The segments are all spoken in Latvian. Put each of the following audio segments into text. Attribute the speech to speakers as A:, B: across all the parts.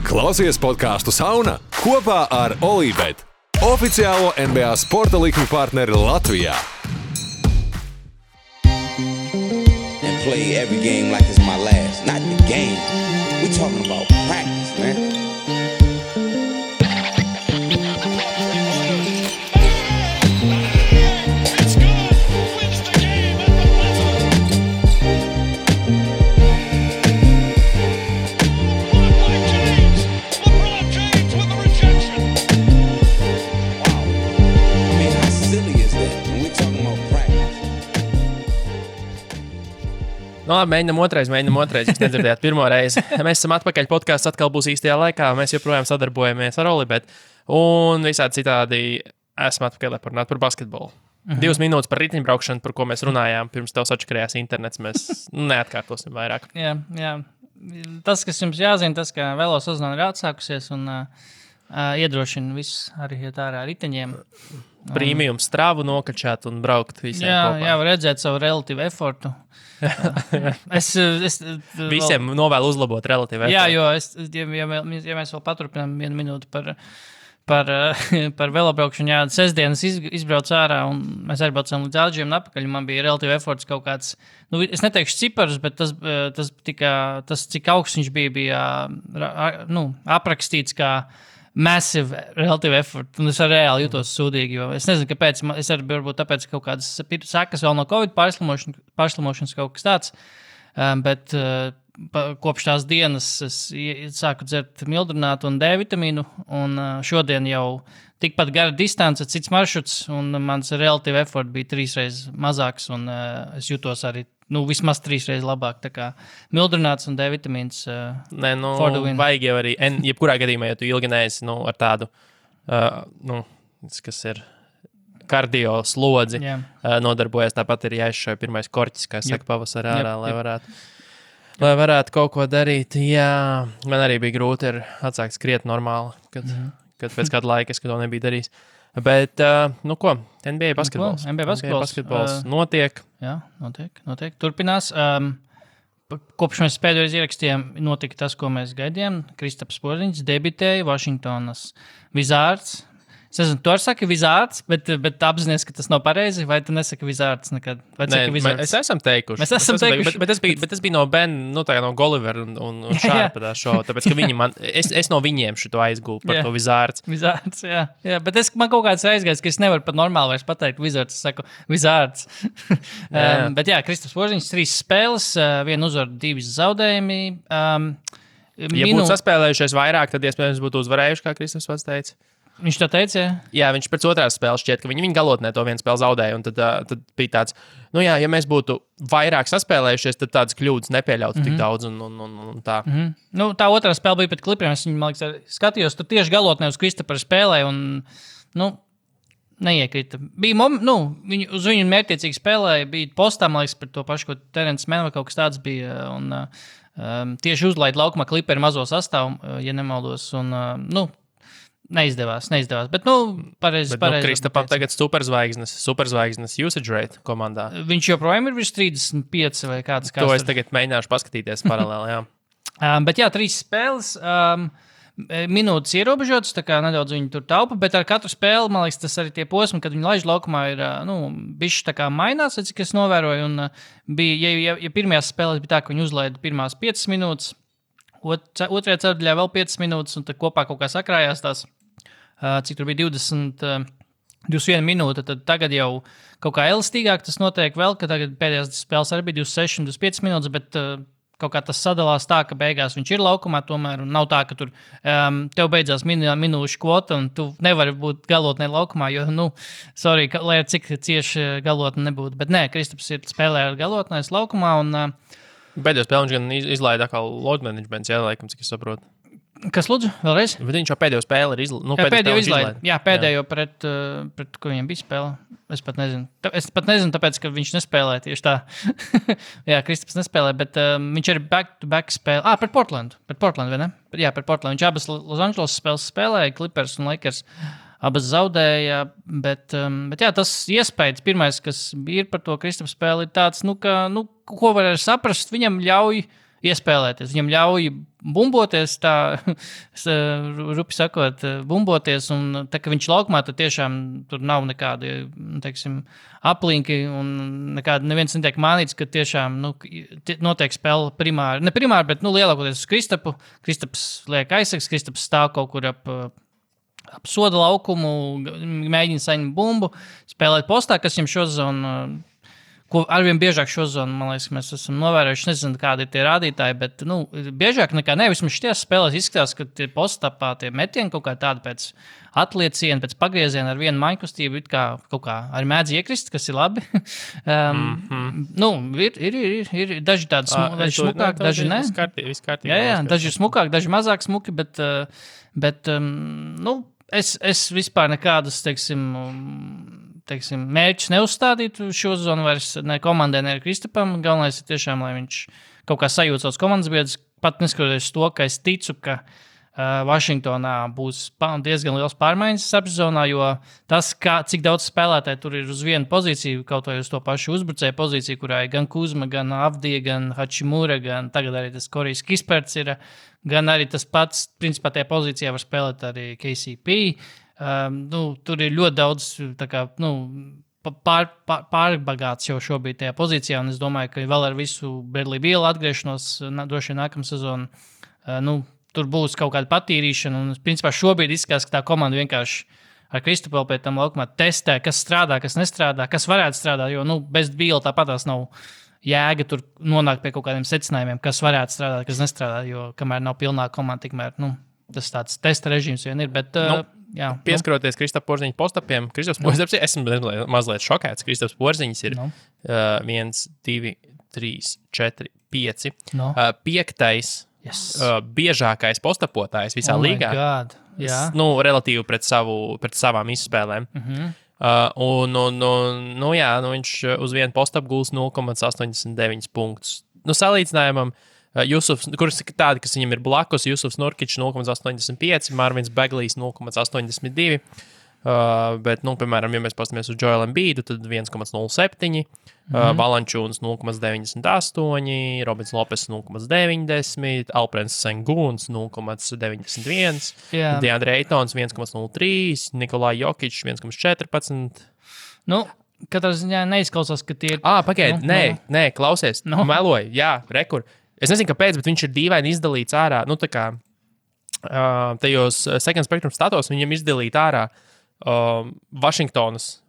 A: Klausies podcastu Sauna kopā ar Olībet, oficiālo NBA sporta likmi partneri Latvijā.
B: And play every game like it's my last. Not the game. We talking about practice, man.
C: Nu, labi, mēģinam otrais. Jūs nedzirdējāt pirmo reizi. Mēs esam atpakaļ. Podcasts atkal būs īstajā laikā. Mēs joprojām sadarbojamies ar Olībet. Un visādi citādi esam atpakaļ, lai parunātu par basketbolu. 2 minūtes par riteņbraukšanu, par ko mēs runājām. Pirms tev sačakarējās internets. Mēs neatkārtosim vairāk.
D: Jā. Tas, kas jums jāzina, tas, ka velo sezona ir atsākusies un iedrošina visus arī iet ārā riteņiem.
C: Premium stravu nokačāt un braukt visiem kopā.
D: Jā, var redzēt savu relatīvu efortu.
C: Visiem novēlu uzlabot relatīvu efortu.
D: Jā, jo ja mēs vēl paturpinām 1 minūti par velobraukšanu, jā, sestdienas izbraucu ārā un mēs arī braucām līdz Āģiem un apakaļ. Man bija relatīvi eforts kaut kāds, es neteikšu ciparus, bet tas cik augsts viņš bija aprakstīts kā massive relative effort, un es arī reāli jūtos sūdīgi, jo es nezinu, kāpēc, es arī varbūt tāpēc kaut kādas sekas vēl no Covid pārslimošanas kaut kas tāds, bet kopš tās dienas es sāku dzert mildrinātu un D vitamīnu, un šodien jau tikpat gara distance, cits maršruts, un mans relative effort bija 3 reizes mazāks, un es jūtos arī vismaz 3 reizes labāk, tā kā mildrināts un D vitamīns
C: vajag jau arī, jebkurā gadījumā, ja tu ilgi neesi ar tādu, kas ir kardio slodzi, nodarbojas, tāpat ir jāizšauj pirmais korķis, kā saka pavasarā ārā, lai varētu kaut ko darīt. Jā, man arī bija grūti atsākt skriet normāli, kad pēc kāda laika es to nebiju darījis. Bet, NBA basketbols.
D: NBA basketbols
C: notiek.
D: Jā, notiek. Turpinās. Kopš mēs pēdējais ierakstījām, notika tas, ko mēs gaidījām. Kristaps Porzingis debitēja Vašingtonas Wizards. Es nezinu, tu arī saki Wizards, bet apzinies, ka tas nav pareizi, vai tu nesaki Wizards nekad?
C: Mēs esam teikuši. Bet tas bija no Ben, no Gulliver un Sharpa tā šovu, tāpēc, ka viņi es no viņiem šito aizgūlu par to Wizards.
D: Wizards, jā. Bet man kaut kāds aizgājis, ka es nevaru pat normāli vairs pateikt Wizards, es saku Wizards. Bet jā, Kristaps Porzingis 3 spēles, 1 uzvaru, 2 zaudējumi.
C: Ja būtu saspēlējušies vairāk, tad iespējams būtu uzvarējuši, kā Kristaps pats teica.
D: Viņš tā teica, jā?
C: Jā, viņš pēc otrās spēles šķiet, ka viņi galotnē to 1 spēli zaudēja, un tad bija tāds, ja mēs būtu vairāk saspēlējušies, tad tādas kļūdas nepieļautu tik daudz, un tā.
D: Tā otrā spēle bija pret Clipperiem, es viņu, man liekas, skatījos, tur tieši galotnē uz Kristapera spēlē, un, neiekrita. Bija, uz viņu mērķiecīgi spēlēja, bija postā, man liekas, par to pašu, ko Terence Mann vai kaut kas tāds bija, un tieši uzlaid laukumā Clipperi mazo sastāvu, ja nemaldos, un, Neizdevās, bet, pareizi.
C: Kristapam tagad superzvaigznes usage rate komandā.
D: Viņš joprojām ir virs 35 vai kāds.
C: To es tagad mēģināšu paskatīties paralēli, jā.
D: Bet jā, 3 spēles, minūtes ierobežotas, tā kā nedaudz viņi tur taupa, bet ar katru spēli, man liekas, tas arī tie posmi, kad viņi laiž laukumā ir, bišķi tā kā mainās, cik es novēroju, un bija, ja pirmajās spēlēs bija tā, ka viņi uzlaida pirmās 5 minūtes, otrajā ceturdaļā vēl 5 minūtes, un tad kopā kaut kā sakrājās tās, cik tur bija 21 minūte, tad tagad jau kaut kā elastīgāk tas notiek vēl, ka tagad pēdējās spēles arī bija 26 un 25 minūtes, bet kaut kā tas sadalās tā, ka beigās viņš ir laukumā tomēr, un nav tā, ka tur tev beidzās minūšu kvota, un tu nevari būt galotnē laukumā, jo, lai ar cik cieši galotne nebūtu. Bet nē, Kristaps ir spēlē ar galotnēs laukumā, un
C: pēdējā spēlē viņš gan izlaida atkal load managements, laikam, cik es saprotu.
D: Kas lūdzu? Vēlreiz?
C: Bet viņš jau pēdējo spēli ir
D: pēdējo izlaida. Jā, pēdējo pret ko viņam bija spēle. Es pat nezinu, tāpēc, ka viņš nespēlē tieši tā. Jā, Kristaps nespēlē, bet viņš ir back-to-back spēle. Pret Portlandu. Vai ne? Jā, pret Portlandu. Viņš abas Los Angeles spēles spēlēja, Clippers un Lakers. Abas zaudēja, bet jā, tas iespējas pirmais, kas ir par to Kristapu spēli, ir tāds, ko var saprast, viņam ļauj iespēlēties. Viņam ļauj bumboties, tā rupi sakot, bumboties, un tā, ka viņš laukumā, tad tiešām tur nav nekādi, teiksim, aplinki, un neviens netiek mānīts, ka tiešām, notiek spēle primāri, ne primāri, bet, lielākoties uz Kristapu. Kristaps liek aizsaks, Kristaps stāv kaut kur ap soda laukumu, mēģina saņemt bumbu, spēlēt postā, kas viņam šo zonu, ko arvien biežāk šo zonu, man liekas, mēs esam novērojuši, nezinu, kādi ir tie rādītāji, bet, biežāk nekā vismaz šities spēlēs izskatās, ka tie postapā tie metieni kaut kā tādi pēc atlieciena, pēc pagrieziena ar vienu maņkustību, it kā kaut kā arī mēdz iekrist, kas ir labi. Ir daži tādi smukāki, daži ne.
C: Viss kārtībā.
D: Jā, daži ir smukāki, daži mazāk smuki, bet es vispār nekādas, teiksim, mērķus neuzstādītu šo zonu vairs ne komandai, ne Kristapam. Galvenais ir tiešām, lai viņš kaut kā sajūt savus komandas biedrus, pat neskatoties to, ka es ticu, ka Vašingtonā būs diezgan liels pārmaiņas apzonā, jo tas, cik daudz spēlētāji tur ir uz vienu pozīciju, kaut vai uz to pašu uzbrucēju pozīciju, kurā ir gan Kuzma, gan Avdija, gan Hačimura, gan tagad arī tas Korijs Kisperts ir, gan arī tas pats, principā tajā pozīcijā var spēlēt arī KCP. Tur ir ļoti daudz pārbagāts jau šobrīd tajā pozīcijā, un es domāju, ka vēl ar visu Bradley Beal atgriešanos droši vien nākamā sezona, tur būs kaut kāda patīrīšana, un principā šobrīd izskatās, ka tā komanda vienkārši ar Kristapu pēc tam laukumā testē, kas strādā, kas nestrādā, kas varētu strādāt, jo bez Beala tāpatās nav jēga tur nonākt pie kaut kādiem secinājumiem, kas varētu strādāt, kas nestrādā, jo kamēr nav pilnā komanda, tikmēr, tas tāds testa režīms vien ir, bet...
C: Pieskaroties Kristapa Porziņa postapiem, Kristaps Porziņš, esmu mazliet šokēts. Kristaps Porziņš ir 1, 2, 3, 4, 5. Piektais biežākais postapotājs visā līgā. Relatīvi pret savām izspēlēm. Viņš uz vienu postapu gūs 0,89 punktus. Salīdzinājumam, kurš ir tādi, kas viņam ir blakus, Jusufs Nurkičs 0,85, Marvins Beglijs 0,82, bet, piemēram, ja mēs pastamies uz Joelu Embiidu, tad 1,07, Valančūns 0,98, Robins Lopes 0,90, Alprens Sengūns 0,91, Deandre Aytons 1,03, Nikolai Jokičs 1,14.
D: Katrā ziņā neizklausās, ka tie ir...
C: Pagaid, nē, klausies, meloju, jā, rekur. Es nezinu, kāpēc, bet viņš ir dīvaini izdalīts ārā. Tajos second spectrum statos viņam izdalīt ārā Vašingtonas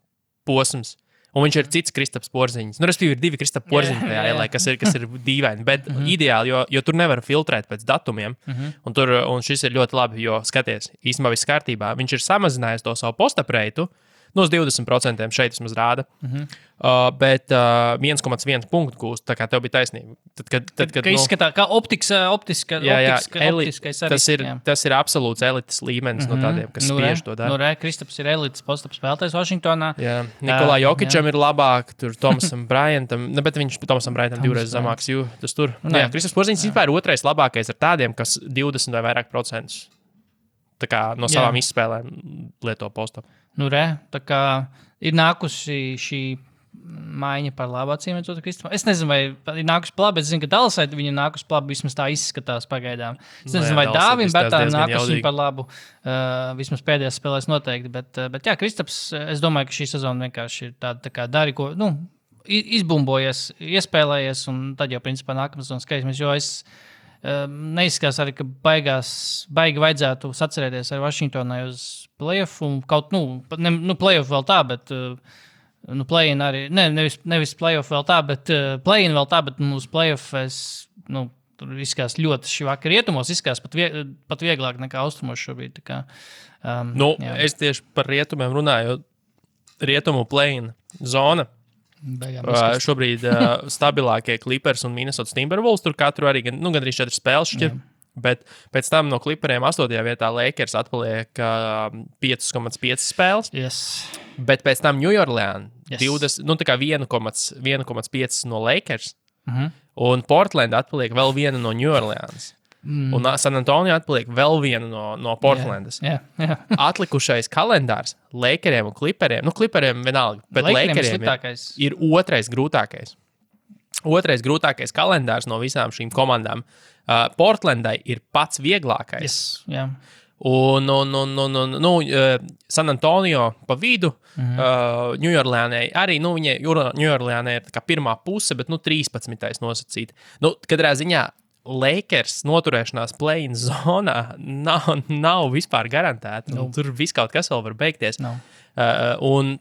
C: posms. Un viņš ir cits Kristaps Porziņš. Respektīvi, ir 2 Kristapa Porziņi tajā, kas ir dīvaini. Bet ideāli, jo tur nevar filtrēt pēc datumiem. Un šis ir ļoti labi, jo, skaties, īstenībā viss kārtībā. Viņš ir samazinājis to savu postapreitu. Uz 20% šeit vismaz rāda. Bet 1,1 punktu gūst, tā kā tev bija taisnība.
D: Kad izskatās, kā optiskais arī.
C: Tas ir absolūts elites līmenis no tādiem, kas spiež to dara.
D: Kristaps ir elites postaps spēlētājs Vašingtonā.
C: Nikolai Jokičam ir labāk, tur Tomasam Bryantam, bet viņš Tomasam Bryantam divreiz zamāks, tas tur. Kristaps Porziņš vispār ir otrais labākais ar tādiem, kas 20 vai vairāk procentus tā kā no savām izspēlēm lieto postapu.
D: Tā kā ir nākusi šī maiņa par labu acīm redzot Kristapam. Es nezinu, vai ir nākusi par labu, bet es zinu, ka Dallasai viņa nākusi par labu, vismaz tā izskatās pagaidām. Es nezinu, vai Dāvim Bērtām nākusi par labu, vismaz pēdējās spēlēs noteikti, bet jā, Kristaps, es domāju, ka šī sezona vienkārši ir tāda tā kā dari, ko, izbumbojies, iespēlējies, un tad jau principā nākamā sezonas skatīsimies, jo es neizskatās arī, ka baigi vajadzētu sacerēties ar Vašingtonai uz play-offu, kaut, play-off vēl tā, bet, play-in arī, nevis play-off vēl tā, bet play-in vēl tā, bet uz play-off tur izskatās ļoti šī vakar rietumos, izskatās pat vieglāk nekā austrumos šobrīd, tā kā.
C: Es tieši par rietumiem runāju, rietumu play-in zona. Šobrīd stabilākie Clippers un Minnesota Timberwolves, tur katru arī gandrīz 4 spēles šķir, bet pēc tam no Clipperiem 8. vietā Lakers atpaliek 5,5 spēles, bet pēc tam New Orleans 20, tā kā 1,5 no Lakers, un Portland atpaliek vēl viena no New Orleans. Un San Antonio atpaliek vēl viena no Portlandas. Atlikušais kalendārs Lakeriem un Clipperiem. Clipperiem vienalga, bet Lakeriem ir otrais grūtākais. otrais grūtākais kalendārs no visām šīm komandām. Portlandai ir pats vieglākais.
D: Yes, yeah.
C: Un San Antonio pa vidu, Ņujorlēnai arī, viņai Ņujorlēnai ir tā kā pirmā puse, bet 13. nosacīt. Katrā ziņā Lakers noturēšanās play-in zonā nav vispār garantēta. No. Tur viss kaut kas vēl var beigties.
D: No.
C: Un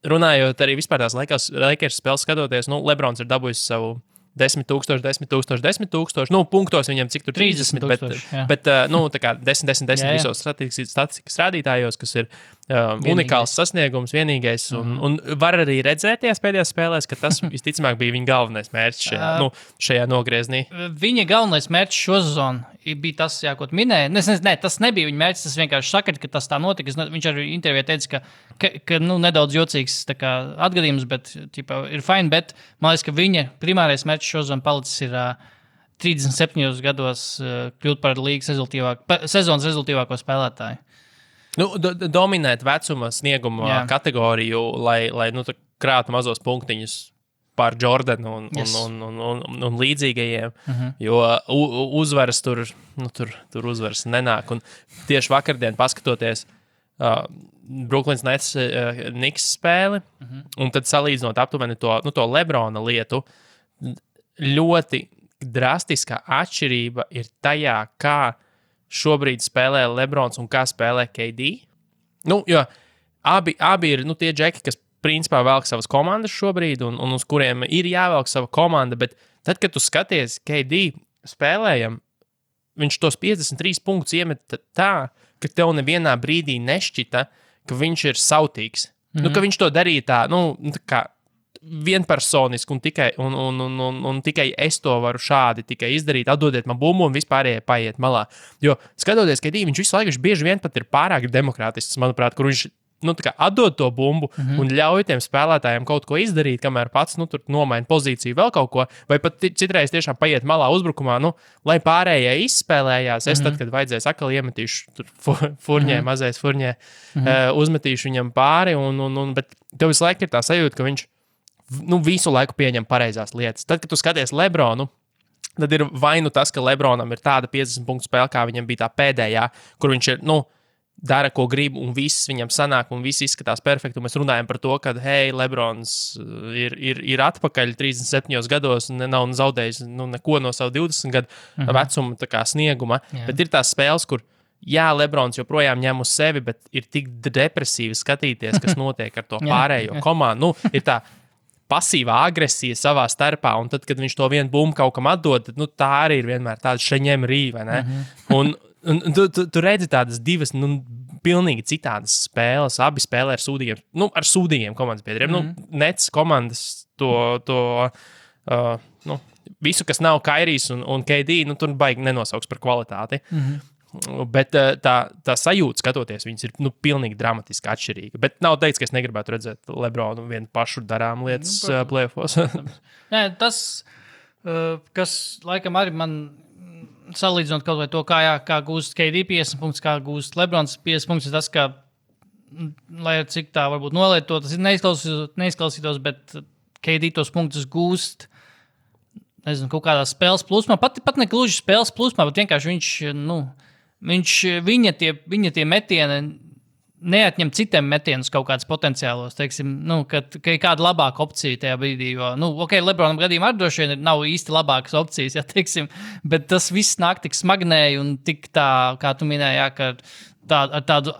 C: runājot arī vispār tās Lakers spēles skatoties, Lebrons ir dabūjis savu 10,000, 10,000, 10,000. Punktos viņam cik tur 30, bet tā kā 10 visos statistikas rādītājos, kas ir unikāls sasniegums, vienīgais. Un var arī redzēties pēdējās spēlēs, ka tas visticamāk bija viņa galvenais mērķis šajā nogrieznī.
D: Viņa galvenais mērķis šo sezonu bija tas, ko tu minēji. Nē, tas nebija viņa mērķis, tas vienkārši saka, ka tas tā notika. Viņš arī intervijā teica, ka nedaudz jocīgs atgadījums, bet ir fine, bet man liekas, ka viņa primārais mērķis šo sezonu palicis ir 37 gados kļūt par līgas sezonas rezultīvāko spēlētāju.
C: Dominēt vecuma snieguma kategoriju, lai krātu mazos punktiņus pār Jordanu un līdzīgajiem, jo uzvaras tur uzvaras nenāk. Un tieši vakardien paskatoties Brooklyns Nets Knicks spēli, un tad salīdzinot aptuveni to Lebrona lietu, ļoti drastiskā atšķirība ir tajā, kā šobrīd spēlē Lebrons un kā spēlē KD. Jo abi ir tie džeki, kas principā velk savas komandas šobrīd un uz kuriem ir jāvelk sava komanda, bet tad, kad tu skaties KD spēlējam, viņš tos 53 punktus iemet tā, ka tev nevienā brīdī nešķita, ka viņš ir sautīgs. Ka viņš to darīja tā kā vienpersoniski un tikai es to varu šādi tikai izdarīt, atdodiet man bumbu un vispārējie paiet malā. Jo skatoties, ka viņš visu laiku bieži vien pat ir pārāk demokrātisks, manuprāt, kur viņš atdod to bumbu un ļauj tiem spēlētājiem kaut ko izdarīt, kamēr pats tur nomaina pozīciju vēl kaut ko, vai pat citreiz tiešām paiet malā uzbrukumā, lai pārējie izspēlējās. Es tad, kad vajadzēs atkal iemetīšu tur mazais furņē, uzmetīšu viņam pāri, bet tev visu laiku ir tā sajūta, ka viņš visu laiku pieņem pareizās lietas. Tad, kad tu skaties Lebronu, tad ir vai tas, ka Lebronam ir tāda 50 punktu spēle, kā viņam bija tā pēdējā, kur viņš ir, dara, ko grib, un viss viņam sanāk, un viss izskatās perfekti. Mēs runājam par to, ka, Lebrons ir atpakaļ 37 gados un nav zaudējis neko no savu 20 gadu vecuma snieguma. Jā. Bet ir tās spēles, kur Lebrons joprojām ņem uz sevi, bet ir tik depresīvi skatīties, kas notiek ar to pārējo komandu. Ir tā pasīvā agresija savā starpā, un tad, kad viņš to vienu bumbu kaut kam atdod, tad, tā arī ir vienmēr tāda šeņem rīva, ne? Un tu redzi tādas divas, pilnīgi citādas spēles. Abi spēlē ar sūdīgiem komandas biedriem. Nets komandas visu, kas nav Kairijs un KD, tur baigi nenosauks par kvalitāti. Bet tā sajūta, skatoties, viņas ir pilnīgi dramatiski atšķirīga. Bet nav teikts, ka es negribētu redzēt Lebronu vienu pašu darām lietas play-offos.
D: Nē, tas, kas laikam arī man salīdzinot kaut vai to, kā gūst KD 50 punktus, kā gūst Lebrons 50 punktus, tas, ka, lai cik tā varbūt nolietot, tas neizklausītos, bet KD tos punktus gūst, nezinu, kaut kādā spēles plūsmā, pat ne gluži spēles plūsmā, bet vienkārši viņa tie metieni neatņem citiem metienus kaut kādus potenciālos, teiksim, ka ir kāda labāka opcija tajā brīdī, jo, Lebronam gadījumā arī droši vien nav īsti labākas opcijas, teiksim, bet tas viss nāk tik smagnēji un tik tā, kā tu minēji, ka ar tādu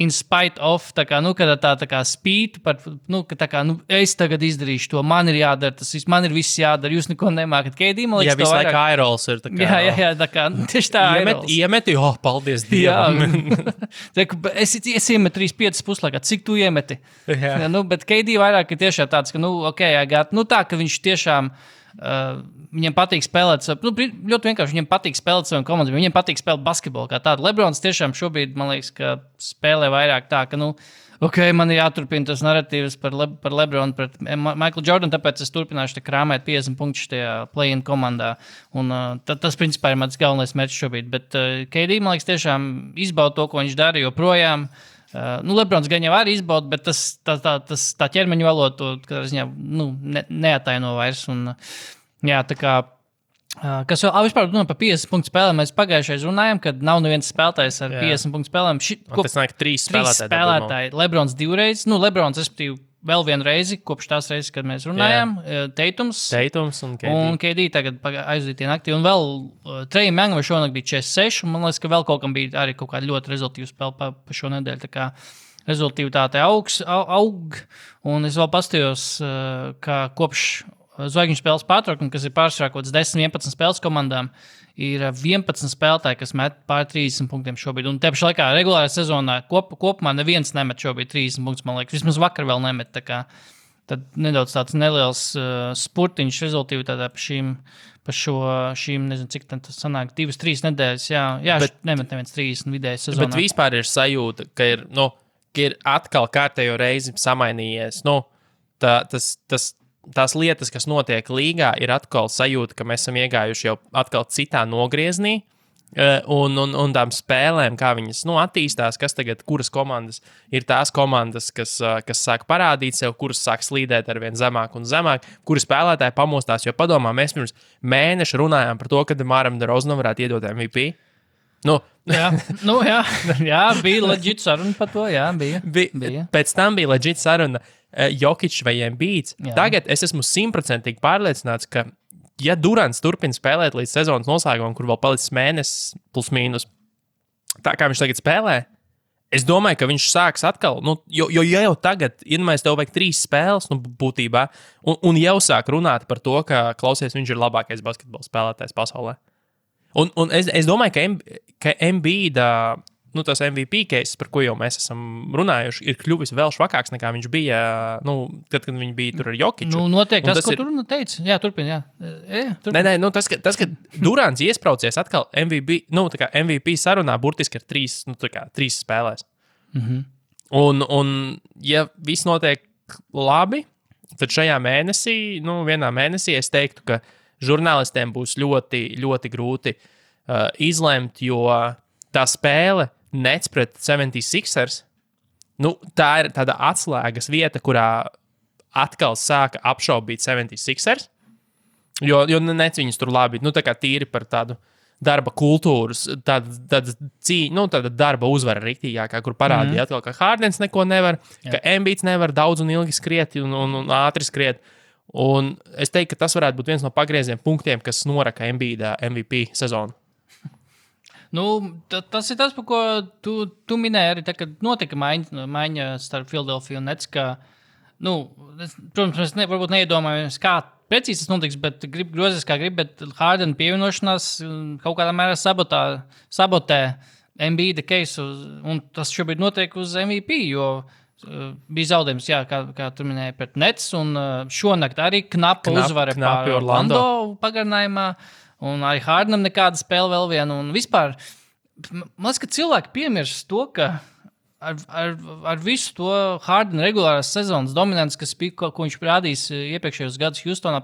D: in spite of, tā kā spītu par, ka tā kā, es tagad izdarīšu to, man ir jādara, man ir viss jādara, jūs neko nemākat. KD, man liekas,
C: visu laiku aerols ir tā kā.
D: Jā, tā kā, tieši tā
C: iemeti, paldies Dievam.
D: Es iemetu 3-5 puslaikā, cik tu iemeti? Jā. Bet KD vairāk ir tiešām tāds, ka, tā, ka viņš tiešām, viņam patīk spēlēt, ļoti vienkārši viņam patīk spēlēt saviem komandām, viņam patīk spēlēt basketbolu kā tādu. Lebrons tiešām šobrīd, man liekas, ka spēlē vairāk tā, ka, man ir jāturpina tas narratīvs par Lebronu pret Michaelu Jordanu, tāpēc es turpināšu krāmēt 50 punktus tajā play-in komandā. Un tas, principā, ir mans galvenais mērķis šobrīd. Bet KD, man liekas, tiešām izbauda to, ko viņš dara joprojām. Lebrons gan jau arī izbauda, bet tā ķermeņa valoda to ziņā, neataino vairs. Un, jā, tā kā, kas vēl, vispār par 50 punktu spēlēm, mēs pagājušais runājām, kad nav neviens spēlētājs ar 50 punktu spēlēm.
C: Tas nāk 3
D: spēlētāji. Lebrons 2 reizes, Lebrons, respektīvi, vēl vienu reizi, kopš tās reizes, kad mēs runājām, Teitums
C: un KD
D: tagad aizdītie naktī, un vēl Trejam Youngam šonakt bija 46, un man liekas, ka vēl kaut kam bija arī kaut kāda ļoti rezultīva spēle pa šo nedēļu, tā kā rezultīvitāte aug, un es vēl pastījos, ka kopš zvaigžņu spēles pārtraukuma, kas ir pārsvarā kaut kāds 10-11 spēles komandām, ir 11 spēlētāji, kas met pār 30 punktiem šobrīd. Un te pašā laikā regulārā sezonā kopumā neviens nemet šobrīd 30 punktus, man liekas. Vismaz vakar vēl nemet. Tad nedaudz tāds neliels spurtiņš rezultīvitātē pa šīm, nezinu, cik tas sanāk, 2-3 nedēļas. Jā, nemet neviens 30 vidēji sezonā.
C: Bet vispār ir sajūta, ka ir atkal kārtējo reizi samainījies. Tās lietas, kas notiek līgā, ir atkal sajūta, ka mēs esam iegājuši jau atkal citā nogrieznī. Un tām spēlēm, kā viņas attīstās, kuras komandas ir tās komandas, kas sāk parādīt sev, kuras sāk slīdēt ar vien zemāk un zemāk, kuri spēlētāji pamostās. Jo padomā, mēs pirms mēneša runājām par to, ka Demaram DeRozanam varētu iedot MVP.
D: Jā, bija leģit saruna par to, jā, bija.
C: Pēc tam bija leģit saruna Jokic vai Embiids. Tagad es esmu 100% pārliecināts, ka ja Durants turpina spēlēt līdz sezonas noslēgumam, kur vēl palicis mēnesis plus mīnus, tā kā viņš tagad spēlē, es domāju, ka viņš sāks atkal, jo jau tagad, iedomājies, tev vajag 3 spēles, būtībā, un jau sāk runāt par to, ka, klausies, viņš ir labākais basketbola spēlētājs pasaulē. Un es domāju, ka Embiida, tas MVP case, par ko jau mēs esam runājuši, ir kļuvis vēl švakāks nekā viņš bija, kad viņš bija tur ar Jokiču.
D: Noteikti tas, ko tur teica. Jā, turpina, jā.
C: Nē, tas, ka Durants iespraucies atkal MVP sarunā burtiski ar 3 spēlēs. Un ja viss notiek labi, tad šajā mēnesī, vienā mēnesī es teiktu, ka žurnālistiem būs ļoti, ļoti grūti izlemt, jo tā spēle Nets pret 76ers, tā ir tāda atslēgas vieta, kurā atkal sāka apšaubīt 76ers, jo Nets viņus tur labi, tā kā tīri par tādu darba kultūras, tāda darba uzvara riktīgākā, kur parādīja atkal, ka Hardens neko nevar, ka Embiids nevar daudz un ilgi skriet un ātri skriet. Un es teiktu, ka tas varētu būt viens no pagrieziem punktiem, kas noraka Embiida MVP sezonu.
D: Tas ir tas, par ko tu minēji arī, kad notika maiņa starp Philadelphia un Nets, ka, protams, mēs varbūt neiedomājamies, kā precīzi tas notiks, bet grozīs kā grib, bet Harden pievienošanās kaut kādā mērā sabotē Embiida case, un tas šobrīd notiek uz MVP, jo bija zaudējums, jā, kā tu minēji, pret Nets, un šonakt arī knapa uzvara pār Orlando pagarinājumā. Un arī Hardenam nekāda spēle vēl viena. Un vispār, man liekas, ka cilvēki piemirst to, ka ar visu to Hardena regulārās sezonas dominants, ko viņš rādījis iepriekšējos gadus Houstonā,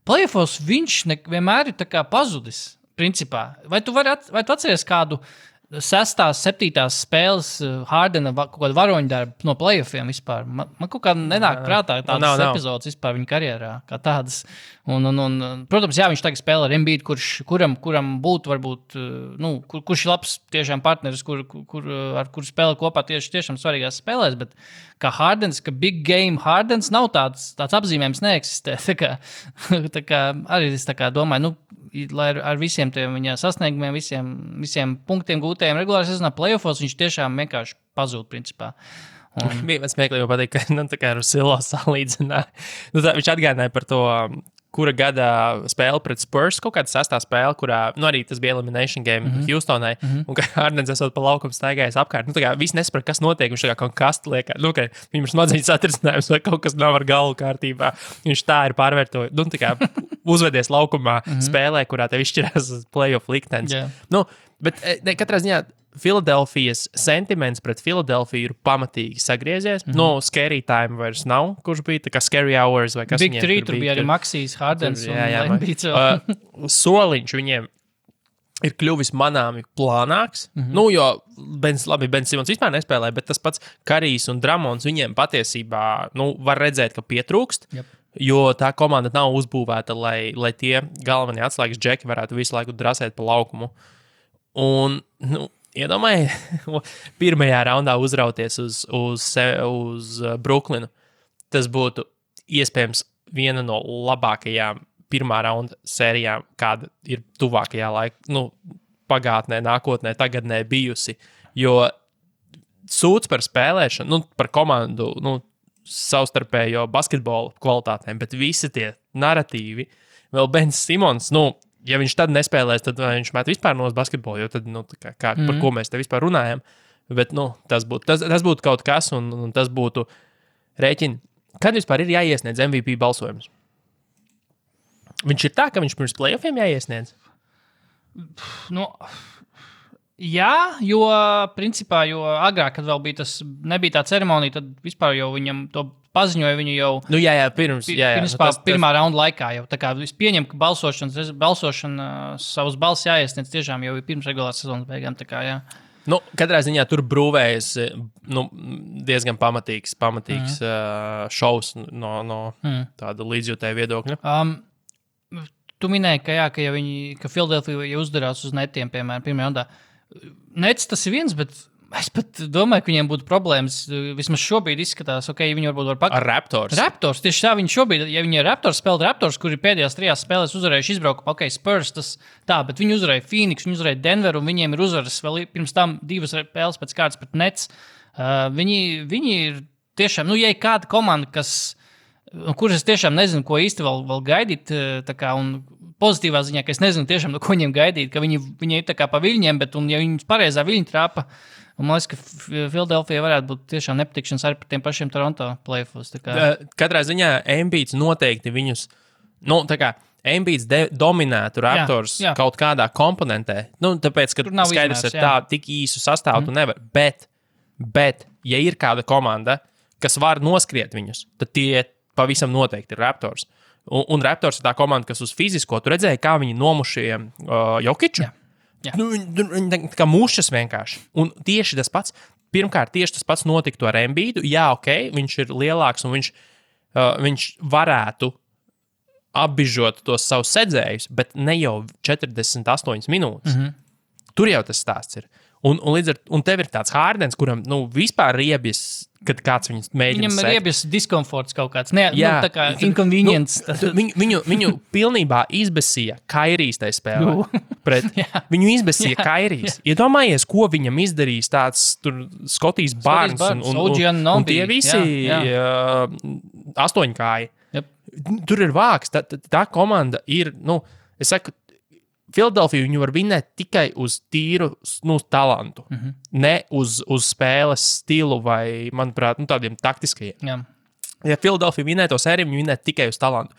D: playoffos viņš vienmēr ir tā kā pazudis, principā. Vai tu atceries kādu 6. 7. spēles Hardena kaut kādu varoņu darbu no playoffiem vispār? Man kaut kā nenāk prātā tādas epizodes vispār viņa karjerā, kā tādas. Un, protams, jā, viņš tagad spēlē ar Embiidu, kuram būtu varbūt, kurš ir labs tiešām partneris, ar kuru spēlē kopā tiešām svarīgās spēlēs, bet kā Hardens, ka big game Hardens nav tāds apzīmējums neeksistē. Tā kā arī es tā kā domāju, lai ar visiem tiem viņa sasniegumiem, visiem punktiem gūtajiem regulārā sezonā playoffos, viņš tiešām vienkārši pazūd, principā.
C: Bija smieklīgi pateikt, ka tā kā ar Silo salīdzināja. Viņš atgādināja par to, kura gada spēle pret Spurs, kaut kāda 6. spēle, kurā arī tas bija elimination game Houstonai, un ka Hardens esot pa laukumu staigājis apkārt. Tā kā visi nesaprot, kas notiek, viņš tā kā kaut kastu liek, ka viņam ir smadzeņu satricinājums vai kaut kas nav ar galvu kārtībā. Viņš tā ir pārvērtojis, tā kā uzvedies laukumā spēlē, kurā tev izšķirās playoff liktenis. Bet katrā ziņā Filadelfijas sentiments pret Filadelfiju ir pamatīgi sagriezies. Scary time vairs nav, kurš bija tā kā scary hours vai kas
D: Big viņiem tur bija arī Maxijs, Hardens un Embiids.
C: Soliņš viņiem ir kļuvis manāmi plānāks. Jo Ben Simons vispār nespēlēja, bet tas pats Karijs un Dramons viņiem patiesībā var redzēt, ka pietrūkst.
D: Yep.
C: Jo tā komanda nav uzbūvēta, lai tie galvenie atslēgas džeki varētu visu laiku drasēt pa laukumu. Un, iedomājiet, pirmajā raundā uzrauties uz Brooklynu. Tas būtu iespējams viena no labākajām pirmā raunda sērijām, kāda ir tuvākajā laikā, pagātnē, nākotnē, tagadnē bijusi. Jo sūds par spēlēšanu, par komandu, savstarpējo basketbolu kvalitātēm, bet visi tie narratīvi, vēl Bens Simons, ja viņš tad nespēlēs, tad viņš met vispār no basketbolu, jo tad, par ko mēs te vispār runājam. Bet, tas būtu kaut kas, un tas būtu rēķini. Kad vispār ir jāiesniedz MVP balsojums? Viņš ir tā, ka viņš pirms playoffiem jāiesniedz?
D: Jā, jo principā, jo agrāk, kad vēl nebija tā ceremonija, tad vispār jau viņam to paziņoja viņu jau
C: pirms
D: pirmā raunda laikā. Jau. Tā kā es pieņemu, ka balsošana savus balsis jāiesniedz tiešām jau pirms regulārās sezonas beigām. Tā kā, jā.
C: Katrā ziņā tur brūvējas diezgan pamatīgs šovs no tāda līdzjūtēja viedokļa.
D: Tu minēji, ka Filadelfija uzdarās uz netiem, piemēram, pirmajā raundā. Nets tas ir viens, bet es pat domāju, ka viņiem būtu problēmas. Vismaz šobrīd izskatās, ja viņi varbūt var
C: ar Raptors.
D: Raptors, tieši tā, viņi šobrīd, ja viņi ir Raptors, spēlē Raptors, kuri pēdējās 3 spēlēs uzvarējuši izbraukumu, Spurs, tas tā, bet viņi uzvarēja Phoenix, viņi uzvarēja Denveru, un viņiem ir uzvaras vēl pirms tam 2 spēles pēc kārtas pret Nets. Viņi ir tiešām, ja ir kāda komanda, kuras es tiešām nezinu, ko īsti vēl gaidīt, un pozitīvā ziņā, ka es nezinu tiešām, ko viņiem gaidīt, ka viņi ir tā kā pa viļņiem, bet, ja viņi pareizā viļņa trāpa, un man liekas, ka Filadelfija varētu būt tiešām nepatikšanas arī par tiem pašiem Toronto playoffs.
C: Katrā ziņā Embiids noteikti viņus, Embiids dominētu Raptors kaut kādā komponentē, tāpēc, ka skaidrs ir tā, tik īsu sastāvu tu nevar, bet, ja ir kāda komanda, kas var noskriet viņus, tad tie pavisam noteikti ir Raptors. Un Raptors ir tā komanda, kas uz fizisko, tu redzēji, kā viņi nomušīja Jokiču.
D: Jā.
C: Viņi kā mušas vienkārši. Un tieši tas pats, pirmkārt, notiktu ar Embiidu. Jā, viņš ir lielāks un viņš varētu apbižot tos savus sedzējus, bet ne jau 48 minūtes. Tur jau tas stāsts ir. Un tev ir tāds Hārdens, kuram vispār riebjas, kad kāds viņus mēģina
D: Viņam ir riebjas diskomforts kaut kāds. Tā kā inconvenience.
C: Viņu pilnībā izbesīja Kairijs tajā spēlē. Viņu izbesīja Kairijs. Iedomājies, ko viņam izdarīs tāds Skotijs Barnes un tie visi astoņkāji.
D: Yep.
C: Tur ir vāks. Tā komanda ir, es saku, Filadelfija viņu var vinēt tikai uz tīru talantu, ne uz spēles stilu vai, manuprāt, tādiem taktiskajiem.
D: Jā.
C: Ja Filadelfija vinē to sēriju, viņi vinē tikai uz talantu.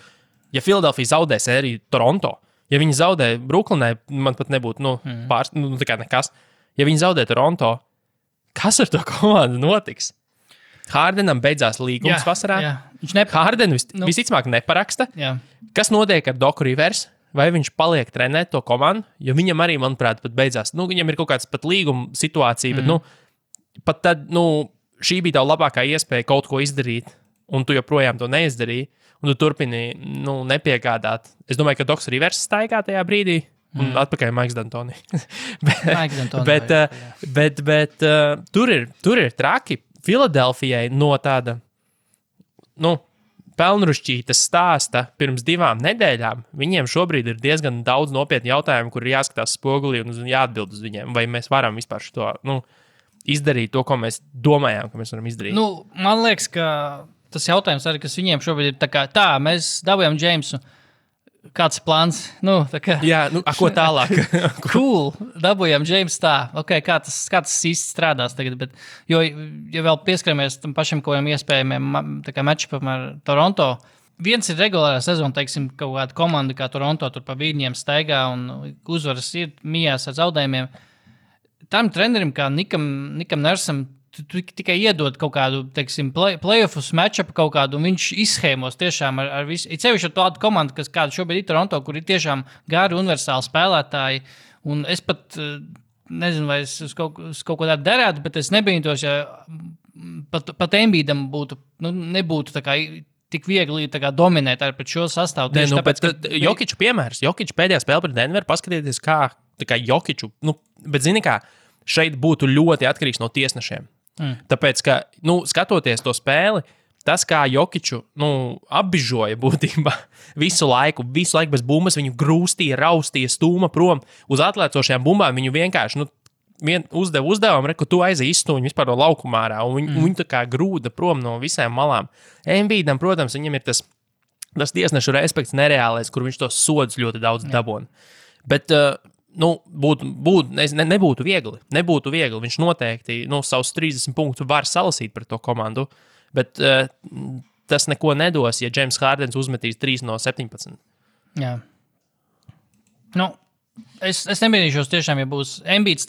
C: Ja Filadelfija zaudē sēriju Toronto, ja viņi zaudē Brooklynai, man pat nebūtu tā kā nekas. Ja viņi zaudē Toronto, kas ar to komandu notiks? Hārdenam beidzās līgums vasarā. Hārdenu visticamāk neparaksta.
D: Jā.
C: Kas notiek ar Doku Rivers? Vai viņš paliek trenēt to komandu, jo viņam arī, manuprāt, pat beidzās. Viņam ir kaut kāds pat līguma situācija, bet pat tad, šī bija tā labākā iespēja kaut ko izdarīt, un tu joprojām to neizdarīji, un tu turpini, nepiegādāt. Es domāju, ka Doks Rivers staigā tajā brīdī, un atpakaļ Maiks D'Antoni. bet tur ir traki. Filadelfijai no tāda, pelnrušķītas stāsta pirms 2 nedēļām, viņiem šobrīd ir diezgan daudz nopietnu jautājumu, kur ir jāskatās spogulī un jāatbild uz viņiem. Vai mēs varam vispār izdarīt to, ko mēs domājām, ka mēs varam izdarīt?
D: Man liekas, ka tas jautājums arī, kas viņiem šobrīd ir tā, mēs dabūjām Džeimsu. Kāds plāns?
C: Jā, ko tālāk?
D: Cool, dabūjām Džeimsu tā. Kā tas īsti strādās tagad? Bet, jo, ja vēl pieskaramies tam pašam kaut kādiem iespējamiem matčupam ar Toronto, viens ir regulārā sezona, teiksim, kaut kāda komanda kā Toronto tur pa vīrņiem staigā un uzvaras ir mijās ar zaudējumiem. Tam trenerim kā Nikam Nersam tu tikai iedod kaut kādu, teiksim, playoffs matchupu kaut kādu, un viņš izshēmos tiešām ar visu. Ir sevišķi ar tādu komandu, kāda šobrīd ir Toronto, kur ir tiešām gari universāli spēlētāji, Un es pat nezinu, vai es uz kaut ko tādu derētu, bet es nebītos, ja pat Embiidam nebūtu tā kā tik viegli dominēt ar pret šo sastāvu.
C: Nē, tāpēc, Jokiču piemērs. Jokiču pēdējā spēle pret Denveru, paskatieties, kā Jokiču, bet zini kā, šeit būtu ļoti atkarīgs no tiesnešiem. Tāpēc, ka, skatoties to spēli, tas, kā Jokiču apbižoja būtībā visu laiku bez bumbas, viņu grūstīja, raustīja, stūma prom uz atlēcošajām bumbām, viņu vienkārši uzdeva uzdevumu, ka tu aizies izstūņi vispār no laukuma ārā, un viņu tā kā grūda prom no visām malām. Embiidam, protams, viņam ir tas tiesnešu respekts nereālais, kur viņš tos sodus ļoti daudz dabona. Bet, nebūtu viegli. Nebūtu viegli. Viņš noteikti savus 30 punktus var salasīt pret to komandu, bet tas neko nedos, ja James Hardens uzmetīs 3 no 17.
D: Jā. Es nebīdīšos tiešām, ja būs Embiids.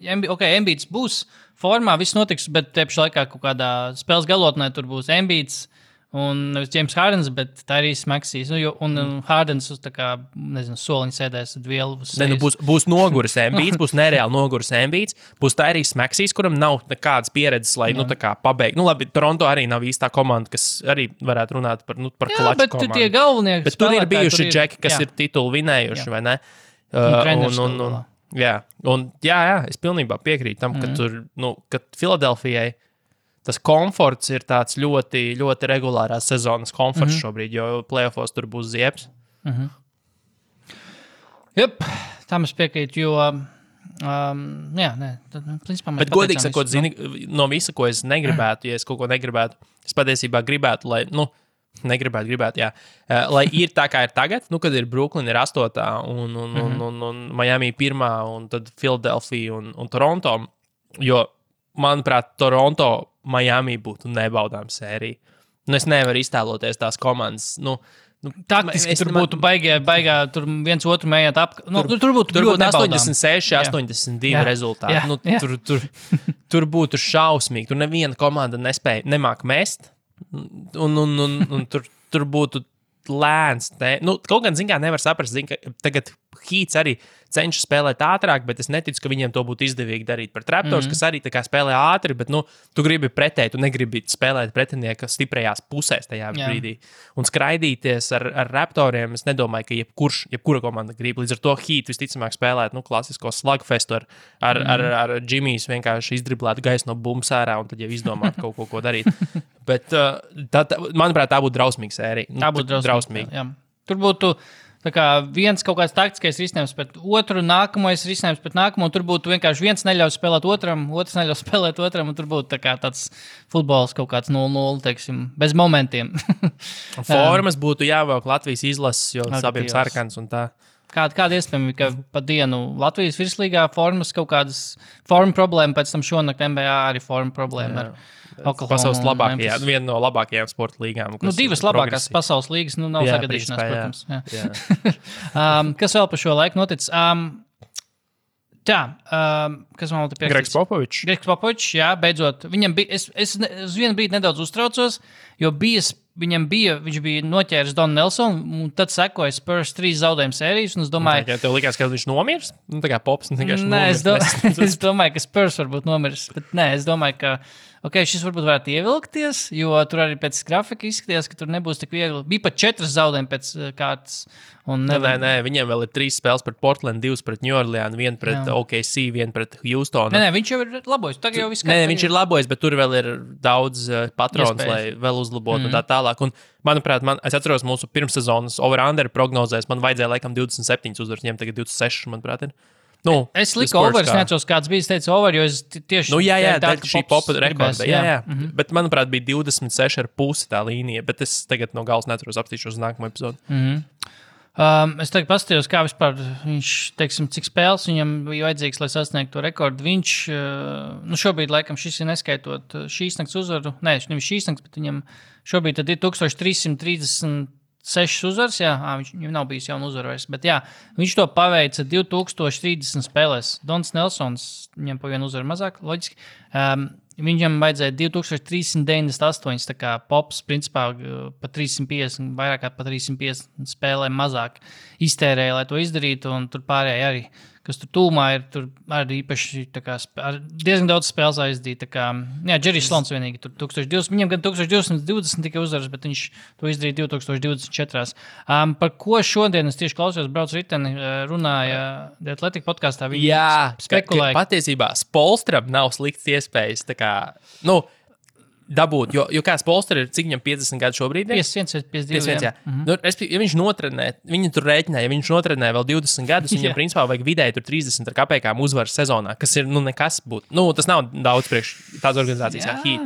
D: Embiids būs formā, viss notiks, bet te pašā laikā kaut kādā spēles galotnē tur būs Embiids un nevis James Hardens, bet Tyrese Maxeys. Un Hardens uz soliņa sēdēs vielu.
C: Būs noguris Embiids, būs nereāli noguris Embiids, būs Tyrese Maxeys, kuram nav nekādas pieredzes, lai pabeigtu. Labi, Toronto arī nav īstā komanda, kas arī varētu runāt par klaču komandu.
D: Bet tie galvenie
C: bet tur ir bijuši džeki, kas ir titulu vinējuši, vai ne? Es pilnībā piekrītu tam, ka Filadelfijai tas komforts ir tāds ļoti, ļoti regulārās sezonas komforts šobrīd, jo playoffos tur būs ziepes.
D: Tam es piekrītu, jo principā mēs
C: bet godīgi sakot, no visa, ko es negribētu, ja es kaut ko negribētu, es patiesībā gribētu, lai, lai ir tā, kā ir tagad, kad ir Brooklyn ir 8. un Miami 1. un tad Philadelphia un Toronto, jo, manuprāt, Toronto Miami būtu nebaudām sērija. Es nevaru iztēloties tās komandas.
D: Taktiski tur būtu baigā tur viens otru mējāt tur būtu
C: 86, 82 rezultāti. Tur būtu šausmīgi. Tur neviena komanda nemāk mest. Un tur būtu lēns. Kaut gan, nevar saprast, ka tagad Heats arī cenšas spēlēt ātrāk, bet es neticu, ka viņiem to būtu izdevīgi darīt par Raptors, kas arī tā kā spēlē ātri, bet, tu gribi pretēji, tu negribi spēlēt pretinieka stiprajās pusēs tajā brīdī. Un skraidīties ar Raptoriem, es nedomāju, ka jebkura komanda grib. Līdz ar to Heat visticamāk spēlēt, klasisko slugfestu ar Jimmys vienkārši izdriblētu gaisu no bumbas ārā un tad jau izdomāt kaut ko darīt. Bet, manuprāt, tā būtu drausmīga sērija.
D: Tā būtu drausmīga. Tur būtu viens kaut kāds taktiskais risinājums pret otru, nākamais risinājums pret nākamo. Tur būtu vienkārši viens neļauj spēlēt otram, otrs neļauj spēlēt otram, un tur būtu tāds futbols kaut kāds 0-0, teiksim, bez momentiem.
C: Formas būtu jāvelk Latvijas izlases, jo abiem sarkans un tā.
D: Kāda iespējama, ka pa dienu Latvijas virslīgā formas kaut kādas forma problēma, pēc tam šonakt NBA arī forma problēma ar
C: pasaules labākajā, viena no labākajām sporta līgām.
D: Divas labākās pasaules līgas, nav sagadīšanās, protams. Kas vēl par šo laiku noticis? Kas man vēl te pierakstīts? Gregs Popovičs, jā, beidzot. Viņam bija, es uz vienu brīdi nedaudz uztraucos, jo viņš bija noķēris Donu Nelsonu, un tad sekoja Spurs 3 zaudējumu sērijas, un es domāju...
C: Tev likās, ka viņš nomirs? Tā kā Pops vienkārši
D: nomirs. Es domāju, ka Spurs varbūt nomirs, bet nē, es domāju, ka šis varbūt varētu ievilkties, jo tur arī pēc grafika izskatījās, ka tur nebūs tik viegli. Bija pat 4 zaudējumi pēc kārtas.
C: Nē, viņiem vēl ir 3 spēles pret Portland, 2 pret New Orleans, 1 pret OKC, 1 pret Houstonu.
D: Nē, viņš jau ir labojis.
C: Viņš ir labojis, bet tur vēl ir daudz patrons, lai vēl uzlabotu un tā tālāk. Un, manuprāt, es atceros mūsu pirmssezonas over-under prognozēs, man vajadzēja laikam 27 uzvaras, viņiem tagad 26, manuprāt, ir.
D: Es liku over, es neatceros, kāds bija, es teicu over, jo es tieši...
C: šī popa rekorda, jā. Bet, manuprāt, bija 26,5 tā līnija, bet es tagad no galas neatceros, apstīšos uz nākamo epizodu.
D: Es tagad paskatījos, kā vispār viņš, teiksim, cik spēles viņam bija vajadzīgs, lai sasniegtu to rekordu. Viņš, šobrīd, laikam, šis ir neskaitot šīs nakts uzvaru, nevis šīs nakts, bet viņam šobrīd tad ir 1336 uzvaras, viņam nav bijis jauna uzvara vairs, bet viņš to paveica 2030 spēlēs. Dons Nelsons, viņam pa vienu uzvaru mazāk, loģiski. Viņam vajadzēja 2398, tā kā Pops, principā, pa 350, vairāk kā pa 350 spēlēm mazāk iztērēja, lai to izdarītu, un tur pārējie arī kas tur tūmā ir, tur arī īpaši diezgan daudz spēles aizdīt. Džerijs Slons vienīgi tur 1200, viņam gan 1220 tikai uzvaras, bet viņš to izdarīja 2024. Par ko šodien es tieši klausījos, braucu riteni, runāja The Athletic podkastā. Viņi spekulēja.
C: Patiesībā Spolstram nav slikts iespējas, dabūt, jo kāds Polster ir, cik viņam 50 gadu šobrīd?
D: 51, jā.
C: Nu, ja viņš notrenē, viņi tur rēķināja, ja viņš notrenē vēl 20 gadus, viņam principā vajag vidēji tur 30 ar kapēkām uzvaras sezonā, kas ir, nekas būt. Tas nav daudz priekš tādas organizācijas kā Heat.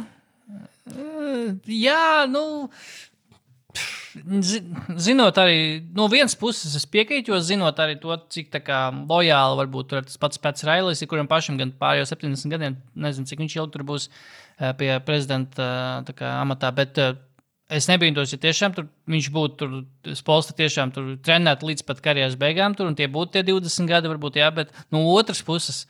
D: Zinot arī, no vienas puses es piekrītu, jo zinot arī to, cik lojāli varbūt tur tas pats Railis, kuram pašam gan pārējo 70 gadiem, nezinu, cik viņš ilgi tur būs pie prezidenta amatā, bet es nebīdos, ja tiešām tur viņš būtu tur Spolstra tiešām tur trenēt līdz pat karjeras beigām tur, un tie būtu tie 20 gadi varbūt, jā, bet no otras puses,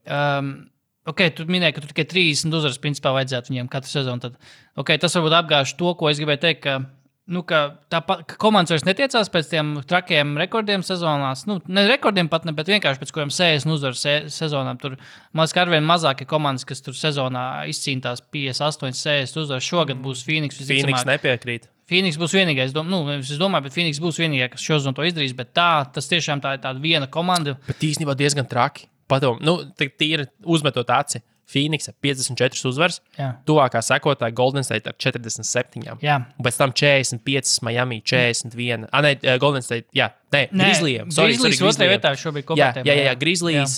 D: tu minēji, ka tur tikai 30 uzvaras principā vajadzētu viņiem katru sezonu, tad, tas varbūt apgāž to, ko es gribēju teikt, ka komandas vairs netiecās pēc tiem trakiem rekordiem sezonās. Ne rekordiem pat ne, bet vienkārši pēc kuriem 60 uzvaras sezonām. Tur mazliet arvien mazāk ir komandas, kas tur sezonā izcīnās 58, 60 uzvaras. Šogad būs Phoenix.
C: Phoenix nepiekrīt.
D: Phoenix būs vienīgais, es domāju, bet Phoenix būs vienīgā, kas šo sezonu to izdarīs, bet tas tiešām tā ir tāda viena komanda.
C: Bet īstenībā diezgan traki. Tīri uzmetot aci. Phoenix 54 uzvaras, tuvākā sekotāja Golden State ar 47.
D: Jā.
C: Un pēc tam 45, Miami 41. Golden State, Grizzlies.
D: Grizzlies otrajā vietā šobrīd kopētēm.
C: Jā, Grizzlies,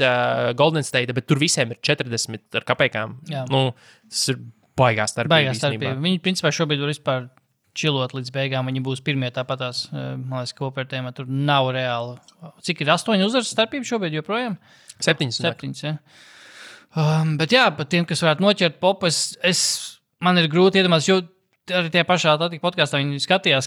C: Golden State, bet tur visiem ir 40 ar kapēkām. Tas ir baigās starpība.
D: Viņi principā šobrīd var vispār čilot līdz beigām. Viņi būs pirmie tāpatās, man liekas, kopētēm. Tur nav reāli. Cik ir 8 uzvaras starpība šobrīd joprojām?
C: 7,
D: jā. Bet par tiem, kas varētu noķert popu, man ir grūti iedomāties, jo arī tie pašā Atletico podkastā viņi skatījās,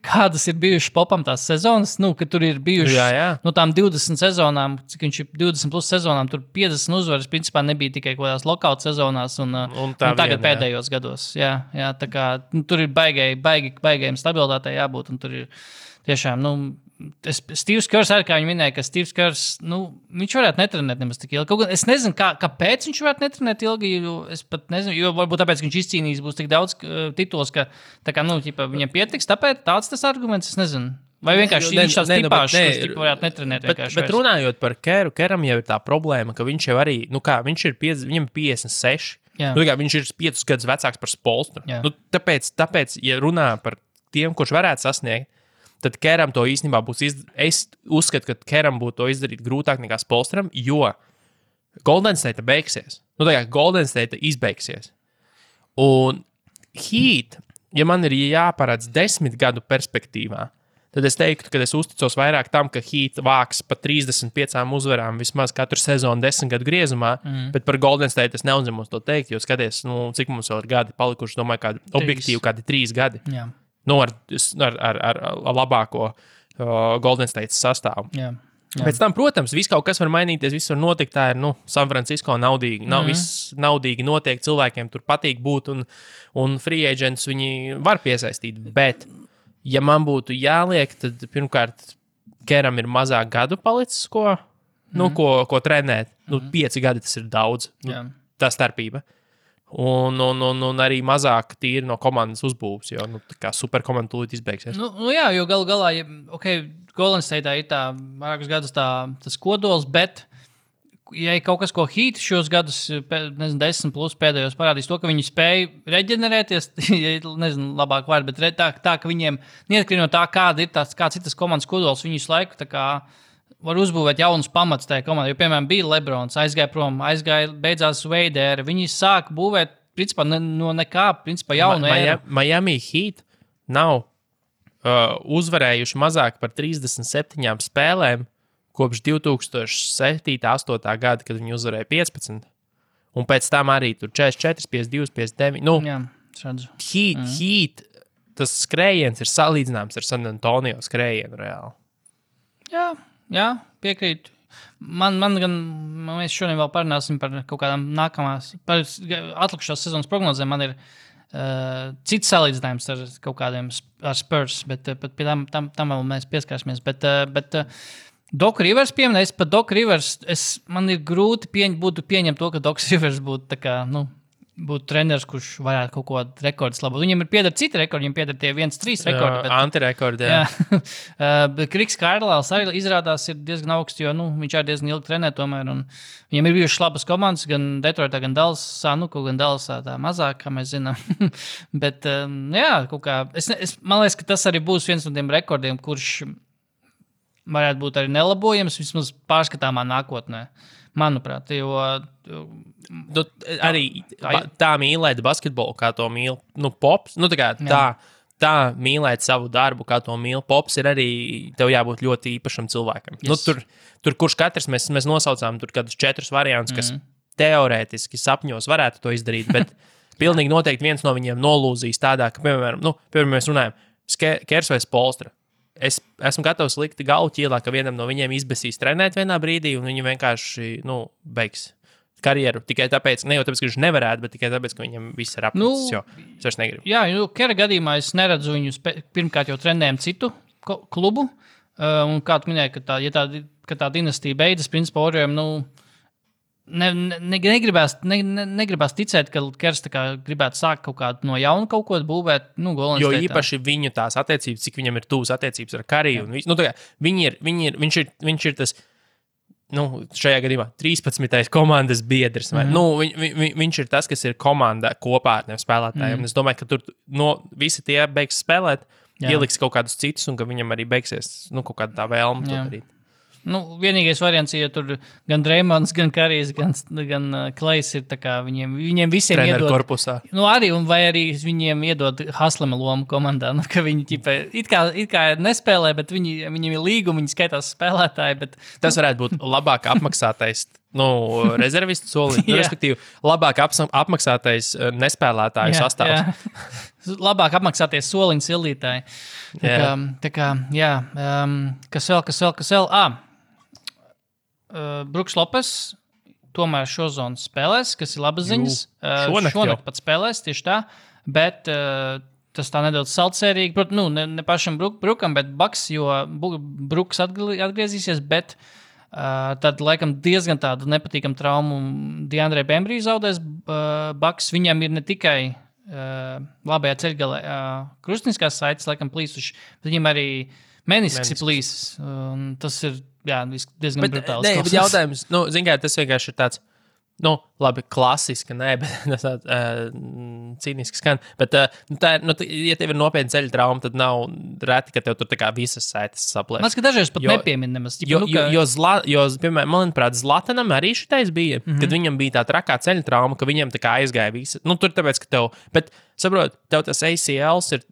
D: kādas ir bijušas popam tās sezonas, ka tur ir bijušas no tām 20 sezonām, cik viņš ir 20 plus sezonām, tur 50 uzvaras principā nebija tikai kaut kādās lokāut sezonās un tagad pēdējos gados. Jā, tā kā tur ir baigajiem stabilitātei jābūt, un tur ir tiešām, Steve's Kerrs arī, kā viņi minēja, ka Steve's Kerrs, viņš varētu netrenēt nemaz tik ilgi. Kaut gan es nezinu, kāpēc viņš varētu netrenēt ilgi, es pat nezinu, jo varbūt tāpēc, ka viņš izcīnījis būs tik daudz titulos, ka viņam pietiks, tāpēc tāds tas arguments, es nezinu. Vai vienkārši viņš tās tipāšs, kas varētu netrenēt vienkārši.
C: Bet runājot par Kerru, Kerram jau ir tā problēma, ka viņš jau arī, viņš ir viņam 56, viņš ir 5 gadus vecāks par Spolstru. Tāpēc, ja runā par tiem, kurš varētu sasniegt, tad Keram to īstenībā būs es uzskatu, ka Keram būtu to izdarīt grūtāk nekā Spolstram, jo Golden State beigsies. Golden State izbeigsies. Un Heat, ja man ir jāparāds 10 gadu perspektīvā, tad es teiktu, ka es uzticos vairāk tam, ka Heat vāks pa 35 uzvarām vismaz katru sezonu 10 gadu griezumā, bet par Golden State es neuzņemos to teikt, jo skaties, cik mums vēl ir gadi palikuši, domāju, kādi objektīvi, kādi 3 gadi.
D: Jā.
C: Ar labāko Golden State sastāvu.
D: Jā.
C: Pēc tam, protams, viss kaut kas var mainīties, viss var notikt. Tā ir San Francisco naudīgi. Viss naudīgi notiek, cilvēkiem tur patīk būt, un free agents viņi var piesaistīt. Bet, ja man būtu jāliek, tad pirmkārt, Keram ir mazāk gadu palicis, ko trenēt. 5 gadi tas ir daudz. Tā starpība. Un arī mazāk tīri no komandas uzbūves, jo superkomanda tūlīt izbeigsies.
D: Jo galu galā, Golden State ir tā vairākus gadus tas kodols, bet ja ir kaut kas, ko Heat šos gadus, 10 plus pēdējos parādīs to, ka viņi spēja reģenerēties, labāk vārdu, bet tā, ka viņiem, neatkarīgi no tā, kāds ir tas komandas kodols, viņi visu laiku var uzbūvēt jaunus pamatus tajā komandā. Jo, piemēram, bija Lebrons, aizgāja prom, beidzās Wade ēra. Viņi sāk būvēt, principā, no nekā, jaunu ēru.
C: Miami Heat nav uzvarējuši mazāk par 37 spēlēm kopš 2007.-2008. gada, kad viņi uzvarēja 15. Un pēc tam arī tur 44, 52, 59.
D: Jā, redzu.
C: Heat, tas skrējiens ir salīdzināms ar San Antonio skrējienu reāli.
D: Jā, piekrītu. Mēs šodien vēl parunāsim par kaut kādām nākamās, par atlikušās sezonas prognozēm. Man ir cits salīdzinājums ar kaut kādiem ar Spurs, bet pie tam vēl mēs pieskārsimies. Bet Doc Rivers pieminēja, es pat Doc Rivers, man ir grūti pieņemt to, ka Doc Rivers būtu tā kā, būtu treneris, kurš varētu kaut ko rekordus labot. Viņam ir pieder citi rekordi, viņam pieder tie 1-3 rekordi. Bet,
C: antirekordi, jā.
D: Bet Kriks Kārlāls arī izrādās ir diezgan augsts, jo viņš arī diezgan ilgi trenē tomēr. Un viņam ir bijušas labas komandas, gan Detroitā, gan Dallasā, gan Dallasā tā mazāk, kā mēs zinām. Bet, jā, kaut kā, man liekas, ka tas arī būs viens no tiem rekordiem, kurš varētu būt arī nelabojams, vismaz pārskatāmā nākotnē. Manuprāt, jo
C: arī tā mīlēt basketbolu, kā to mīl Pops. Tā mīlēt savu darbu, kā to mīl Pops, ir arī tev jābūt ļoti īpašam cilvēkam. Yes. Tur kurš katrs mēs nosaucām tur kādus 4 variantus, kas teorētiski sapņos varētu to izdarīt, bet pilnīgi noteikti viens no viņiem nolūzīs tādā, ka, piemēram, mēs runājam, Kers vai Spolstra. Es esmu gatavs likt galvu ķīlā, ka vienam no viņiem izbēsīs trenēt vienā brīdī, un viņi vienkārši beigs karjeru. Tikai tāpēc, ne jau tāpēc, ka viņš nevarētu, bet tikai tāpēc, ka viņam viss ir apnicis, jo es vairs negribu.
D: Jā, Kera gadījumā es neredzu viņus pirmkārt jau trenējam citu klubu, un kā tu minēji, ka tā dinastija beidzas, principā Oriem, negribās ticēt, ka Kers gribētu sākt kaut kādu no jauna kaut ko būvēt.
C: Jo īpaši viņu tās attiecības, cik viņam ir tuvas attiecības ar Kariju. Viņš ir tas, šajā gadījumā 13. komandas biedrs. Viņš ir tas, kas ir komanda kopā ar tiem spēlētājiem. Es domāju, ka tur visi tie beigs spēlēt, ieliks kaut kādus citus, un ka viņam arī beigsies kaut kāda tā vēlme to darīt.
D: Vienīgais variants, ja tur gan Dreimons, gan Karijs, gan Klejs ir tā kā viņiem visiem
C: treneru
D: iedod.
C: Korpusā.
D: Vai arī viņiem iedod Haslema lomu komandā, ka viņi it kā nespēlē, bet viņiem ir līguma, viņi skaitās spēlētāji. Bet,
C: tas varētu būt labāk apmaksātais rezervistu soliņš, respektīvi labāk apmaksātais nespēlētāju sastāvs.
D: Labāk apmaksāties soliņu sildītāji. Kas vēl? Bruks Lopes tomēr šo zonu spēlēs, kas ir labas ziņas. Šonakt pat spēlēs, tieši tā, bet tas tā nedaudz saldsērīgi. Protams, ne pašam Brukam, bet Baks, jo Bruks atgriezīsies, bet tad laikam diezgan tādu nepatīkamu traumu Deandre Bembry zaudēs Baks. Viņam ir ne tikai labajā ceļgalē krustniskās saites laikam plīsuši, bet viņam arī menisks ir plīsis. Tas ir diezgan brutāls.
C: Bet jautājums, tas vienkārši ir tāds, labi, klasiski, bet cīniski skan. Bet, ja tev ir nopietna ceļa trauma, tad nav reti, ka tev tur tā kā visas saites saplēs.
D: Man liekas, ka dažreiz pat nepiemin nemaz.
C: Piemēram, manuprāt, Zlatanam arī šitais bija, kad viņam bija tā trakā ceļa trauma, ka viņam tā kā aizgāja visa. Tur tāpēc, ka tev, bet, saprot, tev tas ACLs ir,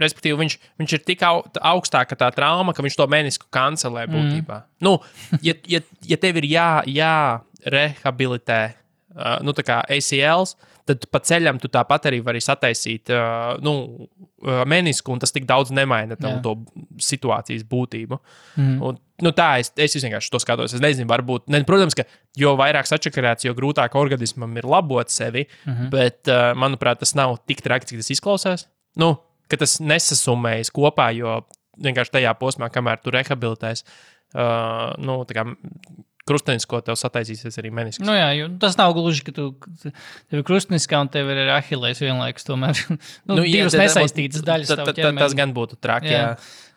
C: respektīvi, viņš ir tik augstāka tā trauma, ka viņš to menisku kancelē būtībā. Ja tev ir jārehabilitē tā kā ACLs, tad pa ceļam tu tāpat arī vari sataisīt menisku, un tas tik daudz nemaina to situācijas būtību. Un, es vienkārši to skatos. Es nezinu, varbūt, protams, ka jo vairāk sačakarēts, jo grūtāk organismam ir labot sevi, bet, manuprāt, tas nav tik traki, cik tas izklausās. Ka tas nesasumējas kopā, jo vienkārši tajā posmā, kamēr tu rehabilitēs, tā kā krustenisko tev sataisīsies arī menisks.
D: Tas nav gluži, ka tev ir krusteniskā un tev ir Ahilles vienlaikus tomēr. Divas nesaistītas daļas tavu ķermeni.
C: Tas gan būtu traki, jā.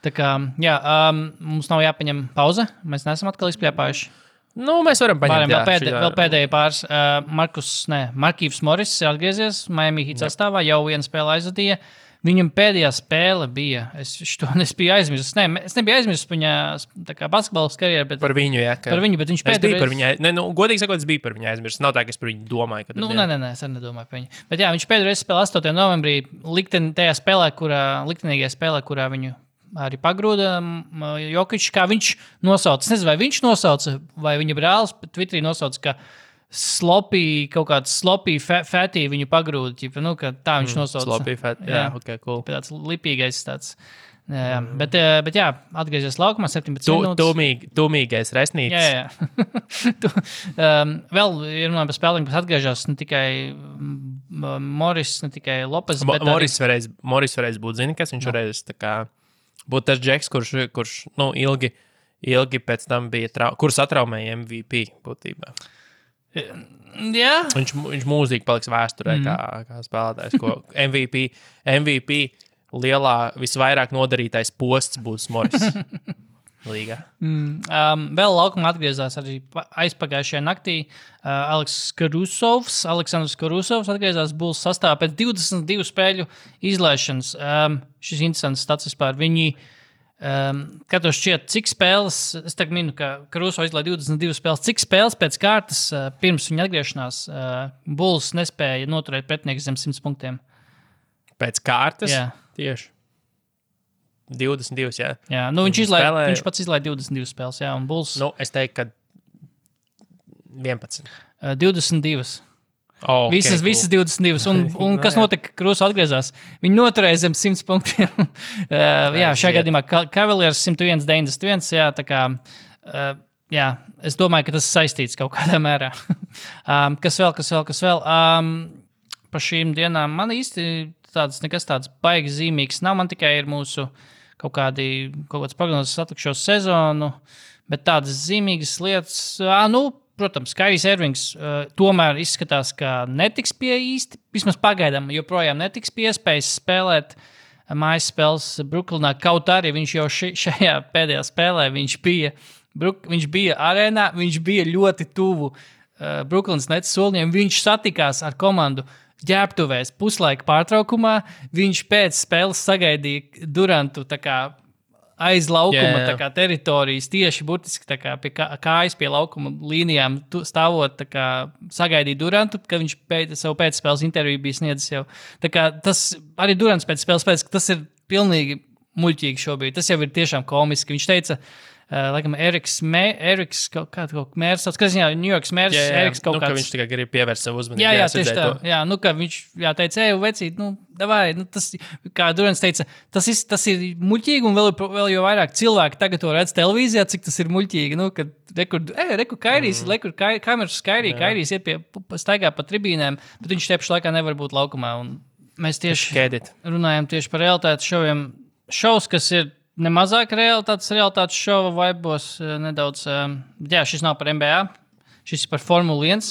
D: Tā kā, mums nav jāpaņem pauze, mēs neesam atkal izpļāpājuši.
C: Mēs varam paņemt.
D: Vēl pēdējie pāris. Markīvs Morris ir atgriezies Miami Heat sastāvā, jau vienu spēli aizvadīja. Viņam pēdējā spēle bija, es biju aizmirsis. Es nebiju aizmirsis viņa basketbolas karjeru, bet
C: par viņu,
D: par viņu, bet viņš pēdējā.
C: Godīgi sakot, es biju par viņu aizmirsis. Nav tā, ka es par viņu domāju.
D: Nē, es arī nedomāju par viņu. Bet viņš pēdējā spēlē 8. novembrī liktenīgajā spēlē, kurā viņu arī pagrūda Jokičs, kā viņš nosauca. Es nezinu, vai viņš nosauca, vai viņa brālis Twitterī nosauca, ka kaut kāds sloppy fatty viņu pagrūda, tā viņš nosauca.
C: Sloppy fatty, ok, cool.
D: Tāds lipīgais tāds. Bet atgriezies laukumā 17 minūtes.
C: Tūmīgais resnītis.
D: Vēl runājot par spēlēm, kas atgriežas ne tikai Morris, ne tikai Lopes, bet
C: Morris varēs būt, zini, kas viņš varēs būt tas džeks, kurš ilgi ilgi pēc tam bija, kurš atraumēja MVP būtībā.
D: Jā.
C: Viņš mūžīgi paliks vēsturē kā spēlētājs, ko MVP lielā visvairāk nodarītais posts būs Morris līgā.
D: Vēl laukumā atgriezās arī aizpagājušajā naktī Aleksandrs Karusovs atgriezās Bulls sastāvā pēc 22 spēļu izlaišanas. Šis interesants stats vispār. Viņi katrs šķiet, cik spēles, es tagad minu, ka Karusovs izlaiž 22 spēles, cik spēles pēc kārtas pirms viņa atgriešanās Bulls nespēja noturēt pretinieku zem 100 punktiem.
C: Pēc kārtas?
D: Jā.
C: Tieši. 22, jā.
D: Jā, viņš pats izlaiž 22 spēles, jā, un Bulls...
C: Es teiktu, ka 11.
D: 22.
C: Oh, okay,
D: visas 22. Un kas notika, ka Karusovs atgriezās? Viņi noturēja zem 100 punktiem. Šajā gadījumā Cavaliers 101-91, jā, tā kā... Jā, es domāju, ka tas saistīts kaut kādā mērā. Kas vēl? Pa šīm dienām man īsti nekas tāds baigi zīmīgs nav. Man tikai ir mūsu kaut kāds prognozes atlikušo sezonu, bet tādas zīmīgas lietas, protams, Kairijs Irvings tomēr izskatās, ka netiks pie īsti, vismaz pagaidām, joprojām netiks pie iespējas spēlēt mājas spēles Brooklynā, kaut arī viņš jau šajā pēdējā spēlē, viņš bija arēnā, viņš bija ļoti tuvu Brooklynas Nets solņiem, viņš satikās ar komandu ģērbtuvēs puslaika pārtraukumā, viņš pēc spēles sagaidīja Durantu tā kā aiz laukuma tā kā teritorijas, tieši burtiski tā kā pie kājas pie laukuma līnijām stāvot, tā kā sagaidīja Durantu, kad viņš savu pēcspēles interviju bija sniedzis jau. Tā kā tas arī Durants pēc spēles pēc, ka tas ir pilnīgi muļķīgi šobrīd. Tas jau ir tiešām komiski. Viņš teica, laikam, Eriks kaut mērs, kas ziņā, New Yorks mērs, Eriks kaut kāds.
C: Ka viņš tikai grib pievērst savu uzmanību.
D: Jā, tieši tā. Jā, ka viņš teica, vecīt, davai, tas, kā Durants teica, tas ir muļķīgi, un vēl jau vairāk cilvēki tagad to redz televīzijā, cik tas ir muļķīgi, kad reku Kairijs, kameras Kairijs iet staigā pa tribīnēm, bet viņš tieši laikā nevar būt laukumā, un mēs tieši runājam tieši par realitātes šoviem. Šovs, kas ir nemazāk realitātes šova vaibos nedaudz. Šis nav par NBA, šis ir par Formula 1.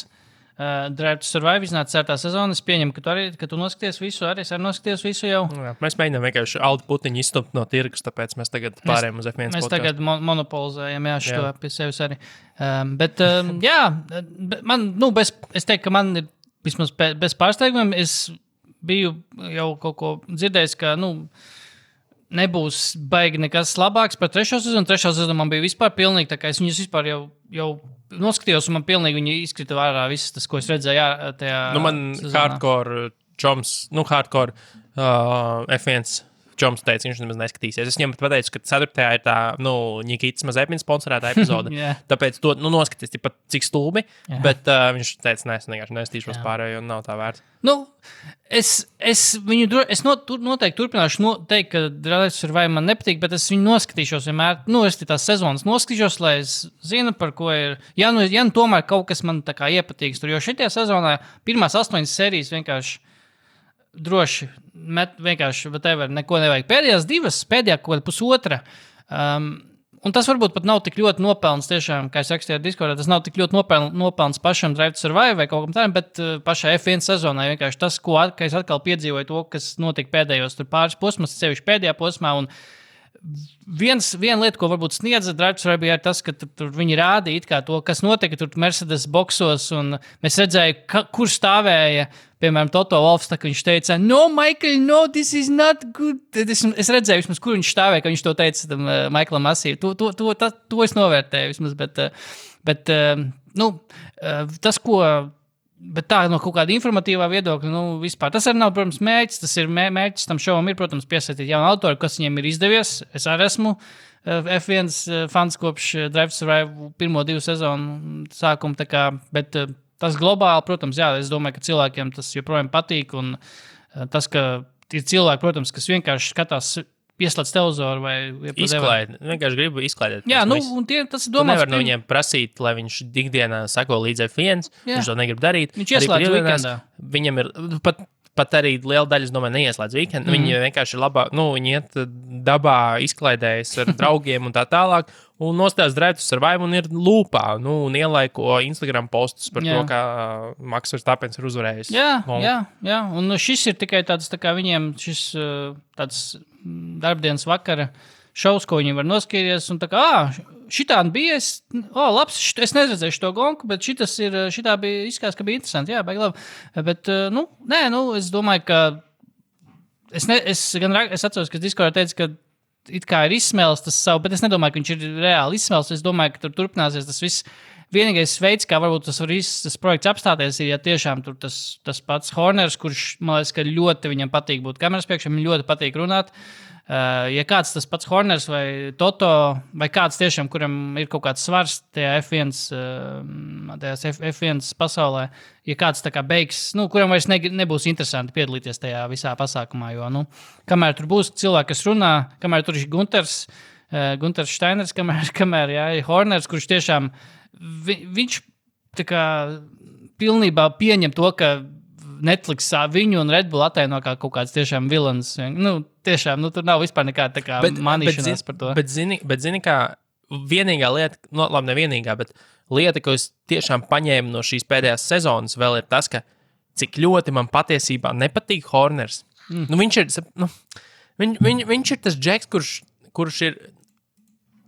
D: Drive to Survive iznāca 4. sezona. Es pieņemu, ka tu noskaties visu, arī es noskaties visu jau. Jā,
C: mēs mēģinām vienkārši Aldi Putiņu izstumt no tirgus, tāpēc mēs tagad pārējām uz F1
D: mēs tagad monopolizējam, šo pie sevis arī. Es teiktu, ka man ir vismaz bez pārsteigumiem. Es biju jau kaut ko dzirdējis, ka, nebūs baigi nekas labāks par 3. sezonu. 3. sezonu man bija vispār pilnīgi, tā kā es viņus vispār jau noskatījos, un man pilnīgi viņi izkrita vārā visas tas, ko es redzēju tajā
C: man
D: sezonā.
C: Hardcore F1 Čoms teica, viņš nemaz neskatīsies. Es viņam pateicu, ka 4. ir tā, Nikītas Mazepins sponsorētā epizode. Tāpēc to, noskaties, cik stulbi, bet viņš teica, es vienkārši nestīšos pārējo, un nav tā vērts.
D: Es noteikti turpināšu teikt, ka Drive to Survive man nepatīk, bet es viņu noskatīšos vienmēr. Es tās sezonas noskatīšos, lai es zinu, par ko ir. Ja tomēr kaut kas man tā kā iepatīks tur, jo šitajā sezonā pirmās 8 sērijas vienkārši droši vienkārši, neko nevajag. Pēdējās 2, pēdējā kaut kāda pusotra. Un tas varbūt pat nav tik ļoti nopelns tiešām, kā es rakstīju Discordā, tas nav tik ļoti nopelns pašam Drive to Survive vai kaut kam tādam, bet pašai F1 sezonai vienkārši tas, ka es atkal piedzīvoju to, kas notika pēdējos tur pāris posmos, sevišķi pēdējā posmā, un viena lieta, ko varbūt sniedza Drive to Survive, ir tas, ka tur viņi rādīja kā to, kas notika tur Mercedes boksos, un mēs redzēju, kur stāvēja, piemēram, Toto Wolffs, tā, ka viņš teica, no, Michael, no, this is not good. Es redzēju, vismaz, kur viņš stāvēja, ka viņš to teica tam Michaelam Masī. To es novērtēju, vismaz, bet tas, ko... Bet tā no kaut kāda informatīvā viedokļa, vispār. Tas arī nav, protams, mērķis. Tas ir mērķis tam šovam ir, protams, piesaistīt jaunu autoru, kas viņiem ir izdevies. Es arī esmu F1 fans kopš Drive to Survive 1-2 sezonu sākuma, tā kā, bet tas globāli, protams, es domāju, ka cilvēkiem tas joprojām patīk, un tas, ka ir cilvēki, protams, kas vienkārši skatās pieslēdz televizoru vai
C: izklaidēt. Vienkārši gribu izklaidēt.
D: Jā, un tas ir domāts.
C: Nevar no viņiem prasīt, lai viņš ikdienā sako līdz F1. Viņš to negrib darīt.
D: Viņš ieslēdz weekendā.
C: Viņam ir pat arī liela daļa, es domāju, neieslēdz weekendu. Viņi vienkārši ir labāk, viņi iet dabā, izklaidējas ar draugiem un tā tālāk, un nostājas drētus ar vaimu un ir lūpā, un ielaiko Instagram postus par to, kā Maks Verstappens ir uzvarējis.
D: Jā, un šis ir tikai tāds, tā kā viņiem šis tāds darbdienas vakara šovs, ko viņi var noskatīties, un tā kā, šitādi bija, labs, es neredzēju to gonku, bet šitā bija, izskatās, ka bija interesanti, jā, baigi labi. Bet, es domāju, ka es atceros, ka Discordā teica, ka it kā ir izsmēlis tas savu, bet es nedomāju, ka viņš ir reāli izsmēlis, es domāju, ka tur turpināsies tas viss. Vienīgais veids, kā varbūt tas projekts apstāties, ir, ja tiešām tur tas pats Horners, kurš, man liekas, ka ļoti viņam patīk būt kameras priekšā, viņam ļoti patīk runāt. Ja kāds tas pats Horners vai Toto, vai kāds tiešām, kuram ir kaut kāds svars tajā F1 pasaulē, ja kāds tā kā beigs, kuram vairs nebūs interesanti piedalīties tajā visā pasākumā, jo, kamēr tur būs cilvēki, kas runā, kamēr tur ir Gunters Steiners, kamēr ir Horners, kurš tiešām, viņš tā kā pilnībā pieņem to, ka Netflix viņu un Red Bull attaino kā kaut kāds tiešām vilans. Tiešām, tur nav vispār nekāda tā kā manīšanās par to.
C: Bet zini, kā vienīgā lieta, labi, nevienīgā, bet lieta, ko es tiešām paņēmu no šīs pēdējās sezonas, vēl ir tas, ka cik ļoti man patiesībā nepatīk Horners. Viņš ir, viņš ir tas džeks, kurš ir,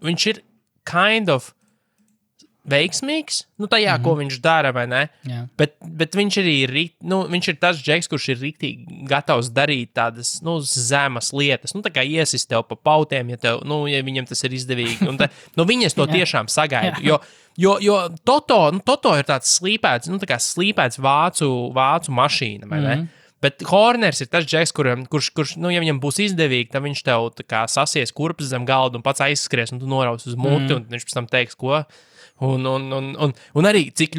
C: viņš ir kind of veiksmīgs, tajā, ko viņš dara, vai ne?
D: Jā.
C: Bet viņš arī viņš ir tas džeks, kurš ir riktīgi gatavs darīt tādas, zemas lietas, tā kā iesist tev pa pautiem, ja viņam tas ir izdevīgi. Un viņas to tiešām sagaidu, jo Toto ir tāds slīpēts, tā kā slīpēts vācu mašīna, vai ne? Bet Horners ir tas džeks, kurš ja viņam būs izdevīgi, tad viņš tev tā kā sasies kurpes zem galda un pats aizskries, un tu noraus uz muti, un viņš pēc tam teiks, ko. Un arī cik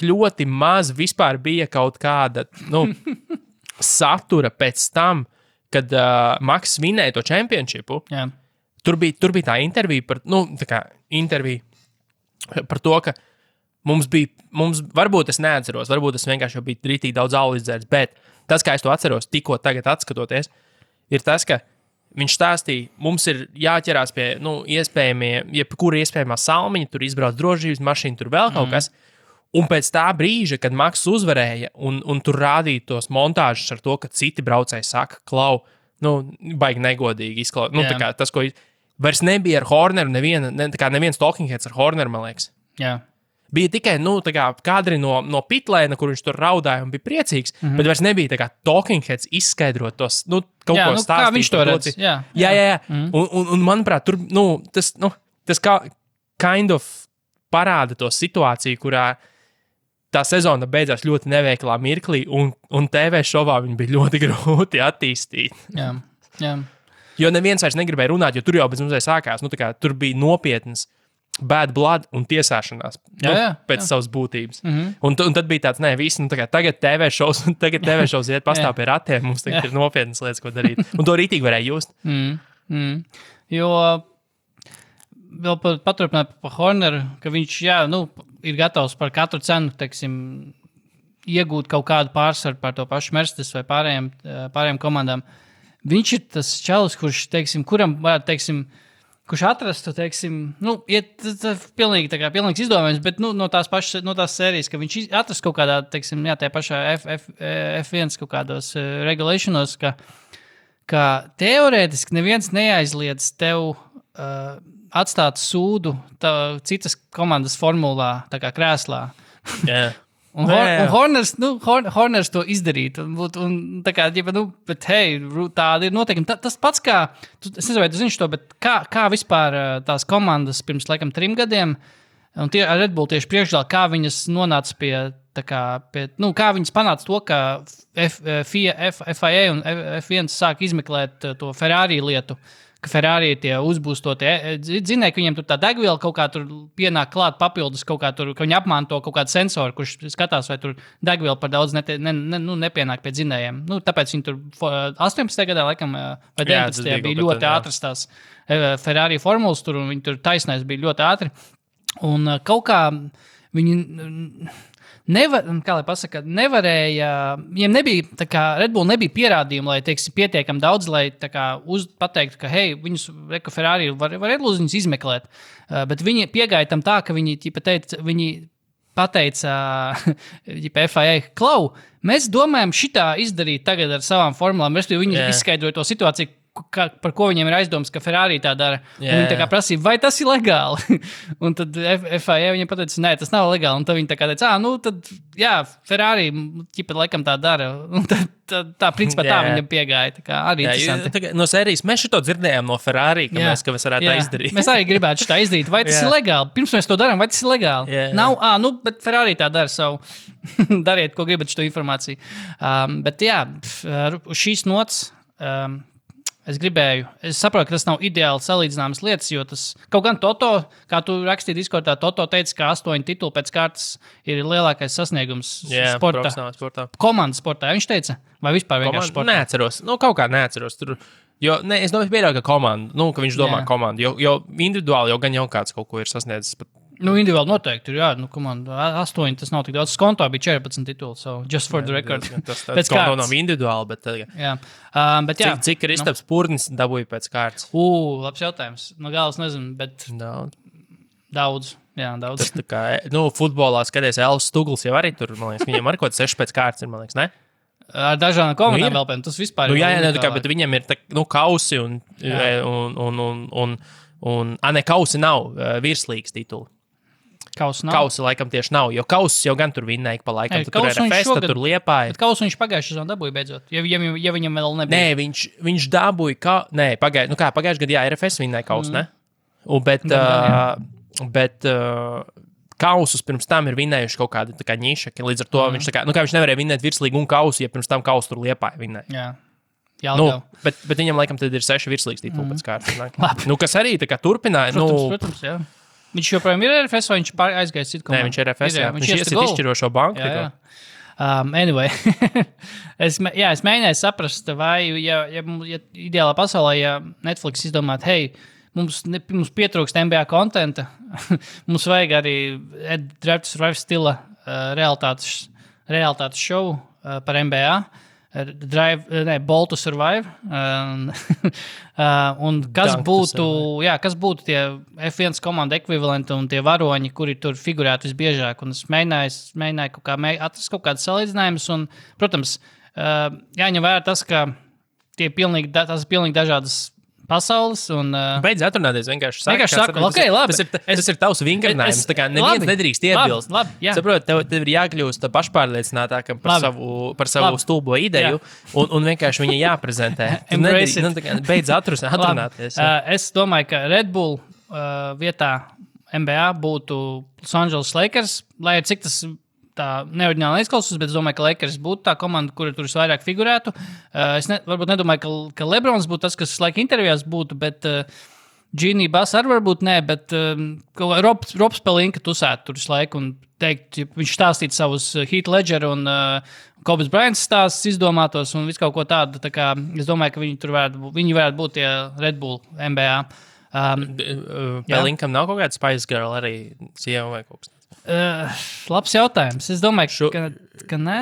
C: ļoti maz vispār bija kaut kāda satura pēc tam, kad Maks vinēja to čempionšipu.
D: Jā.
C: Tur bija tā intervija par to, ka mums varbūt es neatceros, varbūt es vienkārši jau biju rītīgi daudz alu izdzēris, bet tas, kā es to atceros, tikko tagad atskatoties, ir tas, ka viņš stāstīja, mums ir jāķerās pie jebkura iespējamā salmiņa, tur izbrauc drošības mašīna, tur vēl kaut kas. Un pēc tā brīža, kad Maks uzvarēja un tur rādīja tos montāžus ar to, ka citi braucēji saka, klau, baigi negodīgi izklausās. Tā kā tas, ko vairs nebija ar Horneru, neviens talking heads ar Horneru, man liekas.
D: Jā.
C: Bija tikai kadri no pitlēna, kur viņš tur raudāja un bija priecīgs, bet vairs nebija tā kā talking heads izskaidrot tos, kaut ko stāstīt.
D: Kā viņš to redz?
C: Jā. Un manuprāt, tur, tas kā kind of parāda to situāciju, kurā tā sezona beidzās ļoti neveiklā mirklī, un TV šovā viņi bija ļoti grūti attīstīt.
D: Jā.
C: Jo neviens vairs negribēja runāt, jo tur jau bez mums sākās, tur bija nopietnas bad blood un tiesāšanās pēc savas būtības. Un tad bija tāds, tagad TV šovs iet pastāv pie ratiem, mums tagad ir nopietnas lietas, ko darīt. Un to rītīgi varēja just.
D: Jo vēl paturpināt par Horneru, ka viņš, ir gatavs par katru cenu, iegūt kaut kādu pārsvaru par to pašu Mercedes vai pārējām komandām. Viņš ir tas čalis, kurš, kuram varētu, kurš atrastu, pilnīgs izdomājums, bet no tās sērijas, ka viņš atrast kaut kādā, tajā pašā F1 kaut kādos regulationos, ka teorētiski neviens neaizliedz tev atstāt sūdu citas komandas formulā, tā kā krēslā.
C: Yeah.
D: Un Horners to izdarīt. Un tā kā, bet hei, tāda ir noteikumi. Tas pats kā, es nezinu, vai tu zini šo, bet kā vispār tās komandas pirms, 3 gadiem, un Red Bull tieši priekšgalā, kā viņas nonāca kā viņas panāca to, ka FIA un F1 sāk izmeklēt to Ferrari lietu, ka Ferrari tie uzbūstotie, zināja, ka viņiem tur tā degviela kaut kā tur pienāk klāt papildus kaut kā tur, ka viņi apmanto kaut kādu sensoru, kurš skatās, vai tur degviela par daudz nepienāk pie dzinējiem. Tāpēc viņi tur 18. gadā, laikam, vai 19. bija ļoti ātras tās Ferrari formulas tur, un viņi tur taisnais bija ļoti ātri. Un kaut kā viņi nevarēja, viņiem nebija, tā kā Red Bull nebija pierādījumi, lai, teiksim, pietiekami daudz, lai tā kā pateiktu, ka, hei, viņus, Reko Ferrari var Red Bull viņus izmeklēt, bet viņi piegāja tam tā, ka viņi pateica FIA, Klau, mēs domājam šitā izdarīt tagad ar savām formulām, respektīvi viņi izskaidroja to situāciju, par ko viņiem ir aizdomas, ka Ferrari tā dara. Viņi tā kā prasīja, vai tas ir legāli? Un tad FIA viņiem pateica, nē, tas nav legāli. Un tad viņi tā kā teica, nu tad, jā, Ferrari ķipa laikam tā dara. Un tā principā tā viņam piegāja. Tā kā arī interesanti.
C: No sērijas mēs šito dzirdējām no Ferrari, ka mēs varētu tā izdarīt.
D: Mēs arī gribētu šitā izdarīt. Vai tas ir legāli? Pirms mēs to darām, vai tas ir legāli? Nav, nu, bet Ferrari tā dara savu. Dariet, ko gribat šo informāciju. Bet jā, uz šīs nots es saprotu, ka tas nav ideāli salīdzināmas lietas, jo tas kaut gan Toto, kā tu rakstīji Discordā, Toto teica, ka 8 tituli pēc kārtas ir lielākais sasniegums sportā. Komandas sportā, viņš teica? Vai vispār vienkārši sportā?
C: Neatceros. Kaut kā neatceros. Es domāju, pieļauju, ka komanda, ka viņš domā komandu, jo individuāli jau gan jau kāds kaut ko ir sasniedzis.
D: Nu, individuāli noteikti ir, komanda 8, tas nav tik daudz. Skonto bija 14 tituli, so just for the record.
C: Tas skonto nav individuāli, bet...
D: Bet
C: cik Kristaps Purnis dabūja pēc kārtas?
D: Labs jautājums. No galas nezinu, bet... Daudz. Jā, daudz.
C: Tas tā kā, futbolā skaties, Elvis Stugls jau arī tur, man liekas, viņam arī kaut 6 pēc kārtas ir, man liekas, ne?
D: Ar dažādām komandām vēl pēc, tas vispār
C: ir. Bet viņam ir kausi un kausi nav virslīgas tituli. Kausi laikam tieši nav, jo kausis jau gan tur vinnēja pa laikam. Tur ir RFS, tur Liepāja.
D: Bet kausu viņš pagājuši sezonu dabūja beidzot, ja viņam vēl nebija.
C: Nē, viņš dabūja, pagājuši gadu, RFS vinnēja kausu, ne? Bet kausus pirms tam ir vinnējuši kaut kāda tā kā ņiša, līdz ar to viņš viņš nevarēja vinnēt virslīgu un kausu, ja pirms tam kausu tur Liepāja vinnēja.
D: Jā.
C: Bet viņam laikam tad ir 6 virslīgas tituli pēc kārtas. Kas arī tā kā turpināja.
D: Protams, jā. Viņš joprojām ir RFS, vai viņš aizgājis citu komandu?
C: Nē, viņš ir RFS, viņš iesiet izšķirošo banku.
D: Jā. Anyway, es mēģināju saprast, vai, ja ideālā pasaulē, ja Netflix izdomāt, hei, mums pietrūkst NBA kontenta, mums vajag arī Drive to Survive stila realitātes šovu par NBA. Ball to Survive. Un kas būtu tie F1 komanda ekvivalenti un tie varoņi, kuri tur figurētu visbiežāk. Un es mēģināju atrast kaut kādas salīdzinājumus. Un, protams, jāņem vērā tas, ka tās ir pilnīgi dažādas pasaules.
C: Beidz atrunāties vienkārši.
D: Saku, ok, labi.
C: Tas ir tavs vingrinājums. Tā kā neviens nedrīkst iebilst. Saprot, tev ir jākļūst pašpārliecinātākam par savu stulbo ideju un vienkārši viņa jāprezentē. Beidz atrunāties.
D: Es domāju, ka Red Bull vietā NBA būtu Los Angeles Lakers, lai cik tas tā neoriģināli izklausās, bet es domāju, ka Lakers būtu tā komanda, kura tur visvairāk figurētu. Es varbūt nedomāju, ka Lebrons būtu tas, kas laika intervijās būtu, bet Genie Bass arī varbūt nē, bet Robs Pelinka tusētu tur visu laiku un teikt, viņš stāstītu savus Heath Ledger un Kobe Bryant stāstus izdomātos un visu kaut ko tādu. Tā kā es domāju, ka viņi varētu būt tie Red Bull NBA.
C: Pelinkam nav kaut kāda Spice Girl arī sieva vai kaut kas.
D: Labs jautājums. Es domāju, ka nē.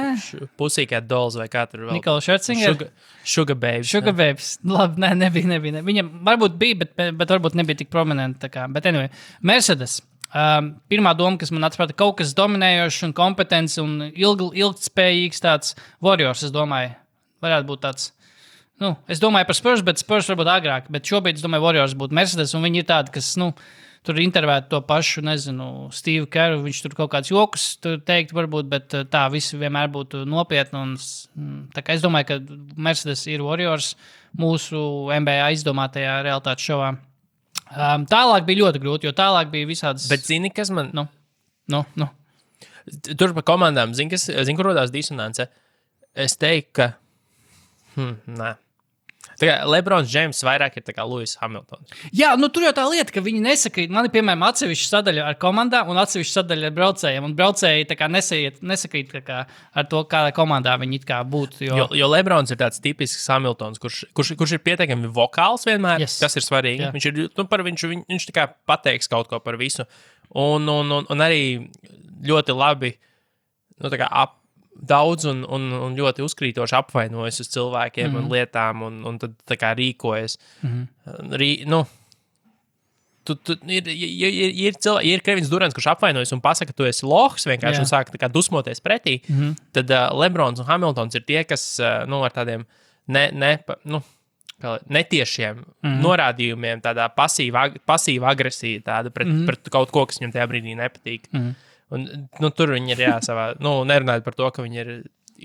C: Pusīkāt Dolls vai kā tur vēl.
D: Nikola Scherzinger.
C: Sugar Babes.
D: Sugar Babes. Labi, nebija. Viņam varbūt bija, bet varbūt nebija tik prominenti. Bet anyway, Mercedes. Pirmā doma, kas man atprāta, kaut kas dominējošs un kompetents un ilgtspējīgs tāds Warriors, es domāju. Varētu būt tāds. Es domāju par Spurs, bet Spurs varbūt agrāk. Bet šobrīd es domāju, Warriors būtu Mercedes un viņi ir tādi, kas, tur intervētu to pašu, Steve Kerru, viņš tur kaut kāds jokus teikt varbūt, bet tā visi vienmēr būtu nopietni. Tā kā es domāju, ka Mercedes ir Warriors mūsu NBA izdomātajā realitātes šovā. Tālāk bija ļoti grūti, jo tālāk bija visādas...
C: Bet zini, kas man... Tur par komandām, zini, kur rodās disonance? Es teiktu, ka... Nē. Lebrons Džeims vairāk ir kā Lewis Hamiltons.
D: Jā, nu tur jau tā lieta, ka viņi nesakrīt. Man ir, piemēram, atsevišķa sadaļa ar komandām un atsevišķa sadaļa ar braucējiem. Un braucēji tā kā nesakrīt ar to, kādā komandā viņi it kā būtu.
C: Jo Lebrons ir tāds tipisks Hamiltons, kurš ir pietiekami vokāls vienmēr, tas ir svarīgi.
D: Jā.
C: Viņš tā kā pateiks kaut ko par visu. Un arī ļoti labi tā kā daudz un ļoti uzkrītoši apvainojas uz cilvēkiem un lietām, un tad tā kā rīkojas. Ir Kevins Durants, kurš apvainojas un pasaka, ka tu esi lohs vienkārši un sāk tā kā dusmoties pretī, tad Lebrons un Hamiltons ir tie, kas ar tādiem netiešiem norādījumiem, tādā pasīva agresija tāda pret kaut ko, kas viņam tajā brīdī nepatīk. Un, tur viņi ir savā, nerunājot par to, ka viņi ir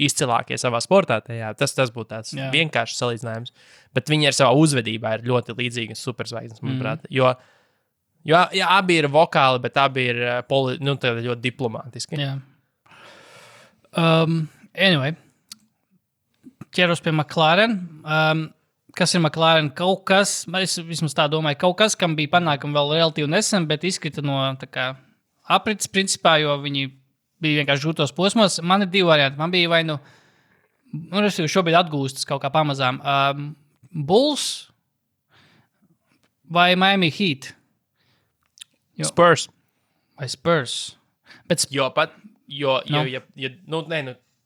C: izcilākie savā sportā. Tas būtu tāds vienkāršs salīdzinājums. Bet viņi ar savā uzvedībā ir ļoti līdzīgi superzvaigznes, manuprāt. Jo abi ir vokāli, bet abi ir ļoti diplomātiski.
D: Jā. Anyway, ķeros pie McLaren. Kas ir McLaren? Kaut kas, es vismaz tā domāju, kaut kas, kam bija panākumi vēl relatīvi nesen, bet izkrita no tā kā aprits, principā, jo viņi bija vienkārši grūtos posmos. Man ir 2 varianti. Man bija vai es šobrīd atgūstas kaut kā pamazām. Bulls vai Miami Heat?
C: Spurs.
D: Vai Spurs? Bet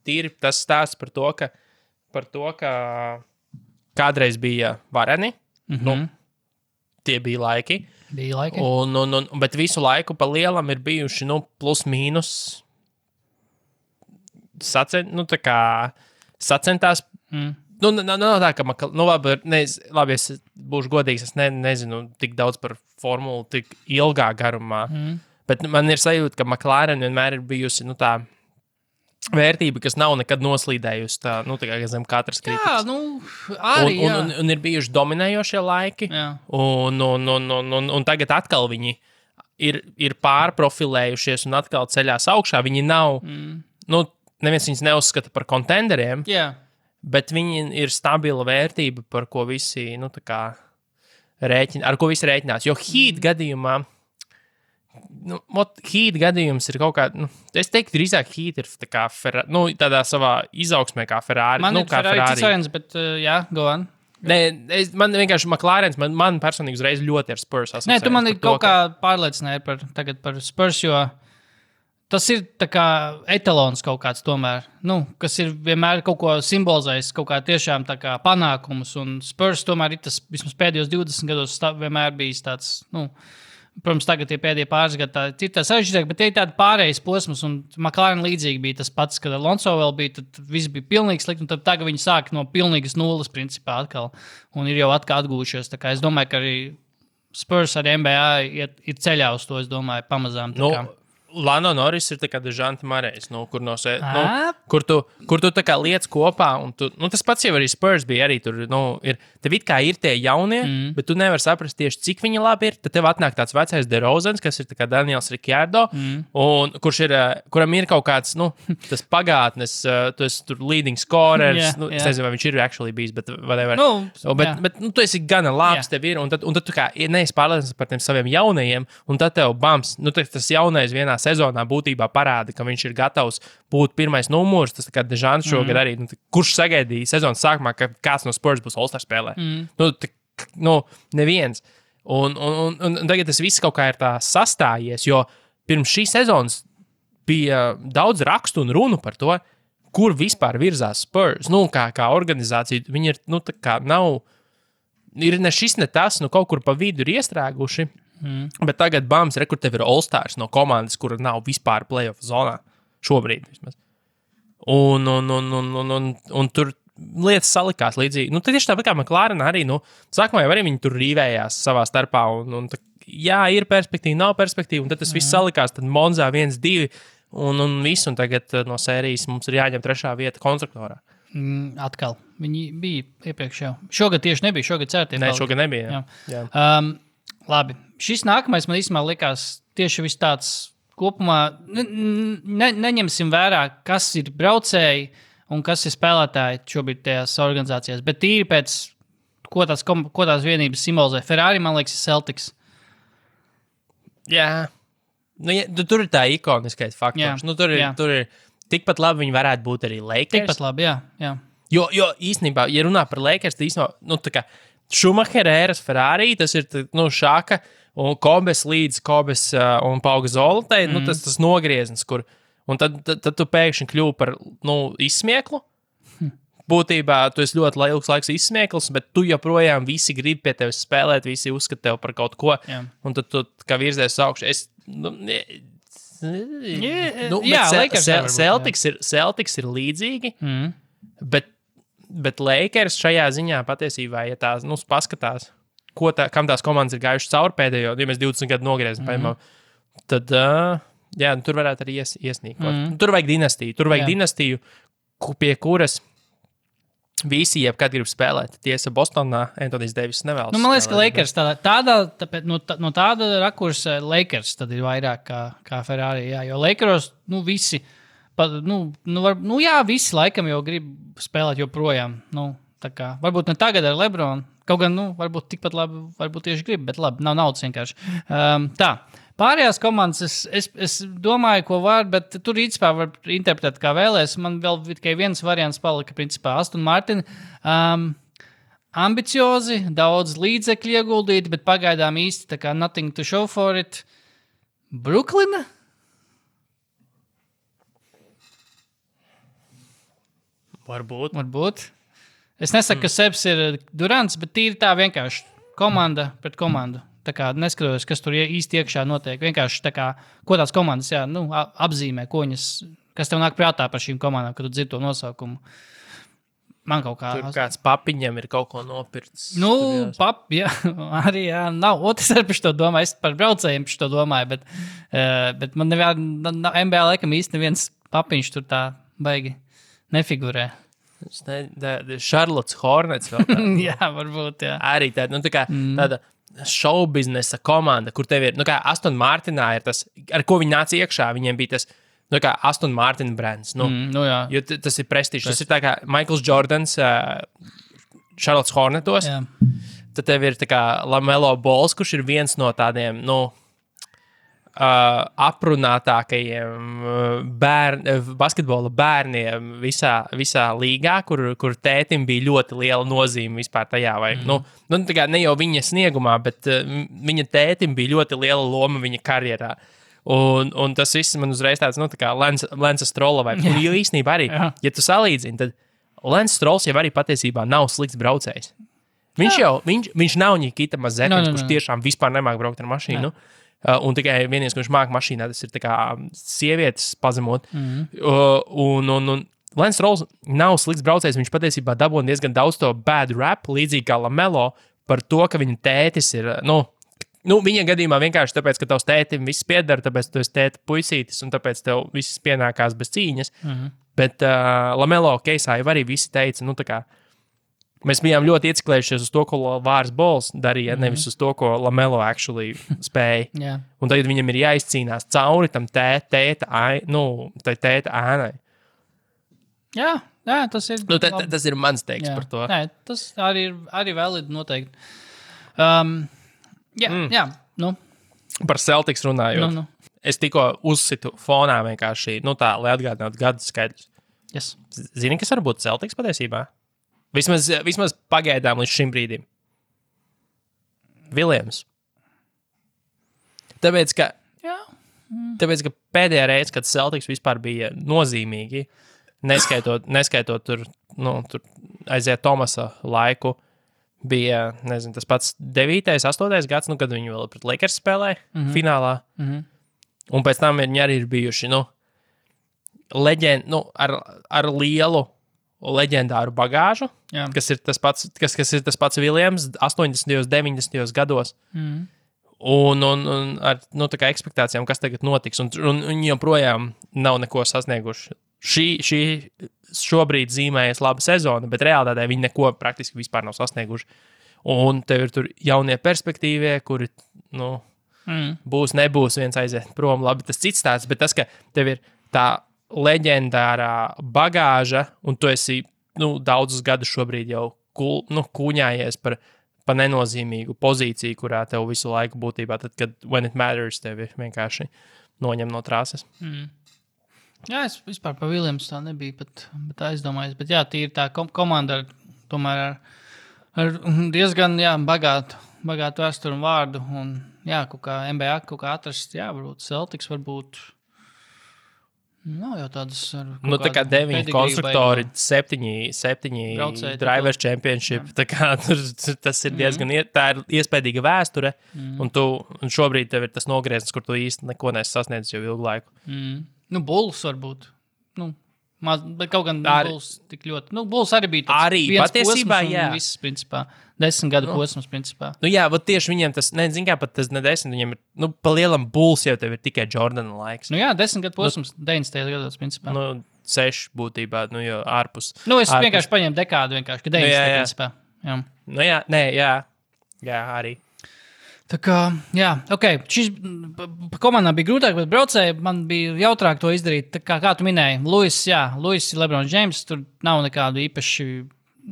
C: tīri tas stāsts par to, ka kādreiz bija vareni. Tie bija laiki. Bet visu laiku pa lielam ir bijuši plus mīnus sacentās. Nav tā, ka labi, es būšu godīgs, es nezinu tik daudz par formulu tik ilgā garumā, bet man ir sajūta, ka McLaren vienmēr ir bijusi tā vērtība, kas nav nekad noslīdējusi tā kā zem katras kritikas. Un ir bijuši dominējošie laiki, un tagad atkal viņi ir pārprofilējušies un atkal ceļās augšā. Viņi nav, neviens viņus neuzskata par kontenderiem, bet viņi ir stabila vērtība, par ko visi, ar ko visi rēķinās. Jo Heat gadījumā, Heat gadījums ir kaut kā, es teiktu, drīzāk Heat ir tā kā tādā savā izaugsmē kā Ferrari.
D: Man ir Ferrari cits, bet go on.
C: Man vienkārši McLarens, man personīgi uzreiz ļoti ar Spurs asociējums.
D: Nē, tu man ir kaut kā pārliecināji par Spurs, jo tas ir tā kā etalons kaut kāds tomēr, kas ir vienmēr kaut ko simbolizējis, kaut kā tiešām tā kā panākumus, un Spurs tomēr ir tas vismaz pēdējos 20 gados vienmēr bijis tāds, protams, tagad tie pēdējie pāris gadi ir tā sarežģītāk, bet tie ir tādi pārējais posms, un McLaren līdzīgi bija tas pats, kad Alonso vēl bija, tad viss bija pilnīgi slikti, un tad tagad viņi sāk no pilnīgas nulles principā atkal, un ir jau atkal atgūšies. Tā kā es domāju, ka arī Spurs ar NBA ir ceļā uz to, es domāju, pamazām.
C: Lando Norris ir tā kā Dežanta Marejs, kur tu tā kā liec kopā, un tas pats jau arī Spurs bija, arī tur, tev it kā ir tie jaunie, bet tu nevar saprast tieši, cik viņi labi ir, tad tev atnāk tāds vecais DeRozans, kas ir tā kā Daniels Ricciardo, un kuram ir kaut kāds, tas pagātnes, tu esi tur leading scorers, es nezinu, vai viņš ir actually bijis, bet whatever. Bet tu esi gana labs, tev ir, un tad tu kā neesi pārliecināts par tiem saviem jaunajiem, un tad tev bams, tas jaunais vienā sezonā būtībā parāda, ka viņš ir gatavs būt pirmais numurs. Tas kā Dežants šogad arī, kurš sagaidīja sezonas sākumā, ka kāds no Spurs būs All-Star spēlē. Neviens. Un tagad tas viss kaut kā ir tā sastājies, jo pirms šī sezonas bija daudz rakstu un runu par to, kur vispār virzās Spurs. Kā organizācija, viņi ir, tā kā nav, ir ne šis, ne tas, kaut kur pa vidu ir iestrēguši. Bet tagad bams, kur tev ir All-Stars no komandas, kura nav vispār playoff zonā. Šobrīd vismaz. Un tur lietas salikās līdzīgi. Tad tieši tāpat kā McLaren arī, sākumā jau arī viņi tur rīvējās savā starpā. Jā, ir perspektīva, nav perspektīva, un tad tas viss salikās. Tad Monzā 1-2 un viss, un tagad no sērijas mums ir jāņem 3. vieta konstruktorā.
D: Atkal. Viņi bija iepriekš jau. Šogad tieši nebija, šogad certie.
C: Nē, šogad nebija. Jā.
D: Labi. Šis nākamais man īstenībā likās tieši viss tāds kopumā. Neņemsim vērā, kas ir braucēji un kas ir spēlētāji šobrīd tajās organizācijās. Bet tīri pēc ko tās vienības simbolizē. Ferrari, man liekas, ir Celtics.
C: Jā. Nu, tur ir tā ikoniskais faktors. Nu, tur ir tikpat labi viņi varētu būt arī Lakers.
D: Tikpat labi, jā.
C: Jo īstenībā, ja runā par Lakers, tad īstenībā, tā kā Schumachera ēras Ferrari, tas ir, Šaka un Kobes līdz Kobes un Pauga Zoltai, tas nogrieznis, kur, un tad tu pēkšņi kļuvi par, izsmieklu. Būtībā tu esi ļoti ilgs laiks izsmieklis, bet tu joprojām visi grib pie tevis spēlēt, visi uzskata tev par kaut ko, un tad tu kā virzies uz augšu. Celtics ir līdzīgi, bet Lakers šajā ziņā patiesībā, ja tās, paskatās, kam tās komandas ir gājušas cauri pēdējo, ja mēs 20 gadu nogriezam, tad, tur varētu arī iesnīkot. Tur vajag dinastiju, pie kuras visi jebkad grib spēlēt. Tiesa Bostonā Antonijs Deivis nevēlas.
D: Man liekas, ka Lakers no tāda rakursa Lakers tad ir vairāk kā Ferrari. Jā, jo Lakeros, visi, visi laikam jau grib spēlēt joprojām. Varbūt ne tagad ar LeBron. Kaut gan, varbūt tikpat labi, varbūt tieši grib, bet labi, nav naudas vienkārši. Tā. Pārējās komandas, es domāju, ko var, bet tur īstenībā var interpretēt, kā vēlēs. Man vēl tikai viens variants palika, principā, Aston Martin. Ambiciozi, daudz līdzekļu ieguldīti, bet pagaidām īsti tā kā nothing to show for it. Bruklina? Varbūt. Es nesaku, ka Sebs ir Durants, bet tīri tā vienkārši komanda pret komandu. Tā kā neskatos, kas tur īsti iekšā notiek. Vienkārši tā kā, ko tās komandas apzīmē, kas tev nāk prātā par šīm komandām, kad tu dzirdi to nosaukumu. Man kaut kā...
C: Tur kāds papiņam ir kaut ko nopirts.
D: Arī nav. Es arī par to domāju. Es par braucējiem par to domāju, bet man NBA laikam īsti neviens papiņš tur tā baigi nefigurē.
C: Charlotte Hornets vēl tā.
D: Jā, varbūt, jā.
C: Arī tāda šaubiznesa komanda, kur tev ir, Aston Martinā ir tas, ar ko viņi nāca iekšā, viņiem bija tas, Aston Martin brands,
D: jā.
C: Jo tas ir prestižs. Tas ir tā kā Michaels Jordans Charlotte Hornetos, tad tev ir tā kā LaMelo Balls, kurš ir viens no tādiem, aprunātākajiem basketbola bērniem visā līgā, kur tētim bija ļoti liela nozīme vispār tajā. Tā kā ne jau viņa sniegumā, bet viņa tētim bija ļoti liela loma viņa karjerā. Un tas viss man uzreiz tāds, tā kā Lensa Strolla vai. Jo īstenībā arī, ja tu salīdzini, tad Lens Strolls jau arī patiesībā nav slikts braucējs. Viņš nav Nikita Mazepins, kurš tiešām vispār nemāk braukt ar mašīnu. Un tikai vienīgais, kurš māk mašīnā, tas ir tā kā sievietes pazemot. Un Lens Strolls nav slikts braucējs, viņš patiesībā dabūna diezgan daudz to bad rap, līdzīgi kā LaMelo, par to, ka viņa tētis ir, viņa gadījumā vienkārši tāpēc, ka tavs tētim viss piedara, tāpēc tu esi tēta puisītis, un tāpēc tev viss pienākās bez cīņas. Bet LaMelo keisā jau arī visi teica, tā kā mēs bijām ļoti ieciklējušies uz to, ko Vārs Bols darīja, nevis uz to, ko LaMelo actually spēja.
D: Yeah.
C: Un tagad viņam ir jāizcīnās cauri tam tēta ēnai.
D: Jā, tas ir...
C: Tas ir mans teiks par to.
D: Nē, tas arī validi noteikti. Par
C: Celtics runājot. Es tikko uzsitu fonā vienkārši, lai atgādinātu gadu skaidrs.
D: Yes.
C: Zini, kas var būt Celtics patiesībā? Vismaz pagaidām līdz šim brīdim. Viljams. Tāpēc, ka pēdējā reize, kad Celtics vispār bija nozīmīgi, neskaitot tur aiziet Tomasa laiku, bija, tas pats 9., 8. gads, kad viņi vēl pret Lakers spēlēja finālā. Un pēc tam viņi arī ir bijuši, ar lielu leģendāru bagāžu, kas ir tas pats Viljams 80. 90. gados. Un ar tā kā ekspektācijām, kas tagad notiks. Un viņi joprojām nav neko sasnieguši. Šobrīd zīmējas laba sezona, bet realitātē viņi neko praktiski vispār nav sasnieguši. Un tev ir tur jaunie perspektīvie, kuri, būs, nebūs, viens aiziet prom. Labi, tas cits tāds, bet tas, ka tev ir tā leģendārā bagāža, un tu esi daudzus gadus šobrīd jau kūņājies par nenozīmīgu pozīciju, kurā tev visu laiku būtībā, tad, kad when it matters, tevi vienkārši noņem no trāses.
D: Jā, es vispār par Williams tā nebija pat aizdomājies, bet jā, tīri tā komanda tomēr ar diezgan bagātu vēsturu un vārdu, un jā, kaut kā NBA kaut kā atrast, jā, varbūt Celtics, varbūt nav jau tādas
C: tā kā 9 konstruktori, 7 drivers championship, tā kā tas ir diezgan, tā ir iespējīga vēsture, un šobrīd tev ir tas nogrieznis, kur tu īsti neko nesi sasniedzis jau ilgu laiku.
D: Bulls varbūt, bet kaut gan Bulls tik ļoti, Bulls arī bija tāds
C: arī,
D: viens
C: patiesībā,
D: posms un viss, principā, 10 gadu posms, principā.
C: Jā, bet tieši viņiem tas, zin kā, pat tas ne 10, viņiem ir, pa lielam Bulls jau tev ir tikai Jordana laiks.
D: Jā, 10 gadu posms, 90 gados, principā.
C: 6 būtībā, jo ārpus.
D: Es vienkārši paņēmu dekādu vienkārši, ka 90 principā. Jā. Jā, arī. Tā kā, jā, šis komandām bija grūtāk, bet braucēji man bija jautrāk to izdarīt. Tā kā tu minēji, Luis ir LeBron James, tur nav nekādu īpaši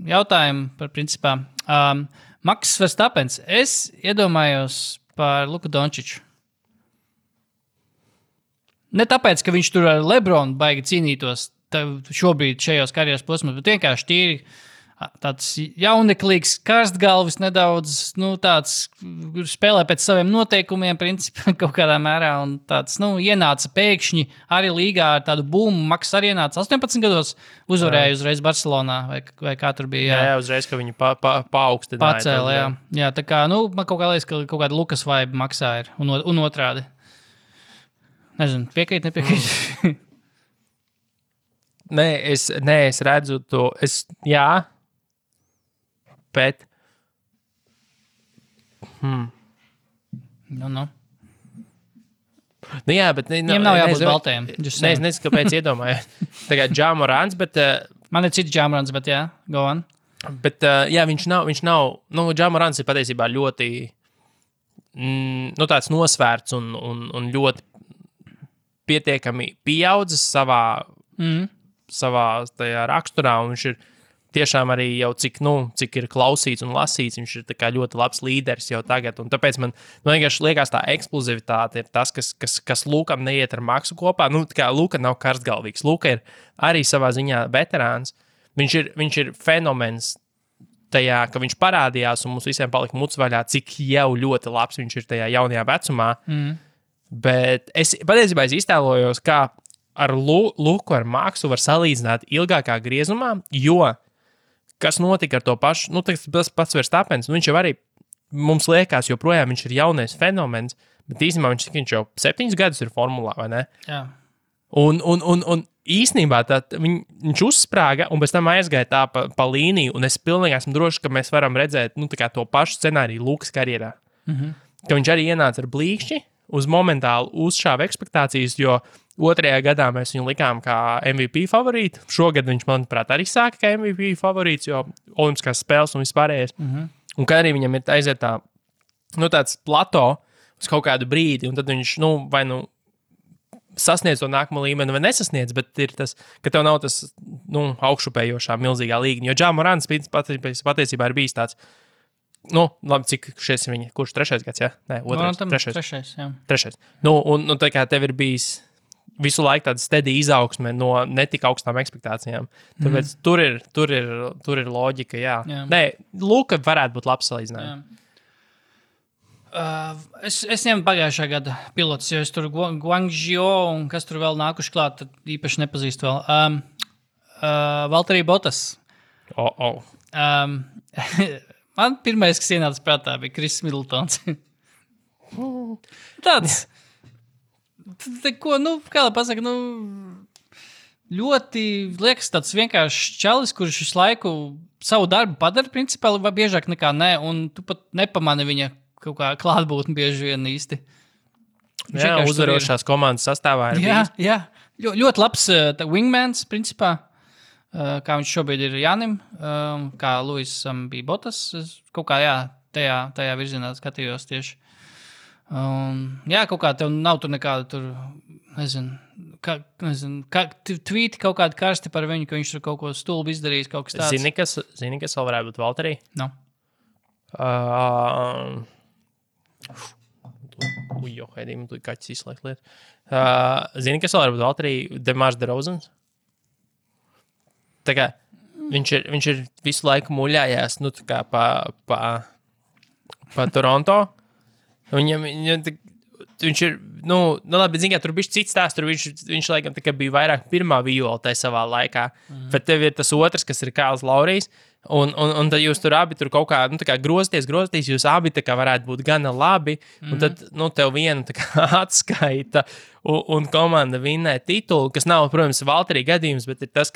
D: jautājumu par principā. Maks Verstappens, es iedomājos par Luku Dončiču. Ne tāpēc, ka viņš tur ar LeBronu baigi cīnītos šobrīd šajos karjeras posmos, bet vienkārši tīri tāds jauneklīgs, karstgalvis nedaudz, tāds spēlē pēc saviem noteikumiem, principā kaut kādā mērā, un tāds, ienāca pēkšņi arī līgā ar tādu būmu. Maks arī ienāca 18 gados, uzvarēja uzreiz Barcelonā, vai kā tur bija.
C: Jā, uzreiz, ka viņi paaugstināja.
D: Pacēla, jā. Tā kā, man kaut kā liekas, ka kaut kāda Lukas vibe Maksā ir, un otrādi. Nezinu, piekrīt, nepiekrīt.
C: Nē, es redzu to, jā. Bet. Jā, bet
D: viņam nav jābūt baltajiem.
C: Es nezinu, kāpēc iedomājos. Tagad Ja Morants, bet.
D: Man ir cits Ja Morants, bet jā, go on.
C: Bet, jā, viņš nav, Ja Morants ir patiesībā ļoti, tāds nosvērts un ļoti pietiekami pieaudzis savā tajā raksturā, un viņš ir tiešām arī jau cik ir klausīts un lasīts, viņš ir tā kā ļoti labs līderis jau tagad, un tāpēc man vienkārši liekas tā eksplozivitāte ir tas, kas Lukam neiet ar Maksu kopā. Tā kā Luka nav karstgalvīgs, Luka ir arī savā ziņā veterāns, viņš ir fenomens tajā, ka viņš parādījās un mums visiem palika muts vaļā, cik jau ļoti labs viņš ir tajā jaunajā vecumā, bet patiesībā es iztēlojos, kā ar Luku, ar Maksu var salīdzināt ilgākā griezumā, jo kas notika ar to pašu, tas pats Verstappens, viņš jau arī, mums liekas, joprojām viņš ir jaunais fenomens, bet īstenībā viņš jau 7 gadus ir formulā, vai ne?
D: Jā.
C: Un īstenībā viņš uzsprāga un pēc tam aizgāja tā pa līniju, un es pilnīgi esmu drošs, ka mēs varam redzēt tā kā to pašu scenāriju Lukas karjerā. Ka viņš arī ienāca ar blīkšķi, uz momentāli uzšāva ekspektācijas, jo 2. gadā mēs viņu likām kā MVP favorītu. Šogad viņš, manuprāt, arī sāka kā MVP favorīts, jo olimpiskās spēles un vispārējais. Un kā arī viņam ir aiziet tāds plato uz kaut kādu brīdi, un tad viņš, vai sasniedz to nākamo līmeni vai nesasniedz, bet ir tas, ka tev nav tas, augšupējošā milzīgā līgņa. Jo Ja Morants patiesībā ir bijis tāds, labi, cik šies ir viņa, kurš 3. gads, jā? Nē, 2. 3.
D: jā.
C: 3. Un tā kā tev ir bijis visu laiku tāda steady izaugsme no netik augstām ekspektācijām. Tāpēc tur ir loģika, jā. Nē, Luka varētu būt labs salīdzinājums.
D: Es ņemu pagājušā gada pilotus, jo es tur Guangzhou un kas tur vēl nākuši klāt, tad īpaši nepazīstu vēl. Valtteri Bottas. Man pirmais, kas ienāca prātā, bija Kris Middletons. Tāds... Ko, kā lai pasaka, ļoti liekas tāds vienkārši čalis, kurš visu laiku savu darbu padara, principā, vai biežāk nekā nē, un tu pat nepamani viņa kaut kā klātbūtni bieži vien īsti.
C: Jā, uzvarošās komandas sastāvā ir bijis.
D: Jā, ļoti labs wingmans, principā, kā viņš šobrīd ir Jānim, kā Luisam bija Bottas, kaut kā, jā, tajā virzienā skatījos tieši. Jā, kaut kā tev nav tur nekāda tur, nezinu, tvīti kaut kādi karsti par viņu, ka viņš tur kaut ko stulbi izdarījis, kaut kas tāds.
C: Zini, kas vēl varētu būt Valterī?
D: No.
C: Heidī, man tu kaķis izslēgt lietu. Zini, kas vēl varētu būt Valterī? Demārs DeRozans? Tā kā viņš ir visu laiku muļājās, nu, tā kā pa Toronto. Viņš ir, labi, zini, kā tur bija cits tās, tur viņš laikam tā kā bija vairāk pirmā viola tajā savā laikā, bet tev ir tas otrs, kas ir Kāls Laurijs, un tad jūs tur abi tur kaut kā, tā kā grozaties, jūs abi tā kā varētu būt gana labi, un tad, tev viena tā kā atskaita, un komanda vinnē titulu, kas nav, protams, Valterī gadījums, bet ir tas,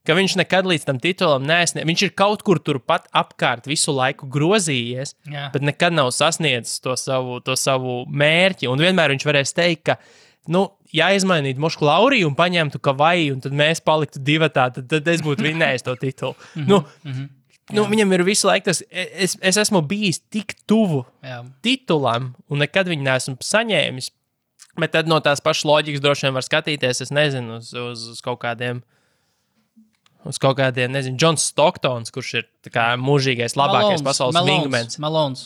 C: ka viņš nekad līdz tam titulam neesniedz. Viņš ir kaut kur turpat apkārt visu laiku grozījies, bet nekad nav sasniedzis to savu mērķi. Un vienmēr viņš varēs teikt, ka, ja izmainītu Mošku Lauriju un paņemtu Kavai, un tad mēs paliktu divatā, tad es būtu vinnējis to titulu. Viņam ir visu laiku tas, es esmu bijis tik tuvu titulam, un nekad viņu neesmu saņēmis. Bet tad no tās pašas loģikas droši vien var skatīties, es nezinu, uz kaut kādiem, nezinu, Džons Stocktons, kurš ir tā kā mūžīgais, labākais pasaules wingmans.
D: Malons,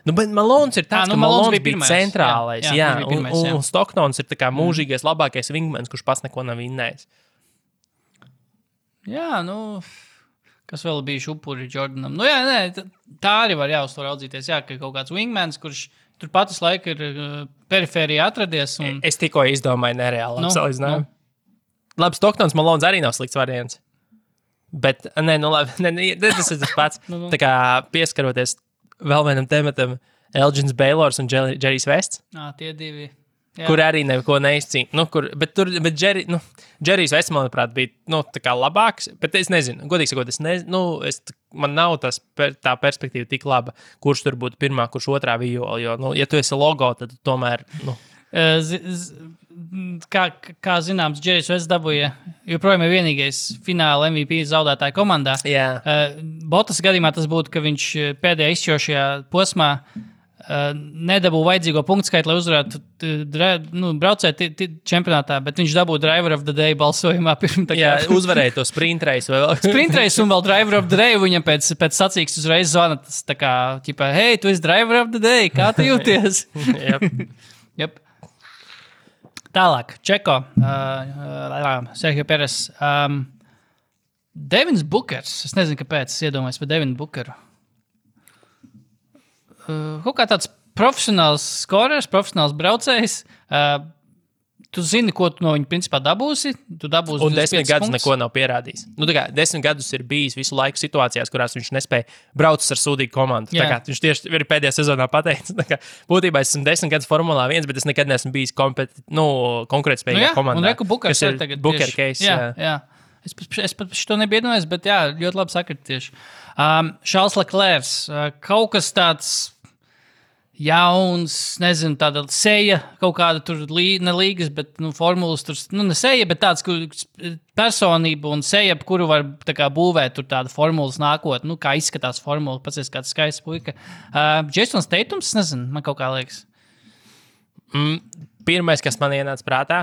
C: bet Malons ir tāds, ka Malons bija
D: pirmais,
C: centrālais,
D: jā.
C: Un Stocktons ir tā kā mūžīgais, labākais wingmans, kurš pats neko nav vinnējis.
D: Jā, kas vēl bija upuri Jordanam? Tā arī var uz to raudzīties, ka kaut kāds wingmans, kurš tur patas laika ir perifērijā atradies.
C: Es tikko izdomāju nereāli salīdzinājumu. Labi, Stocktons, Malons arī nav slikts variants. Bet, labi, tas ir tas pats. Tā kā pieskaroties vēl vienam tematam, Elgins Baylors un Džerijs Vests.
D: Tie divi. Jā.
C: Kur arī neko neizcīna. Bet Džerijs Vests, manuprāt, bija tā kā labāks. Bet es nezinu, godīgi sakot, man nav tā perspektīva tik laba, kurš tur būtu pirmā, kurš otrā viola. Jo, ja tu esi logo, tad tomēr.
D: Kā zināms, Džerijs Vests dabūja joprojām ir vienīgais fināla MVP zaudētāja komandā. Botas gadījumā tas būtu, ka viņš pēdējā izšķirošajā posmā nedabūja vajadzīgo punktu skaitu, lai uzvarētu braucēt čempionātā, bet viņš dabūja Driver of the Day balsojumā.
C: Uzvarēja to sprint race.
D: Sprint race un vēl Driver of the Day, viņam pēc sacīks uzreiz zvana tas tā kā, hei, tu esi Driver of the Day, kā tu jūties? Yep. Tālāk, Čeko, Sergio Peres, Devins Bookers, es nezinu, kāpēc es iedomājos par Devinu Bookeru. Kaut kā tāds profesionāls skorers, profesionāls braucējs, tu zini, ko tu no viņa principā dabūsi.
C: Un 10 gadus neko nav pierādījis. 10 gadus ir bijis visu laiku situācijās, kurās viņš nespēja braukt ar sūdīgu komandu. Viņš tieši ir pēdējā sezonā pateicis. Būtībā es esmu 10 gadus Formulā 1, bet es nekad neesmu bijis konkurētspējīgā komandā.
D: Un Reku Bookers ir tagad
C: Booker case.
D: Jā. Es pat šo nebiju iedomājies, bet jā, ļoti labi sakrit tieši. Charles Leclerc, kaut kas tāds jauns, nezinu, tāda seja, kaut kāda tur ne līgas, bet formulas tur, ne seja, bet tāds personība un seja, kuru var tā kā būvēt tur tāda formulas nākot, kā izskatās formula, pats ir kāds skaists puika. Jasons Tatums, nezinu, man kaut kā liekas.
C: Pirmais, kas man ienāca prātā,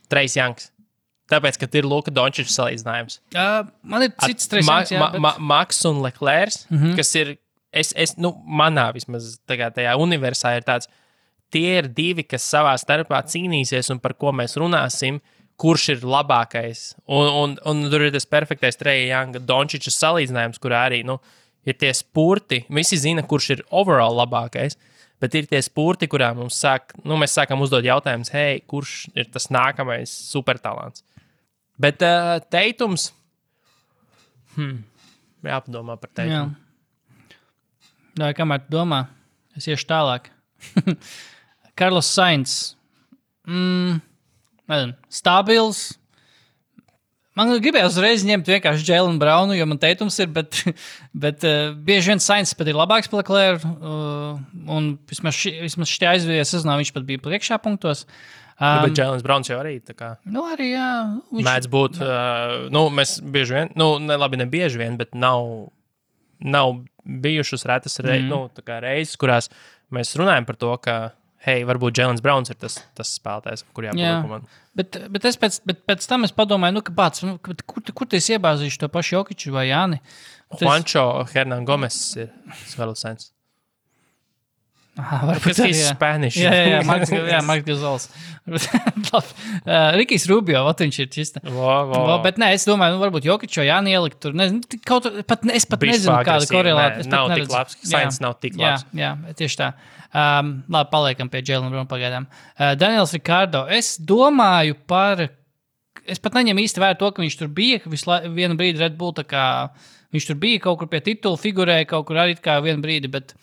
C: Trace Youngs. Tāpēc, ka ir Luka Dončiča salīdzinājums.
D: Man ir cits Trace Youngs, jā.
C: Max un Leclerc, kas ir manā vismaz tajā universā ir tāds, tie ir divi, kas savā starpā cīnīsies un par ko mēs runāsim, kurš ir labākais. Un tur ir tas perfektais Trace Younga Dončiča salīdzinājums, kurā arī, ir tie spurti. Visi zina, kurš ir overall labākais, bet ir tie spurti, kurā mēs sākam uzdot jautājumus, hei, kurš ir tas nākamais supertalants. Bet Tatums, jāpadomā par Tatumu.
D: Jā, kamēr tu domā, es iešu tālāk. Carlos Sainz. Stabils. Man gribēja uzreiz ņemt vienkārši Jalen Brownu, jo man Tatums ir, bet bieži vien Sainz pat ir labāks par Leclerc. Un vismaz šitie aizvījies sezonā viņš pat bija priekšā punktos.
C: Bet Jēlens Browns jau arī tā kā.
D: Arī, jā.
C: Mēdz būt, mēs bieži vien, ne bieži vien, bet nav bijušas retas reizes, kurās mēs runājam par to, ka, hei, varbūt Jēlens Browns ir tas spēlētājs, kur jāpaliek komanda.
D: Bet pēc tam es padomāju, ka pats, kur tu iebāzīšu to pašu Jokiču vai Jāni?
C: Juancho Hernan Gomes ir Svelosens.
D: Varbūt
C: arī, jā. Spanish.
D: Jā, Marks Gazols. Rikijs Rubio, viņš ir čista. Bet nē, es domāju, varbūt Jokiču vai Jāni ielikt tur. Nezinu, es pat nezinu, kāda korelāta.
C: Nav tik labs, Sainz nav tik labs.
D: Jā, tieši tā. Labi, paliekam pie Jēlena Browna pagaidām. Daniels Ricardo, es domāju es pat neņemu īsti vērā to, ka viņš tur bija, vienu brīdi Red Bull, tā kā viņš tur bija kaut kur pie titula, figurēja kaut kur arī kā vienu brīdi, bet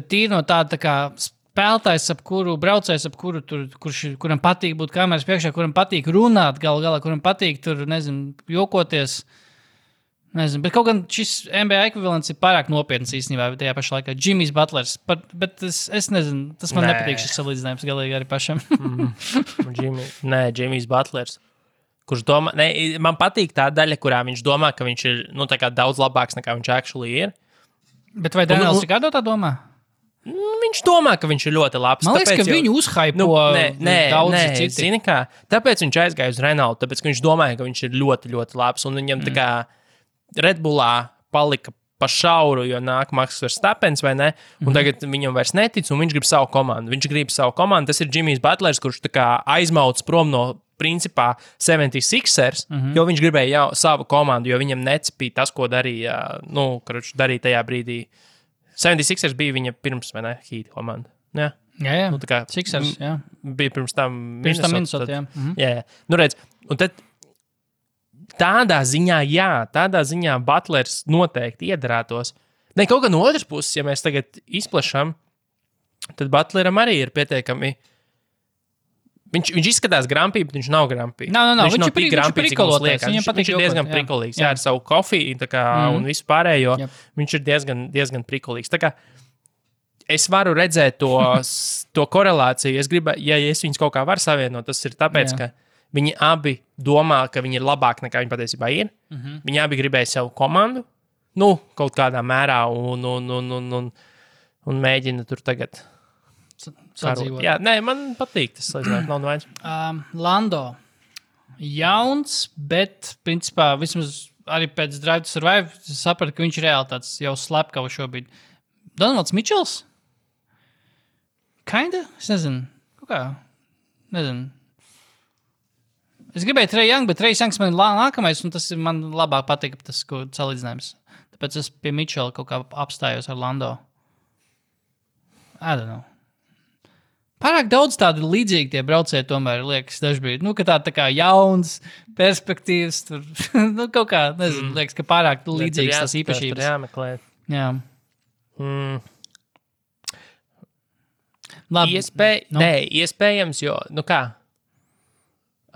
D: tīri no tāda tā kā spēlētājs, braucējs, kuram patīk būt kameras priekšā, kuram patīk runāt galā, kuram patīk tur, nezinu, jokoties. Nezinu, bet kaut gan šis NBA ekvivalents ir pārāk nopietns īstenībā, tajā pašā laikā Jimmys Butlers. Bet es nezinu, tas man nepatīk šis salīdzinājums galīgi arī pašam.
C: Jimmys Butlers. Kurš domā, man patīk tā daļa, kurā viņš domā, ka viņš ir tā kā daudz labāks nekā viņš actually ir.
D: Bet vai Daniels Ricardo tā domā?
C: Viņš domā, ka viņš ir ļoti labs.
D: Man liekas, ka viņu uzhaipo daudzi citi.
C: Zini kā, tāpēc viņš aizgāja uz Renault, tāpēc, ka viņš domāja, ka viņš ir ļoti, ļoti labs. Un viņam tā kā Red Bullā palika pa šauru, jo nāk Max Verstappens, vai ne? Un tagad viņam vairs netic, un viņš grib savu komandu. Viņš grib savu komandu. Tas ir Jimmys Butlers, kurš tā kā aizmauc prom no principā 76ers, jo viņš gribēja savu komandu, jo viņam necipīja tas, ko darīja, darīja tajā brīdī. 76ers bija viņa pirms, vai ne, Heat komanda. Jā. Tā kā
D: Sixers, jā.
C: Bija pirms tam
D: Minnesota, jā.
C: Jā. Redz, un tad tādā ziņā Butlers noteikti iedarētos. Ne, kaut kā no otras puses, ja mēs tagad izplešam, tad Butleram arī ir pietiekami. Viņš izskatās grampī, bet viņš nav grampī.
D: Viņš
C: nav tik grampī, cik mums liekas. Viņš ir diezgan
D: jokot,
C: prikolīgs. Jā, ar savu kofiju un visu pārējo. Viņš ir diezgan prikolīgs. Tā kā es varu redzēt to korelāciju. Es gribu, ja es viņus kaut kā varu savienot, tas ir tāpēc, ka viņi abi domā, ka viņi ir labāk nekā viņi patiesībā ir. Viņi abi gribēja savu komandu, kaut kādā mērā un mēģina tur tagad
D: sadzīvot.
C: Jā, man patīk tas, nav vairs.
D: Lando. Jauns, bet, principā, vismaz arī pēc Drive to Survive sapratu, ka viņš ir reāli tāds jau slepkava šobrīd. Donalds Mitchells? Kinda? Es nezinu. Kaut kā? Nezinu. Es gribēju Trae Young, bet Trae Youngs man ir nākamais, un tas ir man labāk patīk, tas, ko salīdzinājums. Tāpēc es pie Mitchella kaut kā apstājos ar Lando. I don't know. Pārāk daudz tādu līdzīgi tie braucēji tomēr liekas dažbrīd. Ka tā kā jauns, perspektīvs, tur, kaut kā, nezinu, liekas, ka pārāk līdzīgs tas īpašības.
C: Tur jāmeklē.
D: Jā. Labi.
C: Iespējams, jo, kā,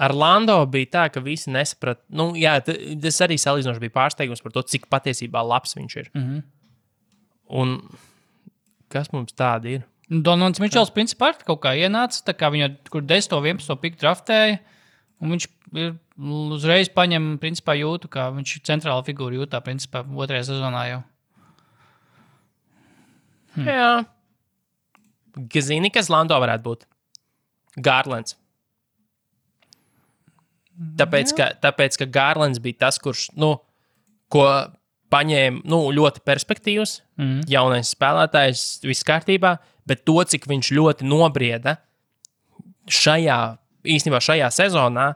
C: ar Lando bija tā, ka visi nesaprat, tas arī salīdzinoši bija pārsteigums par to, cik patiesībā labs viņš ir. Un kas mums tādi ir?
D: Donalds Mitchells principā kaut kā ienāca, tā kā viņu kur 10. 11. piku draftēja, un viņš uzreiz paņem, principā jūtu, kā viņš centrāla figūra jūtā, principā, 2. sezonā jau.
C: Jā. Zini, kas Lando varētu būt? Garlands. Tāpēc, ka Garlands bija tas, kurš, ko paņēma, ļoti perspektīvs, jaunais spēlētājs, viss kārtībā, bet to, cik viņš ļoti nobrieda šajā sezonā,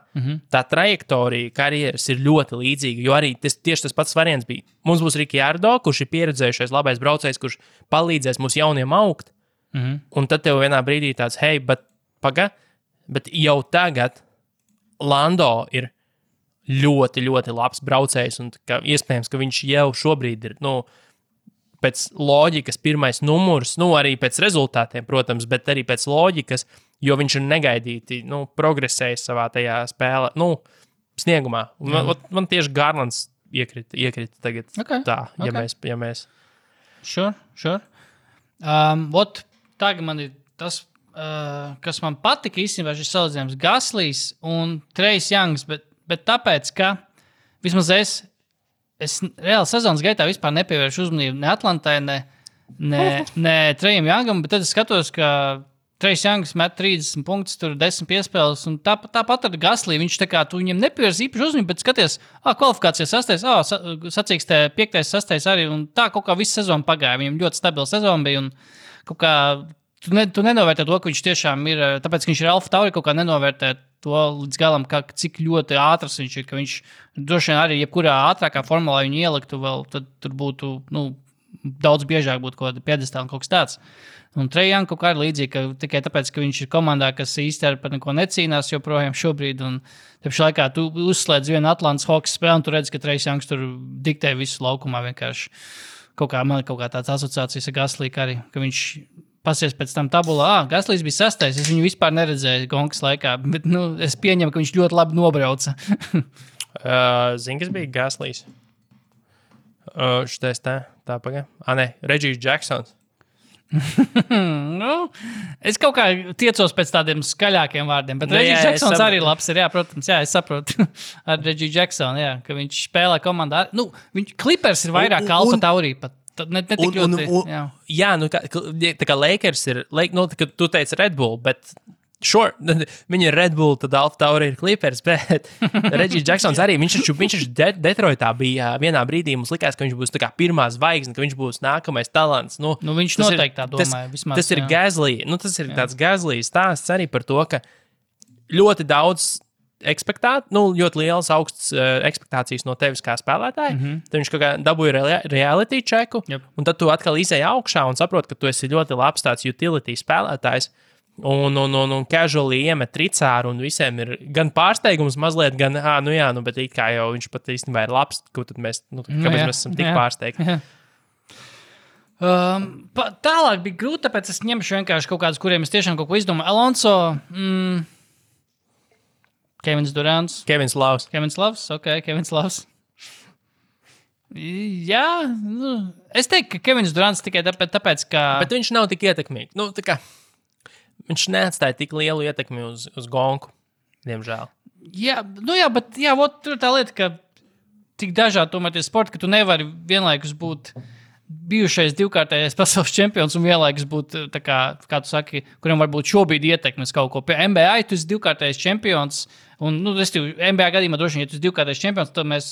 C: tā trajektorija karjeras ir ļoti līdzīga, jo arī tieši tas pats variants bija. Mums būs Ricciardo, kurš ir pieredzējušais labais braucējs, kurš palīdzēs mums jauniem augt, un tad tev vienā brīdī tāds, hei, bet jau tagad Lando ir ļoti, ļoti labs braucējs, un iespējams, ka viņš jau šobrīd ir, pēc loģikas pirmais numurs, arī pēc rezultātiem, protams, bet arī pēc loģikas, jo viņš ir negaidīti, progresējis savā tajā spēlē, sniegumā. Man tieši Garlands iekrita tagad ja mēs.
D: Sure. Tagad man ir tas, kas man patika īstenībā šis salīdzinājums Gaslīs un Trae Youngs, bet tāpēc, ka vismaz es reāli sezonas gaitā vispār nepievēršu uzmanību ne Atlantai, ne Nē, Trejam Youngam, bet tad es skatos, ka Trejs Youngs met 30 punktus, tur 10 piespēles, un tāpat ar Gaslī, viņš tā kā, tu viņam nepievērs īpaši uzmanību, bet skaties, kvalifikācijas 6, sacīkstē 5, 6 arī, un tā kaut kā visu sezonu pagāja, viņam ļoti stabila sezona bija, un kaut kā, tu nenovērtē to, ka viņš tiešām ir, tāpēc, ka viņš ir Alfa Tauri, kaut kā nenovērtē to līdz galam, cik ļoti ātrs viņš ir, ka viņš droši vien arī jebkurā ātrākā formulā viņu ieliktu vēl, tad tur būtu, daudz biežāk būtu kaut kāda piedestāla un kaut kas tāds. Un Trejam kaut kā ir līdzīgi, ka tikai tāpēc, ka viņš ir komandā, kas īsti ar par neko necīnās joprojām šobrīd, un tāpēc laikā tu uzslēdz vienu Atlantas hokeja spēli, un tu redzi, ka Trejam tur diktē visu laukumā vienkārši. Man kaut kā tāds asociācijas ar Gaslīku arī, ka viņš pasies pēc tam tabulā, Gaslīs bija 6, es viņu vispār neredzēju Gonkas laikā, bet es pieņemu, ka viņš ļoti labi nobrauca.
C: Zini, kas bija Gaslīs? Šitais tā pagā. Regijs Jacksons.
D: Es kaut kā tiecos pēc tādiem skaļākiem vārdiem, bet Regijs Jacksons arī labs ir, jā, protams, jā, es saprotu ar Regiju Jacksonu, jā, ka viņš spēlē komandā. Clippers ir vairāk kā Alfa Tauri pat. Ne tik ļoti, jā.
C: Jā, tā kā Lakers ir, tu teici Red Bull, bet sure, viņi ir Red Bull, tad Alfa Tauri ir Clippers, bet Regijs Jacksons arī, viņš Detroitā bija vienā brīdī, mums likās, ka viņš būs tā kā pirmā zvaigzne, ka viņš būs nākamais talants.
D: Viņš noteikti tā domāja. Vismaz,
C: tas ir Gaslī, tas ir tāds Gaslī stāsts arī par to, ka ļoti daudz ļoti liels augsts ekspektācijas no tevis kā spēlētāja. Tad viņš kaut kā dabūja reality checku, un tad tu atkal izēji augšā un saproti, ka tu esi ļoti labs tāds utility spēlētājs. Un casually iemet tricāru, un visiem ir gan pārsteigums mazliet, gan, bet it kā jau viņš pat īstenībā ir labs, tad mēs, kāpēc mēs esam tik pārsteigti.
D: Tālāk bija grūti, tāpēc es ņemšu vienkārši kaut kādus, kuriem es tiešām kaut ko izdomāju. Alonso, Kevins Durants.
C: Kevins Lavs.
D: Kevins Lavs. Jā, es teiktu, ka Kevins Durants tikai tāpēc, ka...
C: Bet viņš nav tik ietekmīgs. Viņš neatstāja tik lielu ietekmi uz Gonku, diemžēl.
D: Jā, bet tur ir tā lieta, ka tik dažādi tomēr tie sporti, ka tu nevari vienlaikus būt bijušais divkārtējais pasaules čempions un vienlaikus būt, tā kā tu saki, kuriem varbūt šobrīd ietekmes kaut ko. Pie NBA tu esi divkārtējais čempions, un, NBA gadījumā droši vien, ja tu esi divkārtējais čempions, tad mēs,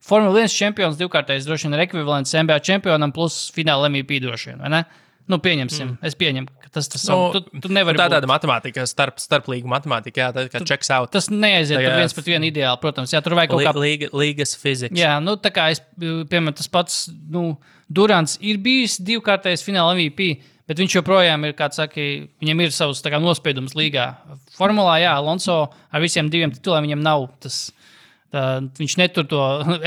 D: Formula 1 čempions divkārtējais droši vien ir ekvivalents NBA čempionam plus fināla MVP droši vien, vai ne? Pieņemsim, es pieņemu, ka tas tu nevari būt.
C: Tāda matemātika, starplīgu matemātika, jā, tā kā checks out.
D: Tas neaiziet tur viens pret vienu ideāli, protams, jā, tur vajag kaut kā...
C: Līgas fizikas.
D: Jā, tā kā piemēram, tas pats, Durants ir bijis divkārtējs fināla MVP, bet viņš joprojām ir, kā saka, viņam ir savs tā kā nospiedums līgā. Formulā, jā, Alonso ar visiem 2 tituliem viņam nav tas... Viņš netur to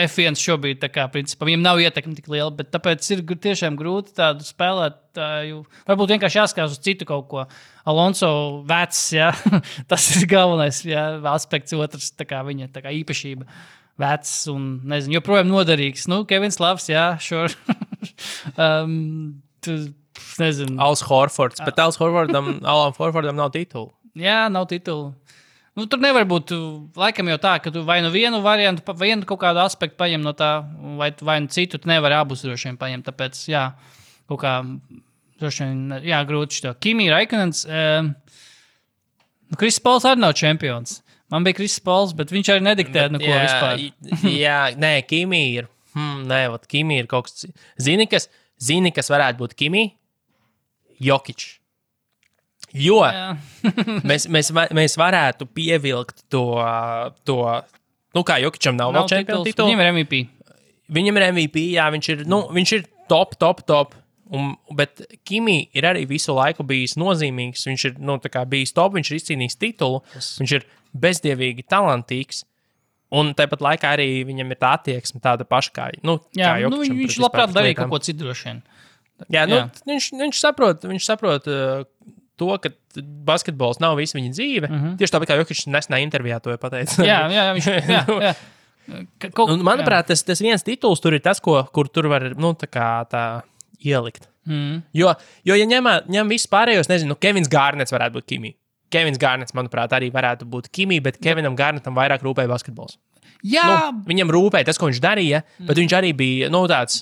D: F1 šobrīd, tā kā, principā, viņam nav ietekme tik liela, bet tāpēc ir tiešām grūti tādu spēlētāju. Varbūt vienkārši jāskatās uz citu kaut ko. Alonso vecs, jā, tas ir galvenais, jā, aspekts otrs, tā kā viņa tā kā īpašība. Vecs un, nezinu, joprojām noderīgs. Kevins Lavs, jā, sure. Nezinu.
C: Als Horfords, bet Alan Horfordam nav titulu.
D: Jā, nav titulu. Tur nevar būt, laikam jau tā, ka tu vai vienu variantu, vienu kaut kādu aspektu paņem no tā, vai citu, tu nevari abus droši vien paņemt, tāpēc, jā, kaut kā, droši vien, jā, grūti šito. Kimi Raikonens, Kriss Pols arī nav čempions. Man bija Kriss Pols, bet viņš arī nediktē neko vispār.
C: Jā, nē, Kimi ir, Kimi ir kaut kas, zini, kas varētu būt Kimi? Jokič. Jo mēs varētu pievilkt to kā Jokičam nav vēl čempionu titulu.
D: Viņam ir MVP.
C: Viņam ir MVP, jā, viņš ir top. Bet Kimi ir arī visu laiku bijis nozīmīgs. Viņš ir tā kā bijis top, viņš ir izcīnījis titulu. Viņš ir bezdievīgi talantīgs. Un tāpat laikā arī viņam ir tā attieksme tāda paša kā Jokičam.
D: Viņš labprāt darīja kaut ko citu droši vien.
C: Jā, viņš saprot to, ka basketbols nav visa viņa dzīve. Tieši tāpēc, kā Jokičs nesenā intervijā to pateica.
D: Jā.
C: Manuprāt, tas viens tituls tur ir tas, kur tur var tā ielikt. Jo ja ņem visus pārējos, nezinu, Kevins Garnets varētu būt Kimi. Kevins Garnets, manuprāt, arī varētu būt Kimi, bet Kevinam Garnetam vairāk rūpēja basketbols.
D: Jā.
C: Viņam rūpēja tas, ko viņš darīja, bet viņš arī bija, tāds...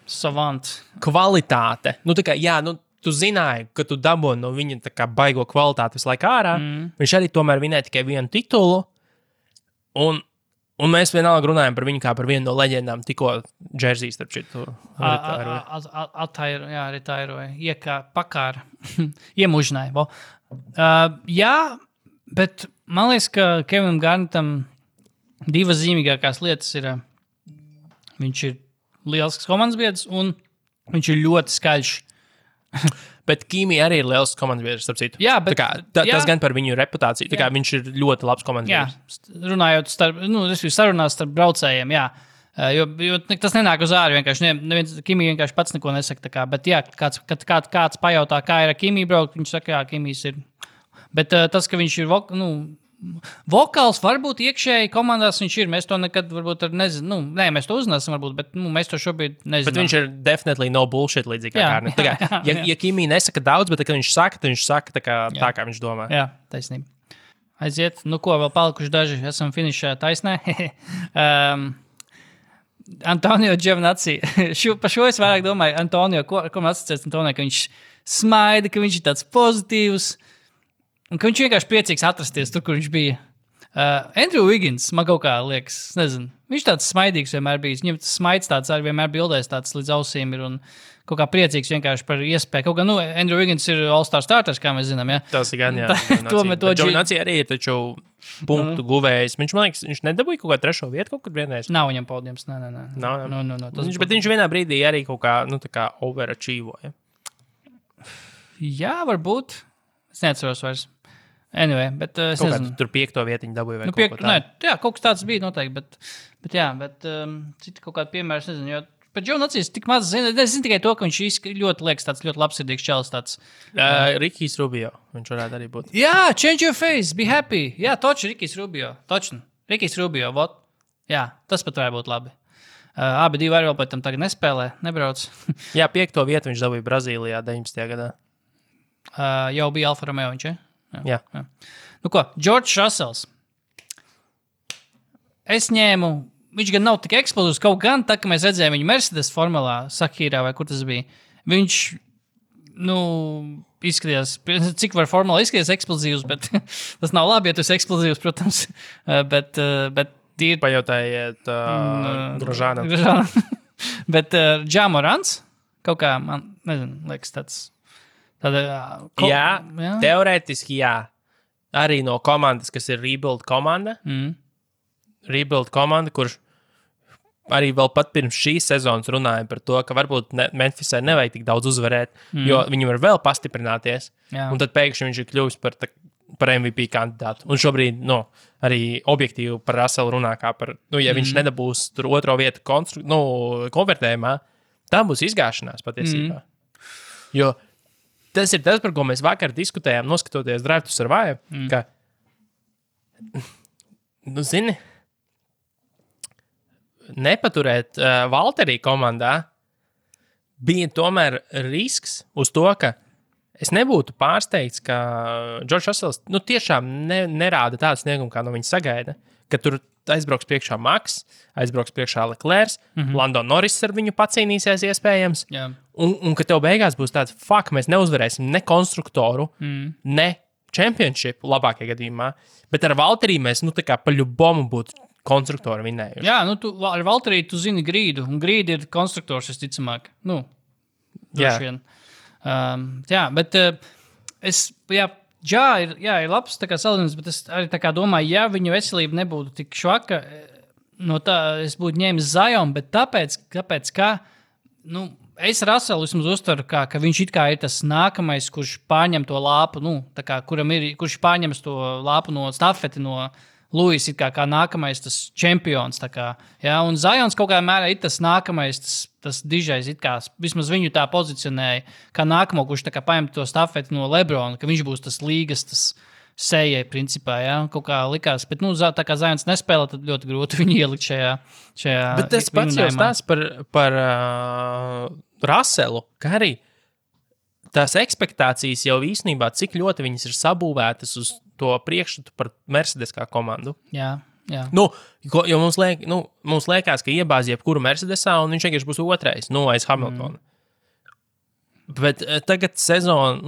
D: Savant.
C: Kvalitāte. Nu, tā kā, jā, nu, tu zināji, ka tu dabūji no viņa tā kā baigo kvalitāti visu laiku ārā. Viņš arī tomēr vinēja tikai vienu titulu. Un mēs vienalga runājam par viņu kā par vienu no leģendām, tikko džerzijas starp šitu
D: retairoja. Pakāra. Iemužināja. Jā, bet man liekas, ka Kevinam Garnettam divas zīmīgākās lietas ir, viņš ir liels komandas biedrs un viņš ir ļoti skaļš.
C: Bet Kimi arī ir liels komandas biedrs, starp citu.
D: Jā, bet
C: tas gan par viņu reputāciju. Tā kā viņš ir ļoti labs komandas biedrs.
D: Runājot sarunās starp braucējiem, jā. Jo tas nenāk uz āru, vienkārši Kimi vienkārši pats neko nesaka. Tā kā, bet jā, kāds pajautā, kā ir ar Kimi braukt, viņš saka, jā, Kimijs ir. Bet tas, ka viņš ir vokāls, varbūt iekšēji komandās viņš ir. Mēs to nekad varbūt nezinām. Nē, mēs to uzzināsim, varbūt, bet mēs to šobrīd nezinām.
C: Bet viņš ir definitely no bullshit līdzīgi kā Garnets. Ja Kimi nesaka daudz, bet kad viņš saka tā kā viņš domā.
D: Jā, taisnība. Aiziet. Nu ko, vēl palikuši daži. Esam finišā taisnē. Antonio Giovinazzi. Par šo es vairāk domāju. Antonio, ko man asociēts Antonio, ka viņš smaida, ka viņš ir tāds pozitīvs. Un ka viņš vienkārši priecīgs atrasties tur, kur viņš bija. Andrew Wiggins, man kaut kā liekas, nezinu. Viņš tāds smaidīgs vienmēr bijis. Viņam tas smaids tāds arī vienmēr bildēs tāds līdz ausīm ir un kaut kā priecīgs vienkārši par iespēju. Kaut kā, Andrew Wiggins ir All-Star starters, kā mēs zinām, ja?
C: Tas ir gan, jā. Giovinazzi arī ir taču punktu guvējs. Viņš, man liekas, viņš nedabūja kaut kā 3. vietu kaut kad vienreiz.
D: Nav viņam podiums, nē.
C: Bet viņš vienā brīdī arī kaut kā, tā kā overachievoja.
D: Jā, varbūt. Es neatceros vairs. Anyway, bet es nezinu.
C: Tur 5. vietiņu dabūja vai kaut ko
D: tādu. Jā, kaut kas tāds bija noteikti, bet citi kaut kādi piemēri, es nezinu, jo par Giovinazzi tik maz zinu. Es zinu tikai to, ka viņš ļoti liekas tāds ļoti labsirdīgs čalis tāds.
C: Rikijs Rubio, viņš varētu arī būt.
D: Jā, change your face, be happy. Jā, toči Rikijs Rubio, točni. Rikijs Rubio, vot. Jā, tas pat varētu būt labi. Abi divi arī vēl pēc tam tagad nespēlē, nebrauc.
C: Jā, 5. vietu viņš dabūja Brazīlijā 19. gadā.
D: Jau bija Alfa Romeo viņš, ja?
C: Jā.
D: Nu ko, George Russells. Es ņēmu, viņš gan nav tik eksplozivs, kaut gan tā, ka mēs redzējām viņu Mercedes formulā, Sakīrā vai kur tas bija. Viņš, izskatījās, cik var formulā izskatīties eksplozivs, bet tas nav labi, ja tu esi eksplozivs, protams. Bet tīri...
C: Pajautājiet Grožānam.
D: Bet Ja Morants, kaut kā, man, nezinu, liekas tāds...
C: Jā, teorētiski jā. Arī no komandas, kas ir Rebuild komanda. Rebuild komanda, kurš arī vēl pat pirms šīs sezonas runāja par to, ka varbūt Memphisai nevajag tik daudz uzvarēt, jo viņi var vēl pastiprināties. Jā. Un tad pēkšņi viņš ir kļuvis par MVP kandidātu. Un šobrīd arī objektīvi par Russellu runā kā par, ja viņš nedabūs tur 2. vietu konvertējumā, tā būs izgāšanās patiesībā. Jo tas ir tas, par ko mēs vakar diskutējām, noskatoties Drive to Survive, ka, zini, nepaturēt Valterī komandā bija tomēr risks uz to, ka es nebūtu pārsteigts, ka George Russells tiešām nerāda tādu sniegumu, kā no viņa sagaida, ka tur aizbrauks priekšā Maks, aizbrauks priekšā Leclerc, Lando Norris ar viņu pacīnīsies iespējams, un ka tev beigās būs tāds, mēs neuzvarēsim ne konstruktoru, ne championship labākajā gadījumā, bet ar Valterī mēs, tā kā pa ļubomu būtu konstruktoru vinējuši.
D: Jā, ar Valterī tu zini grīdu, un grīdi ir konstruktors, es ticamāk. Droši vien. Jā, bet ir labs salīdzinājums, bet es arī domāju, ja viņu veselība nebūtu tik švaka, no tā es būtu ņēmis Zion, bet tāpēc ka, es Russellu vismaz uztveru, ka viņš it kā ir tas nākamais, kurš pārņem to lāpu, kurš pārņems to lāpu no stafeti no Lewis, it kā nākamais tas čempions. Un Zions kaut kādā mērā ir tas nākamais, tas dižais, it kā vismaz viņu tā pozicionēja, kā nākamo, kurš paņem to stafeti no Lebrona, ka viņš būs tas līgas, tas sejai principā, kaut kā likās. Bet, tā kā Zions nespēlē, tad ļoti grūti viņu ielikt šajā
C: bet tas pats jau stāsts par Russellu, ka arī tās ekspektācijas jau īstenībā, cik ļoti viņas ir sabūvētas uz to priekšstatu par Mercedes kā komandu.
D: Jā. Jā.
C: Jo mums liekas, ka iebāz jebkuru Mercedesā, un viņš vienkārši būs otrais, aiz Hamiltona. Bet tagad sezona,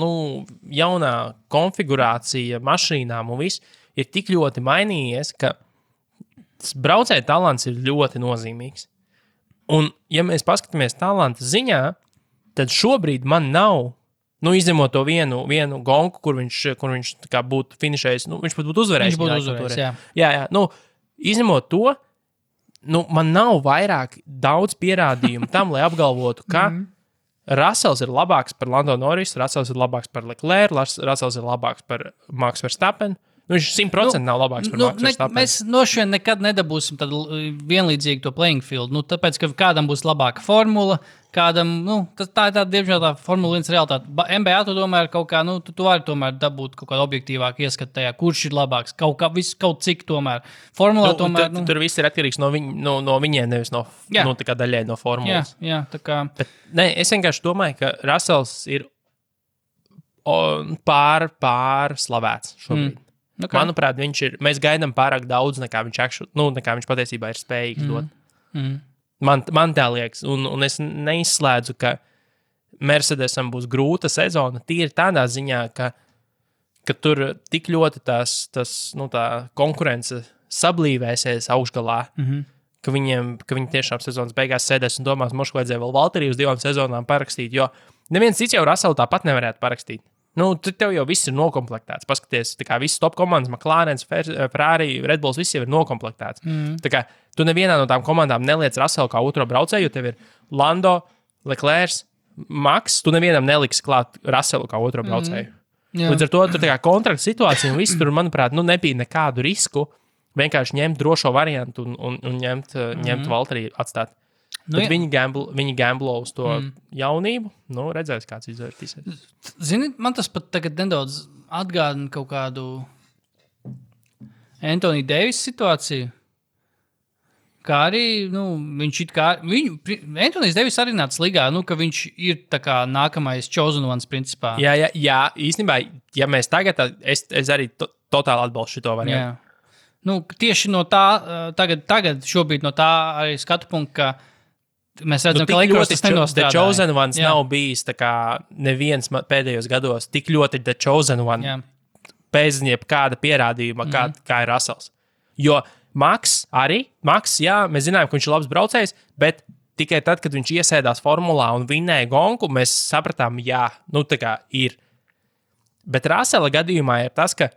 C: jaunā konfigurācija mašīnām un viss ir tik ļoti mainījies, ka braucēja talants ir ļoti nozīmīgs. Un, ja mēs paskatāmies talanta ziņā, tad šobrīd man nav, izņemot to vienu gonku, kur viņš tā kā būtu finišējis, viņš pat būtu uzvarējis.
D: Viņš būtu uzvarējis, jā.
C: Jā. Izņemot to, man nav vairāk daudz pierādījumu tam, lai apgalvotu, ka Russells ir labāks par Lando Norris, Russells ir labāks par Leclerc, Russells ir labāks par Max Verstappen. Viņš 100% nav labāks par Max Verstappen.
D: Mēs no šiem nekad nedabūsim tādu vienlīdzīgu to playing field. Tāpēc, ka kādam būs labāka formula, kādam, tā ir tāda, diemžēl, tā Formula 1 realitāte. NBA tu domā, kaut kā, tu vari tomēr dabūt kaut kādu objektīvāku ieskatu tajā, kurš ir labāks, kaut cik tomēr. Formulā tomēr.
C: Tur viss ir atkarīgs no viņiem, nevis no tā kā daļai no formulas.
D: Jā, tā kā.
C: Bet, es vienkārši domāju, ka Russells ir pārslavēts šobrīd. Okay. Manuprāt, mēs gaidām pārāk daudz, nekā viņš patiesībā ir spējīgs dot. Man tā liekas, un es neizslēdzu, ka Mercedesam būs grūta sezona tīri tādā ziņā, ka tur tik ļoti tā konkurence sablīvēsies augšgalā, ka viņi tiešām sezonas beigās sēdēs un domās, mošu vajadzēja vēl Valtteri uz 2 sezonām parakstīt, jo neviens cits jau Russellu tāpat nevarētu parakstīt. Tev jau viss ir nokomplektēts. Paskaties, tā kā visas top komandas, McLaren, Ferrari, Red Bulls, viss jau ir nokomplektēts. Tā kā tu nevienā no tām komandām neliec Russellu kā otro braucēju, jo tev ir Lando, Leclerc, Max, tu nevienam neliksi klāt Russellu kā otro braucēju. Līdz ar to tur tā kā kontrakta situācija un viss tur, manuprāt, nebija nekādu risku vienkārši ņemt drošo variantu un ņemt Valtteri atstāt. Bet viņi gamblo uz to jaunību. Redzēs, kāds izvērtīsies.
D: Zini, man tas pat tagad nedaudz atgādina kaut kādu Anthony Davis situāciju. Kā arī, viņš Anthony Davis arī nāca līgā, ka viņš ir tā kā nākamais chosen ones principā.
C: Jā, īstenībā, ja mēs tagad, es arī totāli atbalstu šito variantu.
D: Tieši no tā, tagad šobrīd no tā arī skatu punktu, ka mēs redzam, ka Lakers tas nenostrādā.
C: The Chosen Ones nav bijis tā kā neviens pēdējos gados tik ļoti The Chosen One bez jebkāda pierādījuma, kā ir Russells. Jo Max, jā, mēs zinājām, ka viņš ir labs braucējs, bet tikai tad, kad viņš iesēdās formulā un vinnēja gonku, mēs sapratām, tā kā ir. Bet Russella gadījumā ir tas, ka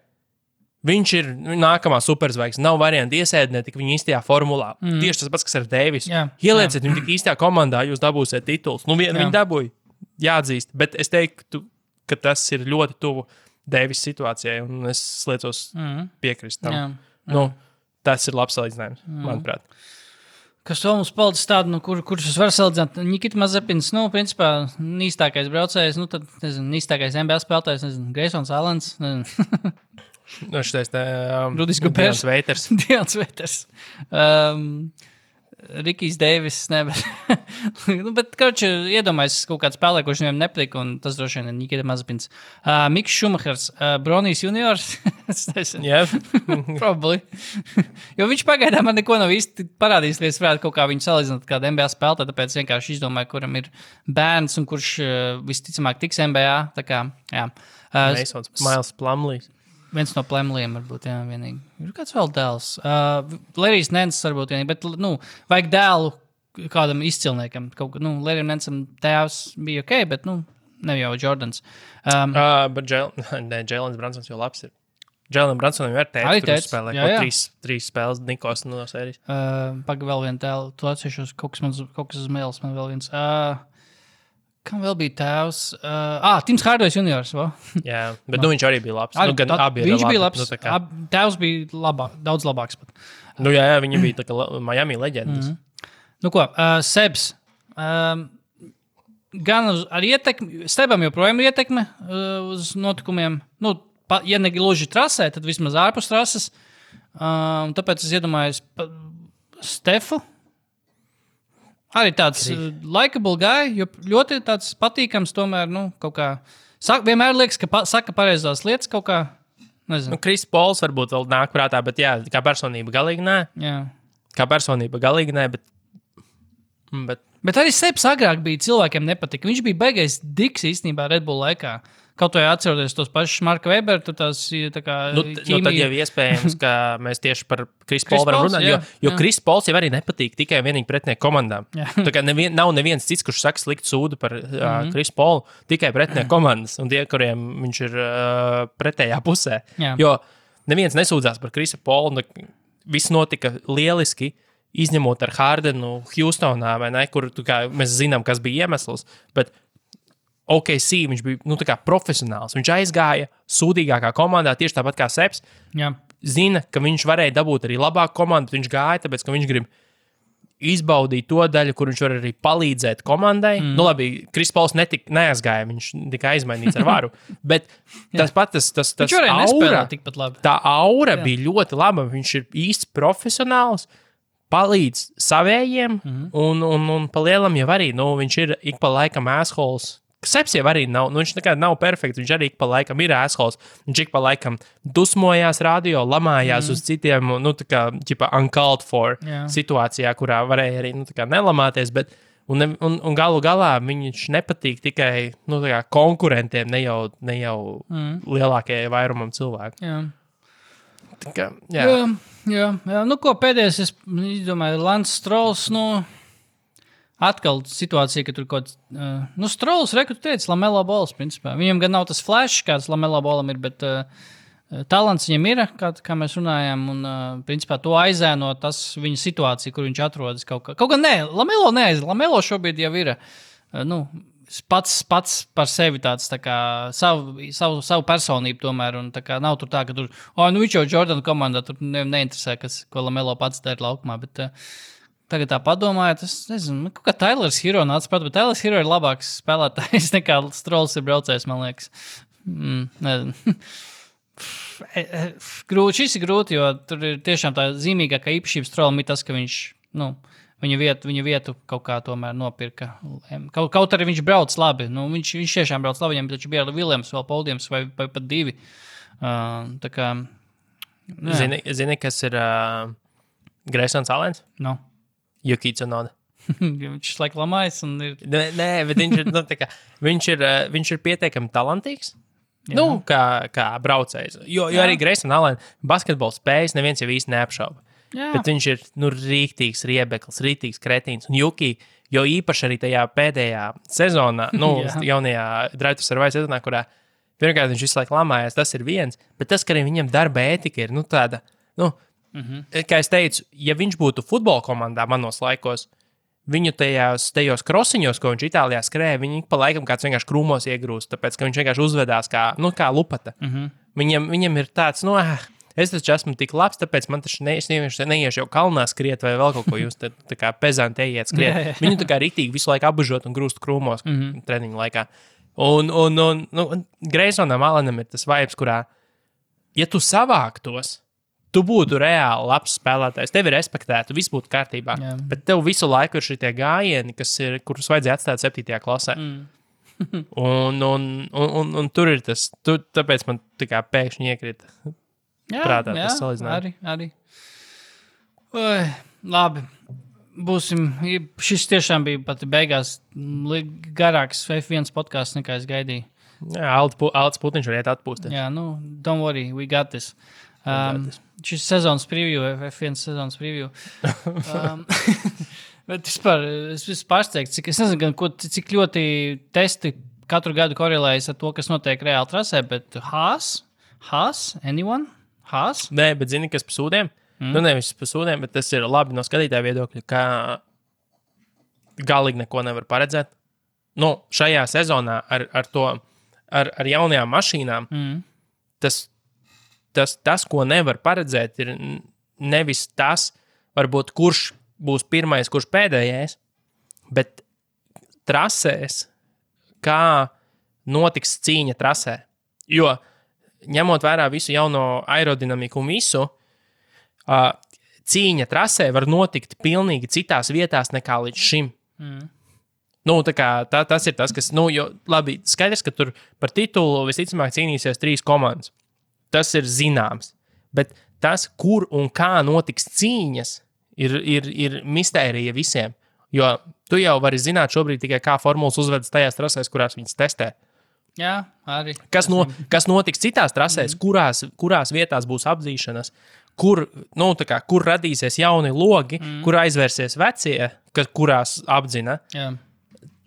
C: viņš ir nākamā superzvaigzne. Nav varianti iesēdināt tik viņa īstajā formulā. Tieši tas pats, kas ar Deivisu. Ielieciet viņu tik īstajā komandā, jūs dabūsiet tituls. Viņi dabūja, jāatzīst. Bet es teiktu, ka tas ir ļoti tuvu Deivisa situācijai, un es liecos piekrist tam. Tas ir labs salīdzinājums, manuprāt.
D: Kas vēl mums palicis tādu, kurš es varu salīdzināt? Nikita Mazepins, principā, īstākais braucējs, tad, īstākais NBA spēlētājs, Greisons Allens,
C: šitais
D: Rudis Gobers. Dions Veiters. Rikijs Deivis, bet, iedomājies kaut kāds spēlē, kurš viņam nepatīk, un tas droši vien ir Nikita Mazepins. Miks Šumahers, Bronijs juniors. Probably. Jo viņš pagaidām man neko nav īsti parādījis, lai es varētu kaut kā viņu salīdzināt kādu NBA spēlētāju, tāpēc vienkārši izdomāju, kuram ir bērns un kurš visticamāk tiks NBA. Tā kā, jā.
C: Miles Plumleys.
D: Viens no Plumleyiem varbūt, jā, vienīgi. Ir kāds vēl dēls. Larrys Nance varbūt vienīgi, bet, vajag dēlu kādam izcilniekam. Larrym Nancam tēvs bija ok, bet, ne jau Jordans.
C: Bet Jēlens Bransons jau labs ir. Jēlenam Bransonam jau ir tēvs, kurš spēlē trīs spēles Nikos no sērijas.
D: Paga vēl vienu dēlu. Tu atsevišķos kaut kas uz mēles, man vēl viens. Kam vēl bija tēvs? Tims Hardways juniors.
C: Jā, bet viņš arī bija labs.
D: Viņš bija labs. Tēvs bija daudz labāks pat.
C: Jā, viņi bija tā kā Miami leģendas.
D: Sebs. Gan ar ietekmi, Stebam joprojām ir ietekme uz notikumiem. Ja ne gluži trasē, tad vismaz ārpus trases. Tāpēc es iedomājos Stefu. Arī tāds likeable guy, jo ļoti tāds patīkams tomēr, kaut kā. Vienmēr liekas, ka saka pareizās lietas kaut kā. Nezinu.
C: Kris Pols varbūt vēl nāk prātā, bet jā, kā personība galīgi nē.
D: Jā.
C: Kā personība galīgi nē, bet
D: Bet arī Seps agrāk bija cilvēkiem nepatika. Viņš bija beigais diks īstenībā Red Bull laikā. Kaut vai atceroties tos pašus Marka Weberu, tur tās tā kā ķīmija.
C: tad jau iespējams, ka mēs tieši par Kris Polu varam runāt, jo Kris Pols jau arī nepatīk tikai vienīgi pretinieku komandām. Tā kā nav neviens cits, kurš saka sliktu sūdu par Kris Polu, tikai pretinieku komandas un tie, kuriem viņš ir pretējā pusē.
D: Jā.
C: Jo neviens nesūdzās par Krisa Polu, viss notika lieliski, izņemot ar Hardenu Houstonā, vai ne, kur mēs zinām, kas bija iemesls, bet OKC viņš bija tā kā profesionāls. Viņš aizgāja sūdīgākā komandā, tieši tāpat kā Seps.
D: Jā.
C: Zina, ka viņš varēja dabūt arī labāku komandu, bet viņš gāja, tāpēc, ka viņš grib izbaudīt to daļu, kur viņš var arī palīdzēt komandai. Labi, Kris Pols neaizgāja, viņš tikai aizmainīts ar varu, bet tas
D: Viņš varēja nespēlēt tikpat labi.
C: Tā aura bija ļoti laba, viņš ir īsts profesionāls, palīdz savējiem, un pa lielam jau arī, viņš ir ik pa laikam assholes. Seps jau arī nav, viņš nekad nav perfekts, viņš arī ik pa laikam ir assholes. Viņš ik pa laikam dusmojās radio, lamājās uz citiem, tā kā, uncalled for situācijā, kurā varēja arī, tā kā nelamāties, bet, un galu galā viņš nepatīk tikai, tā kā konkurentiem, ne jau lielākajai vairumam cilvēku.
D: Jā.
C: Tā kā,
D: Jā. Ko pēdējais, es domāju, Lance Strolls, atkal situācija, ka tur kaut kāds, Strolls, tu teici, Lamelo Balls, principā. Viņam gan nav tas flash, kāds Lamelo Ballam ir, bet talants viņam ir, kā mēs runājām, un, principā, to aizēno tas viņa situācija, kur viņš atrodas kaut kā. Kaut gan nē, Lamelo šobrīd jau ir, pats par sevi tāds tā kā savu personību tomēr, un tā kā nav tur tā, ka tur, viņš jau Jordan komandā, tur neinteresē, ko Lamelo pats dara laukumā, bet tagad tā padomājot, es nezinu, kaut kā Tylers Hero nāca pat, bet Tylers Hero ir labāks spēlētājs nekā Strolls ir braucējs, man liekas. Nezinu. Šis ir grūti, jo tur ir tiešām tā zīmīgākā īpašība Strollam ir tas, ka viņš, viņa vietu kaut kā tomēr nopirka. Kaut arī viņš brauc labi. Viņš tiešām brauc labi, viņam taču bija Viljams vēl Poldiems vai pat divi. Tā kā...
C: Zini, kas ir Greysons Allens?
D: No.
C: Yuki Tsunoda.
D: Viņš laik lamājas un ir...
C: Nē, bet viņš ir pietiekami talantīgs. Kā braucējs. Jo arī Grayson Allen basketbols spējas neviens jau īsti neapšauba. Jā. Bet viņš ir rīktīgs riebeklis, rīktīgs kretīns. Un Juki, jo īpaši arī tajā pēdējā sezonā, jaunajā Drive to Survive sezonā, kurā pirmkārt viņš visu laiku lamājās, tas ir viens, bet tas, ka arī viņam darba ētika ir tāda, kā es teicu, ja viņš būtu futbola komandā manos laikos, viņu tajos krosiņos, ko viņš Itālijā skrēja, viņi pa laikam kāds vienkārši krūmos iegrūst, tāpēc, ka viņš vienkārši uzvedās kā lupata. Viņam ir tāds, es taču esmu tik labs, tāpēc man taču neiešu jau kalnā skriet vai vēl kaut ko jūs tā kā pezanti ejiet skriet. Viņu tā kā ritīgi visu laiku apbužot un grūst krūmos treniņu laikā. Un Greysonam Allenam ir tas vibes, kurā, ja tu savāktos, tu būtu reāli labs spēlētājs, tevi respektētu, viss būtu kārtībā. Jā. Bet tev visu laiku ir šitie gājieni, kurus vajadzēja atstāt 7. klasē. Un tur ir tas, tāpēc man tā kā pēkšņi iekrita prātā tas salīdzinājums.
D: Arī. Labi. Būsim. Šis tiešām bija pat beigās garāks F1 podcasts, nekā es gaidīju.
C: Jā, Alts Putiņš var iet atpūsties.
D: Jā, don't worry, we got this. Šis sezonas preview, F1 sezonas preview. Bet vispār, es pārsteigts, es nezinu, cik ļoti testi katru gadu korelējas ar to, kas notiek reāli trasē, bet Haas, anyone? Haas?
C: Nē, bet zini, kas pa sūdiem? Nevis pa sūdiem, bet tas ir labi no skatītāja viedokļa, ka galīgi neko nevar paredzēt. Šajā sezonā ar jaunajām mašīnām tas, ko nevar paredzēt, ir nevis tas, varbūt, kurš būs pirmais, kurš pēdējais, bet trasēs, kā notiks cīņa trasē. Jo, ņemot vērā visu jauno aerodinamiku un visu, cīņa trasē var notikt pilnīgi citās vietās nekā līdz šim. Tas ir tas, kas, jo labi, skaidrs, ka tur par titulu visticamāk cīnīsies 3 komandas. tas ir zināms. Bet tas, kur un kā notiks cīņas, ir mistērija visiem. Jo tu jau vari zināt šobrīd tikai, kā formulas uzvedas tajās trasēs, kurās viņas testē.
D: Jā, arī.
C: Kas notiks citās trasēs, kurās vietās būs apdzīšanas, kur radīsies jauni logi, kur aizvērsies vecie, kurās apdzina.
D: Jā.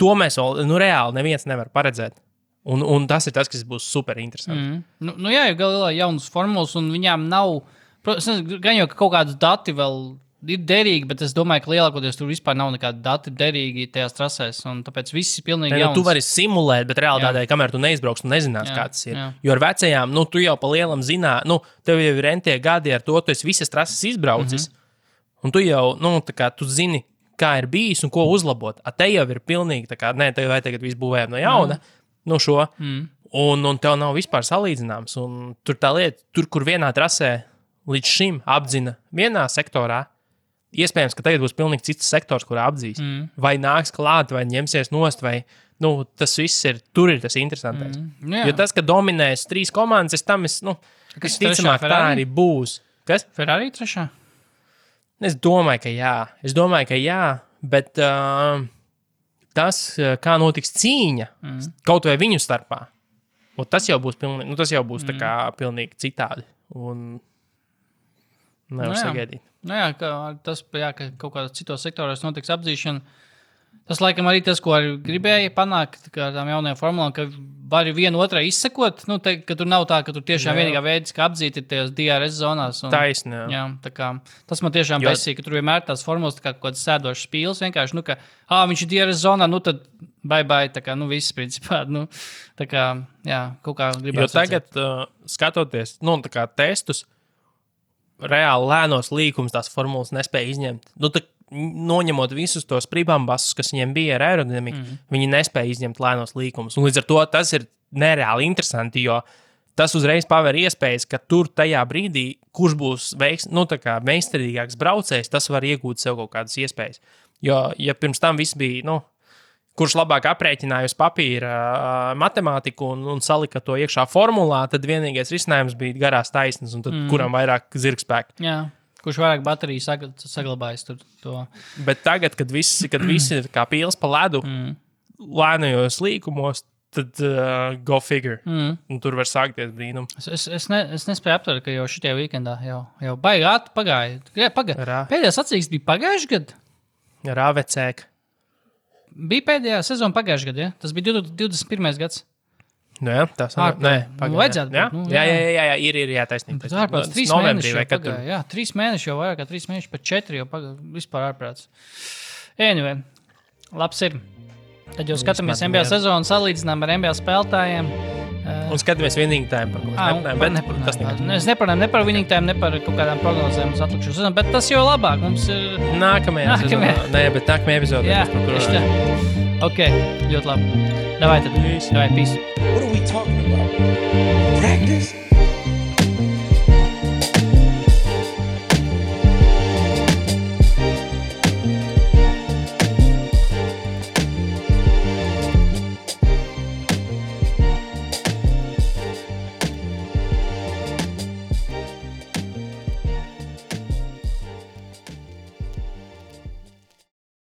C: To mēs vēl reāli neviens nevar paredzēt. Un tas ir tas, kas būs super interesanti.
D: Jā, jo galā jaunas formulas, un viņām nav, gan jau kaut kādas dati vēl ir derīgi, bet es domāju, ka lielākoties tur vispār nav nekādi dati derīgi tajās trasēs, un tāpēc viss ir pilnīgi jauns.
C: Tu vari simulēt, bet realitātē, kamēr tu neizbrauks, tu nezinās, kā tas ir. Jo ar vecajām, tu jau pa lielam zinā, tev jau ir entie gadi ar to, tu esi visas trases izbraucis, un tu jau, tu zini, kā ir bijis un ko uzlabot. A te jau ir pilnīgi, tev vai tagad viss būvējam no jauna, šo, un tev nav vispār salīdzināms, un tur tā lieta, kur vienā trasē līdz šim apdzina vienā sektorā, iespējams, ka tagad būs pilnīgi cits sektors, kurā apdzīs. Vai nāks klāt, vai ņemsies nost, vai tas viss ir, tur ir tas interesantais. Jo tas, ka dominēs 3 komandas, visticamāk tā arī būs. Kas?
D: Ferrari trešā?
C: Es domāju, ka jā, bet tas, kā notiks cīņa, kaut vai viņu starpā, tas jau būs pilnīgi, tā kā pilnīgi citādi. Un nevar sagaidīt.
D: Tas, ka kaut kādā citos sektoros notiks apdzīšana, tas laikam arī tas, ko arī gribēja panākt ar tām jaunajām formulām, ka vari vienu otrai izsekot, ka tur nav tā, ka tur tiešām vienīgā veids, kā apdzīt ir tajās DRS zonās.
C: Taisni,
D: jā. Tas man tiešām besīja, ka tur vienmēr tās formulas kā kaut kāds sēdošs spīls, vienkārši, viņš ir DRS zonā, tad bye, viss principā, kaut kā gribētu.
C: Jo tagad, skatoties, testus, reāli lēnos līkumus tās formulas nespēja izņemt. Noņemot visus tos pribambasus, kas viņiem bija ar aerodinamiku, viņi nespēja izņemt lēnos līkumus. Un līdz ar to tas ir nereāli interesanti, jo tas uzreiz paver iespējas, ka tur tajā brīdī, kurš būs meistarīgāks braucējs, tas var iegūt sev kaut kādas iespējas. Jo, ja pirms tam viss bija, kurš labāk aprēķināja uz papīra matemātiku un salika to iekšā formulā, tad vienīgais risinājums bija garās taisnes, un tad kuram vairāk zirgspēka.
D: Jā, kurš vairāk bateriju saglabājas tur to. Bet
C: tagad, kad visi ir kā pīles pa ledu, lēnajos līkumos, tad go figure. Un tur var sākties brīnum.
D: Es nespēju aptvert, ka jau šitie weekendā jau baigāt pagāja. Pēdējā sacīksts bija pagājuši gadu?
C: Rāvecēka.
D: Bija pēdējā sezona pagājušajā gadā, ja? Tas bija 21. gads.
C: Jā, tas
D: vajadzētu būt.
C: Jā, ir jātaisnība.
D: Tas ārprāts 3 mēneši jau pagāja. Jā, 3 mēneši jau vairāk kā 3 mēneši, pat 4 jau pagāja. Vispār ārprāts. Anyway, labs ir. Tad jau skatāmies NBA sezonu, salīdzinām ar NBA spēlētājiem.
C: Un skatāmies winning time.
D: Es neparunāju ne par winning time, ne par kaut kādām prognozēm uz atlikušo sezonu, bet tas jau labāk. Mums ir
C: nākamajā sezonā. Nē, bet nākamajā epizodē.
D: Jā, tieši tā. Ok, ļoti labi. Davai tad. Davai, peace.
B: What are we talking about? Practice?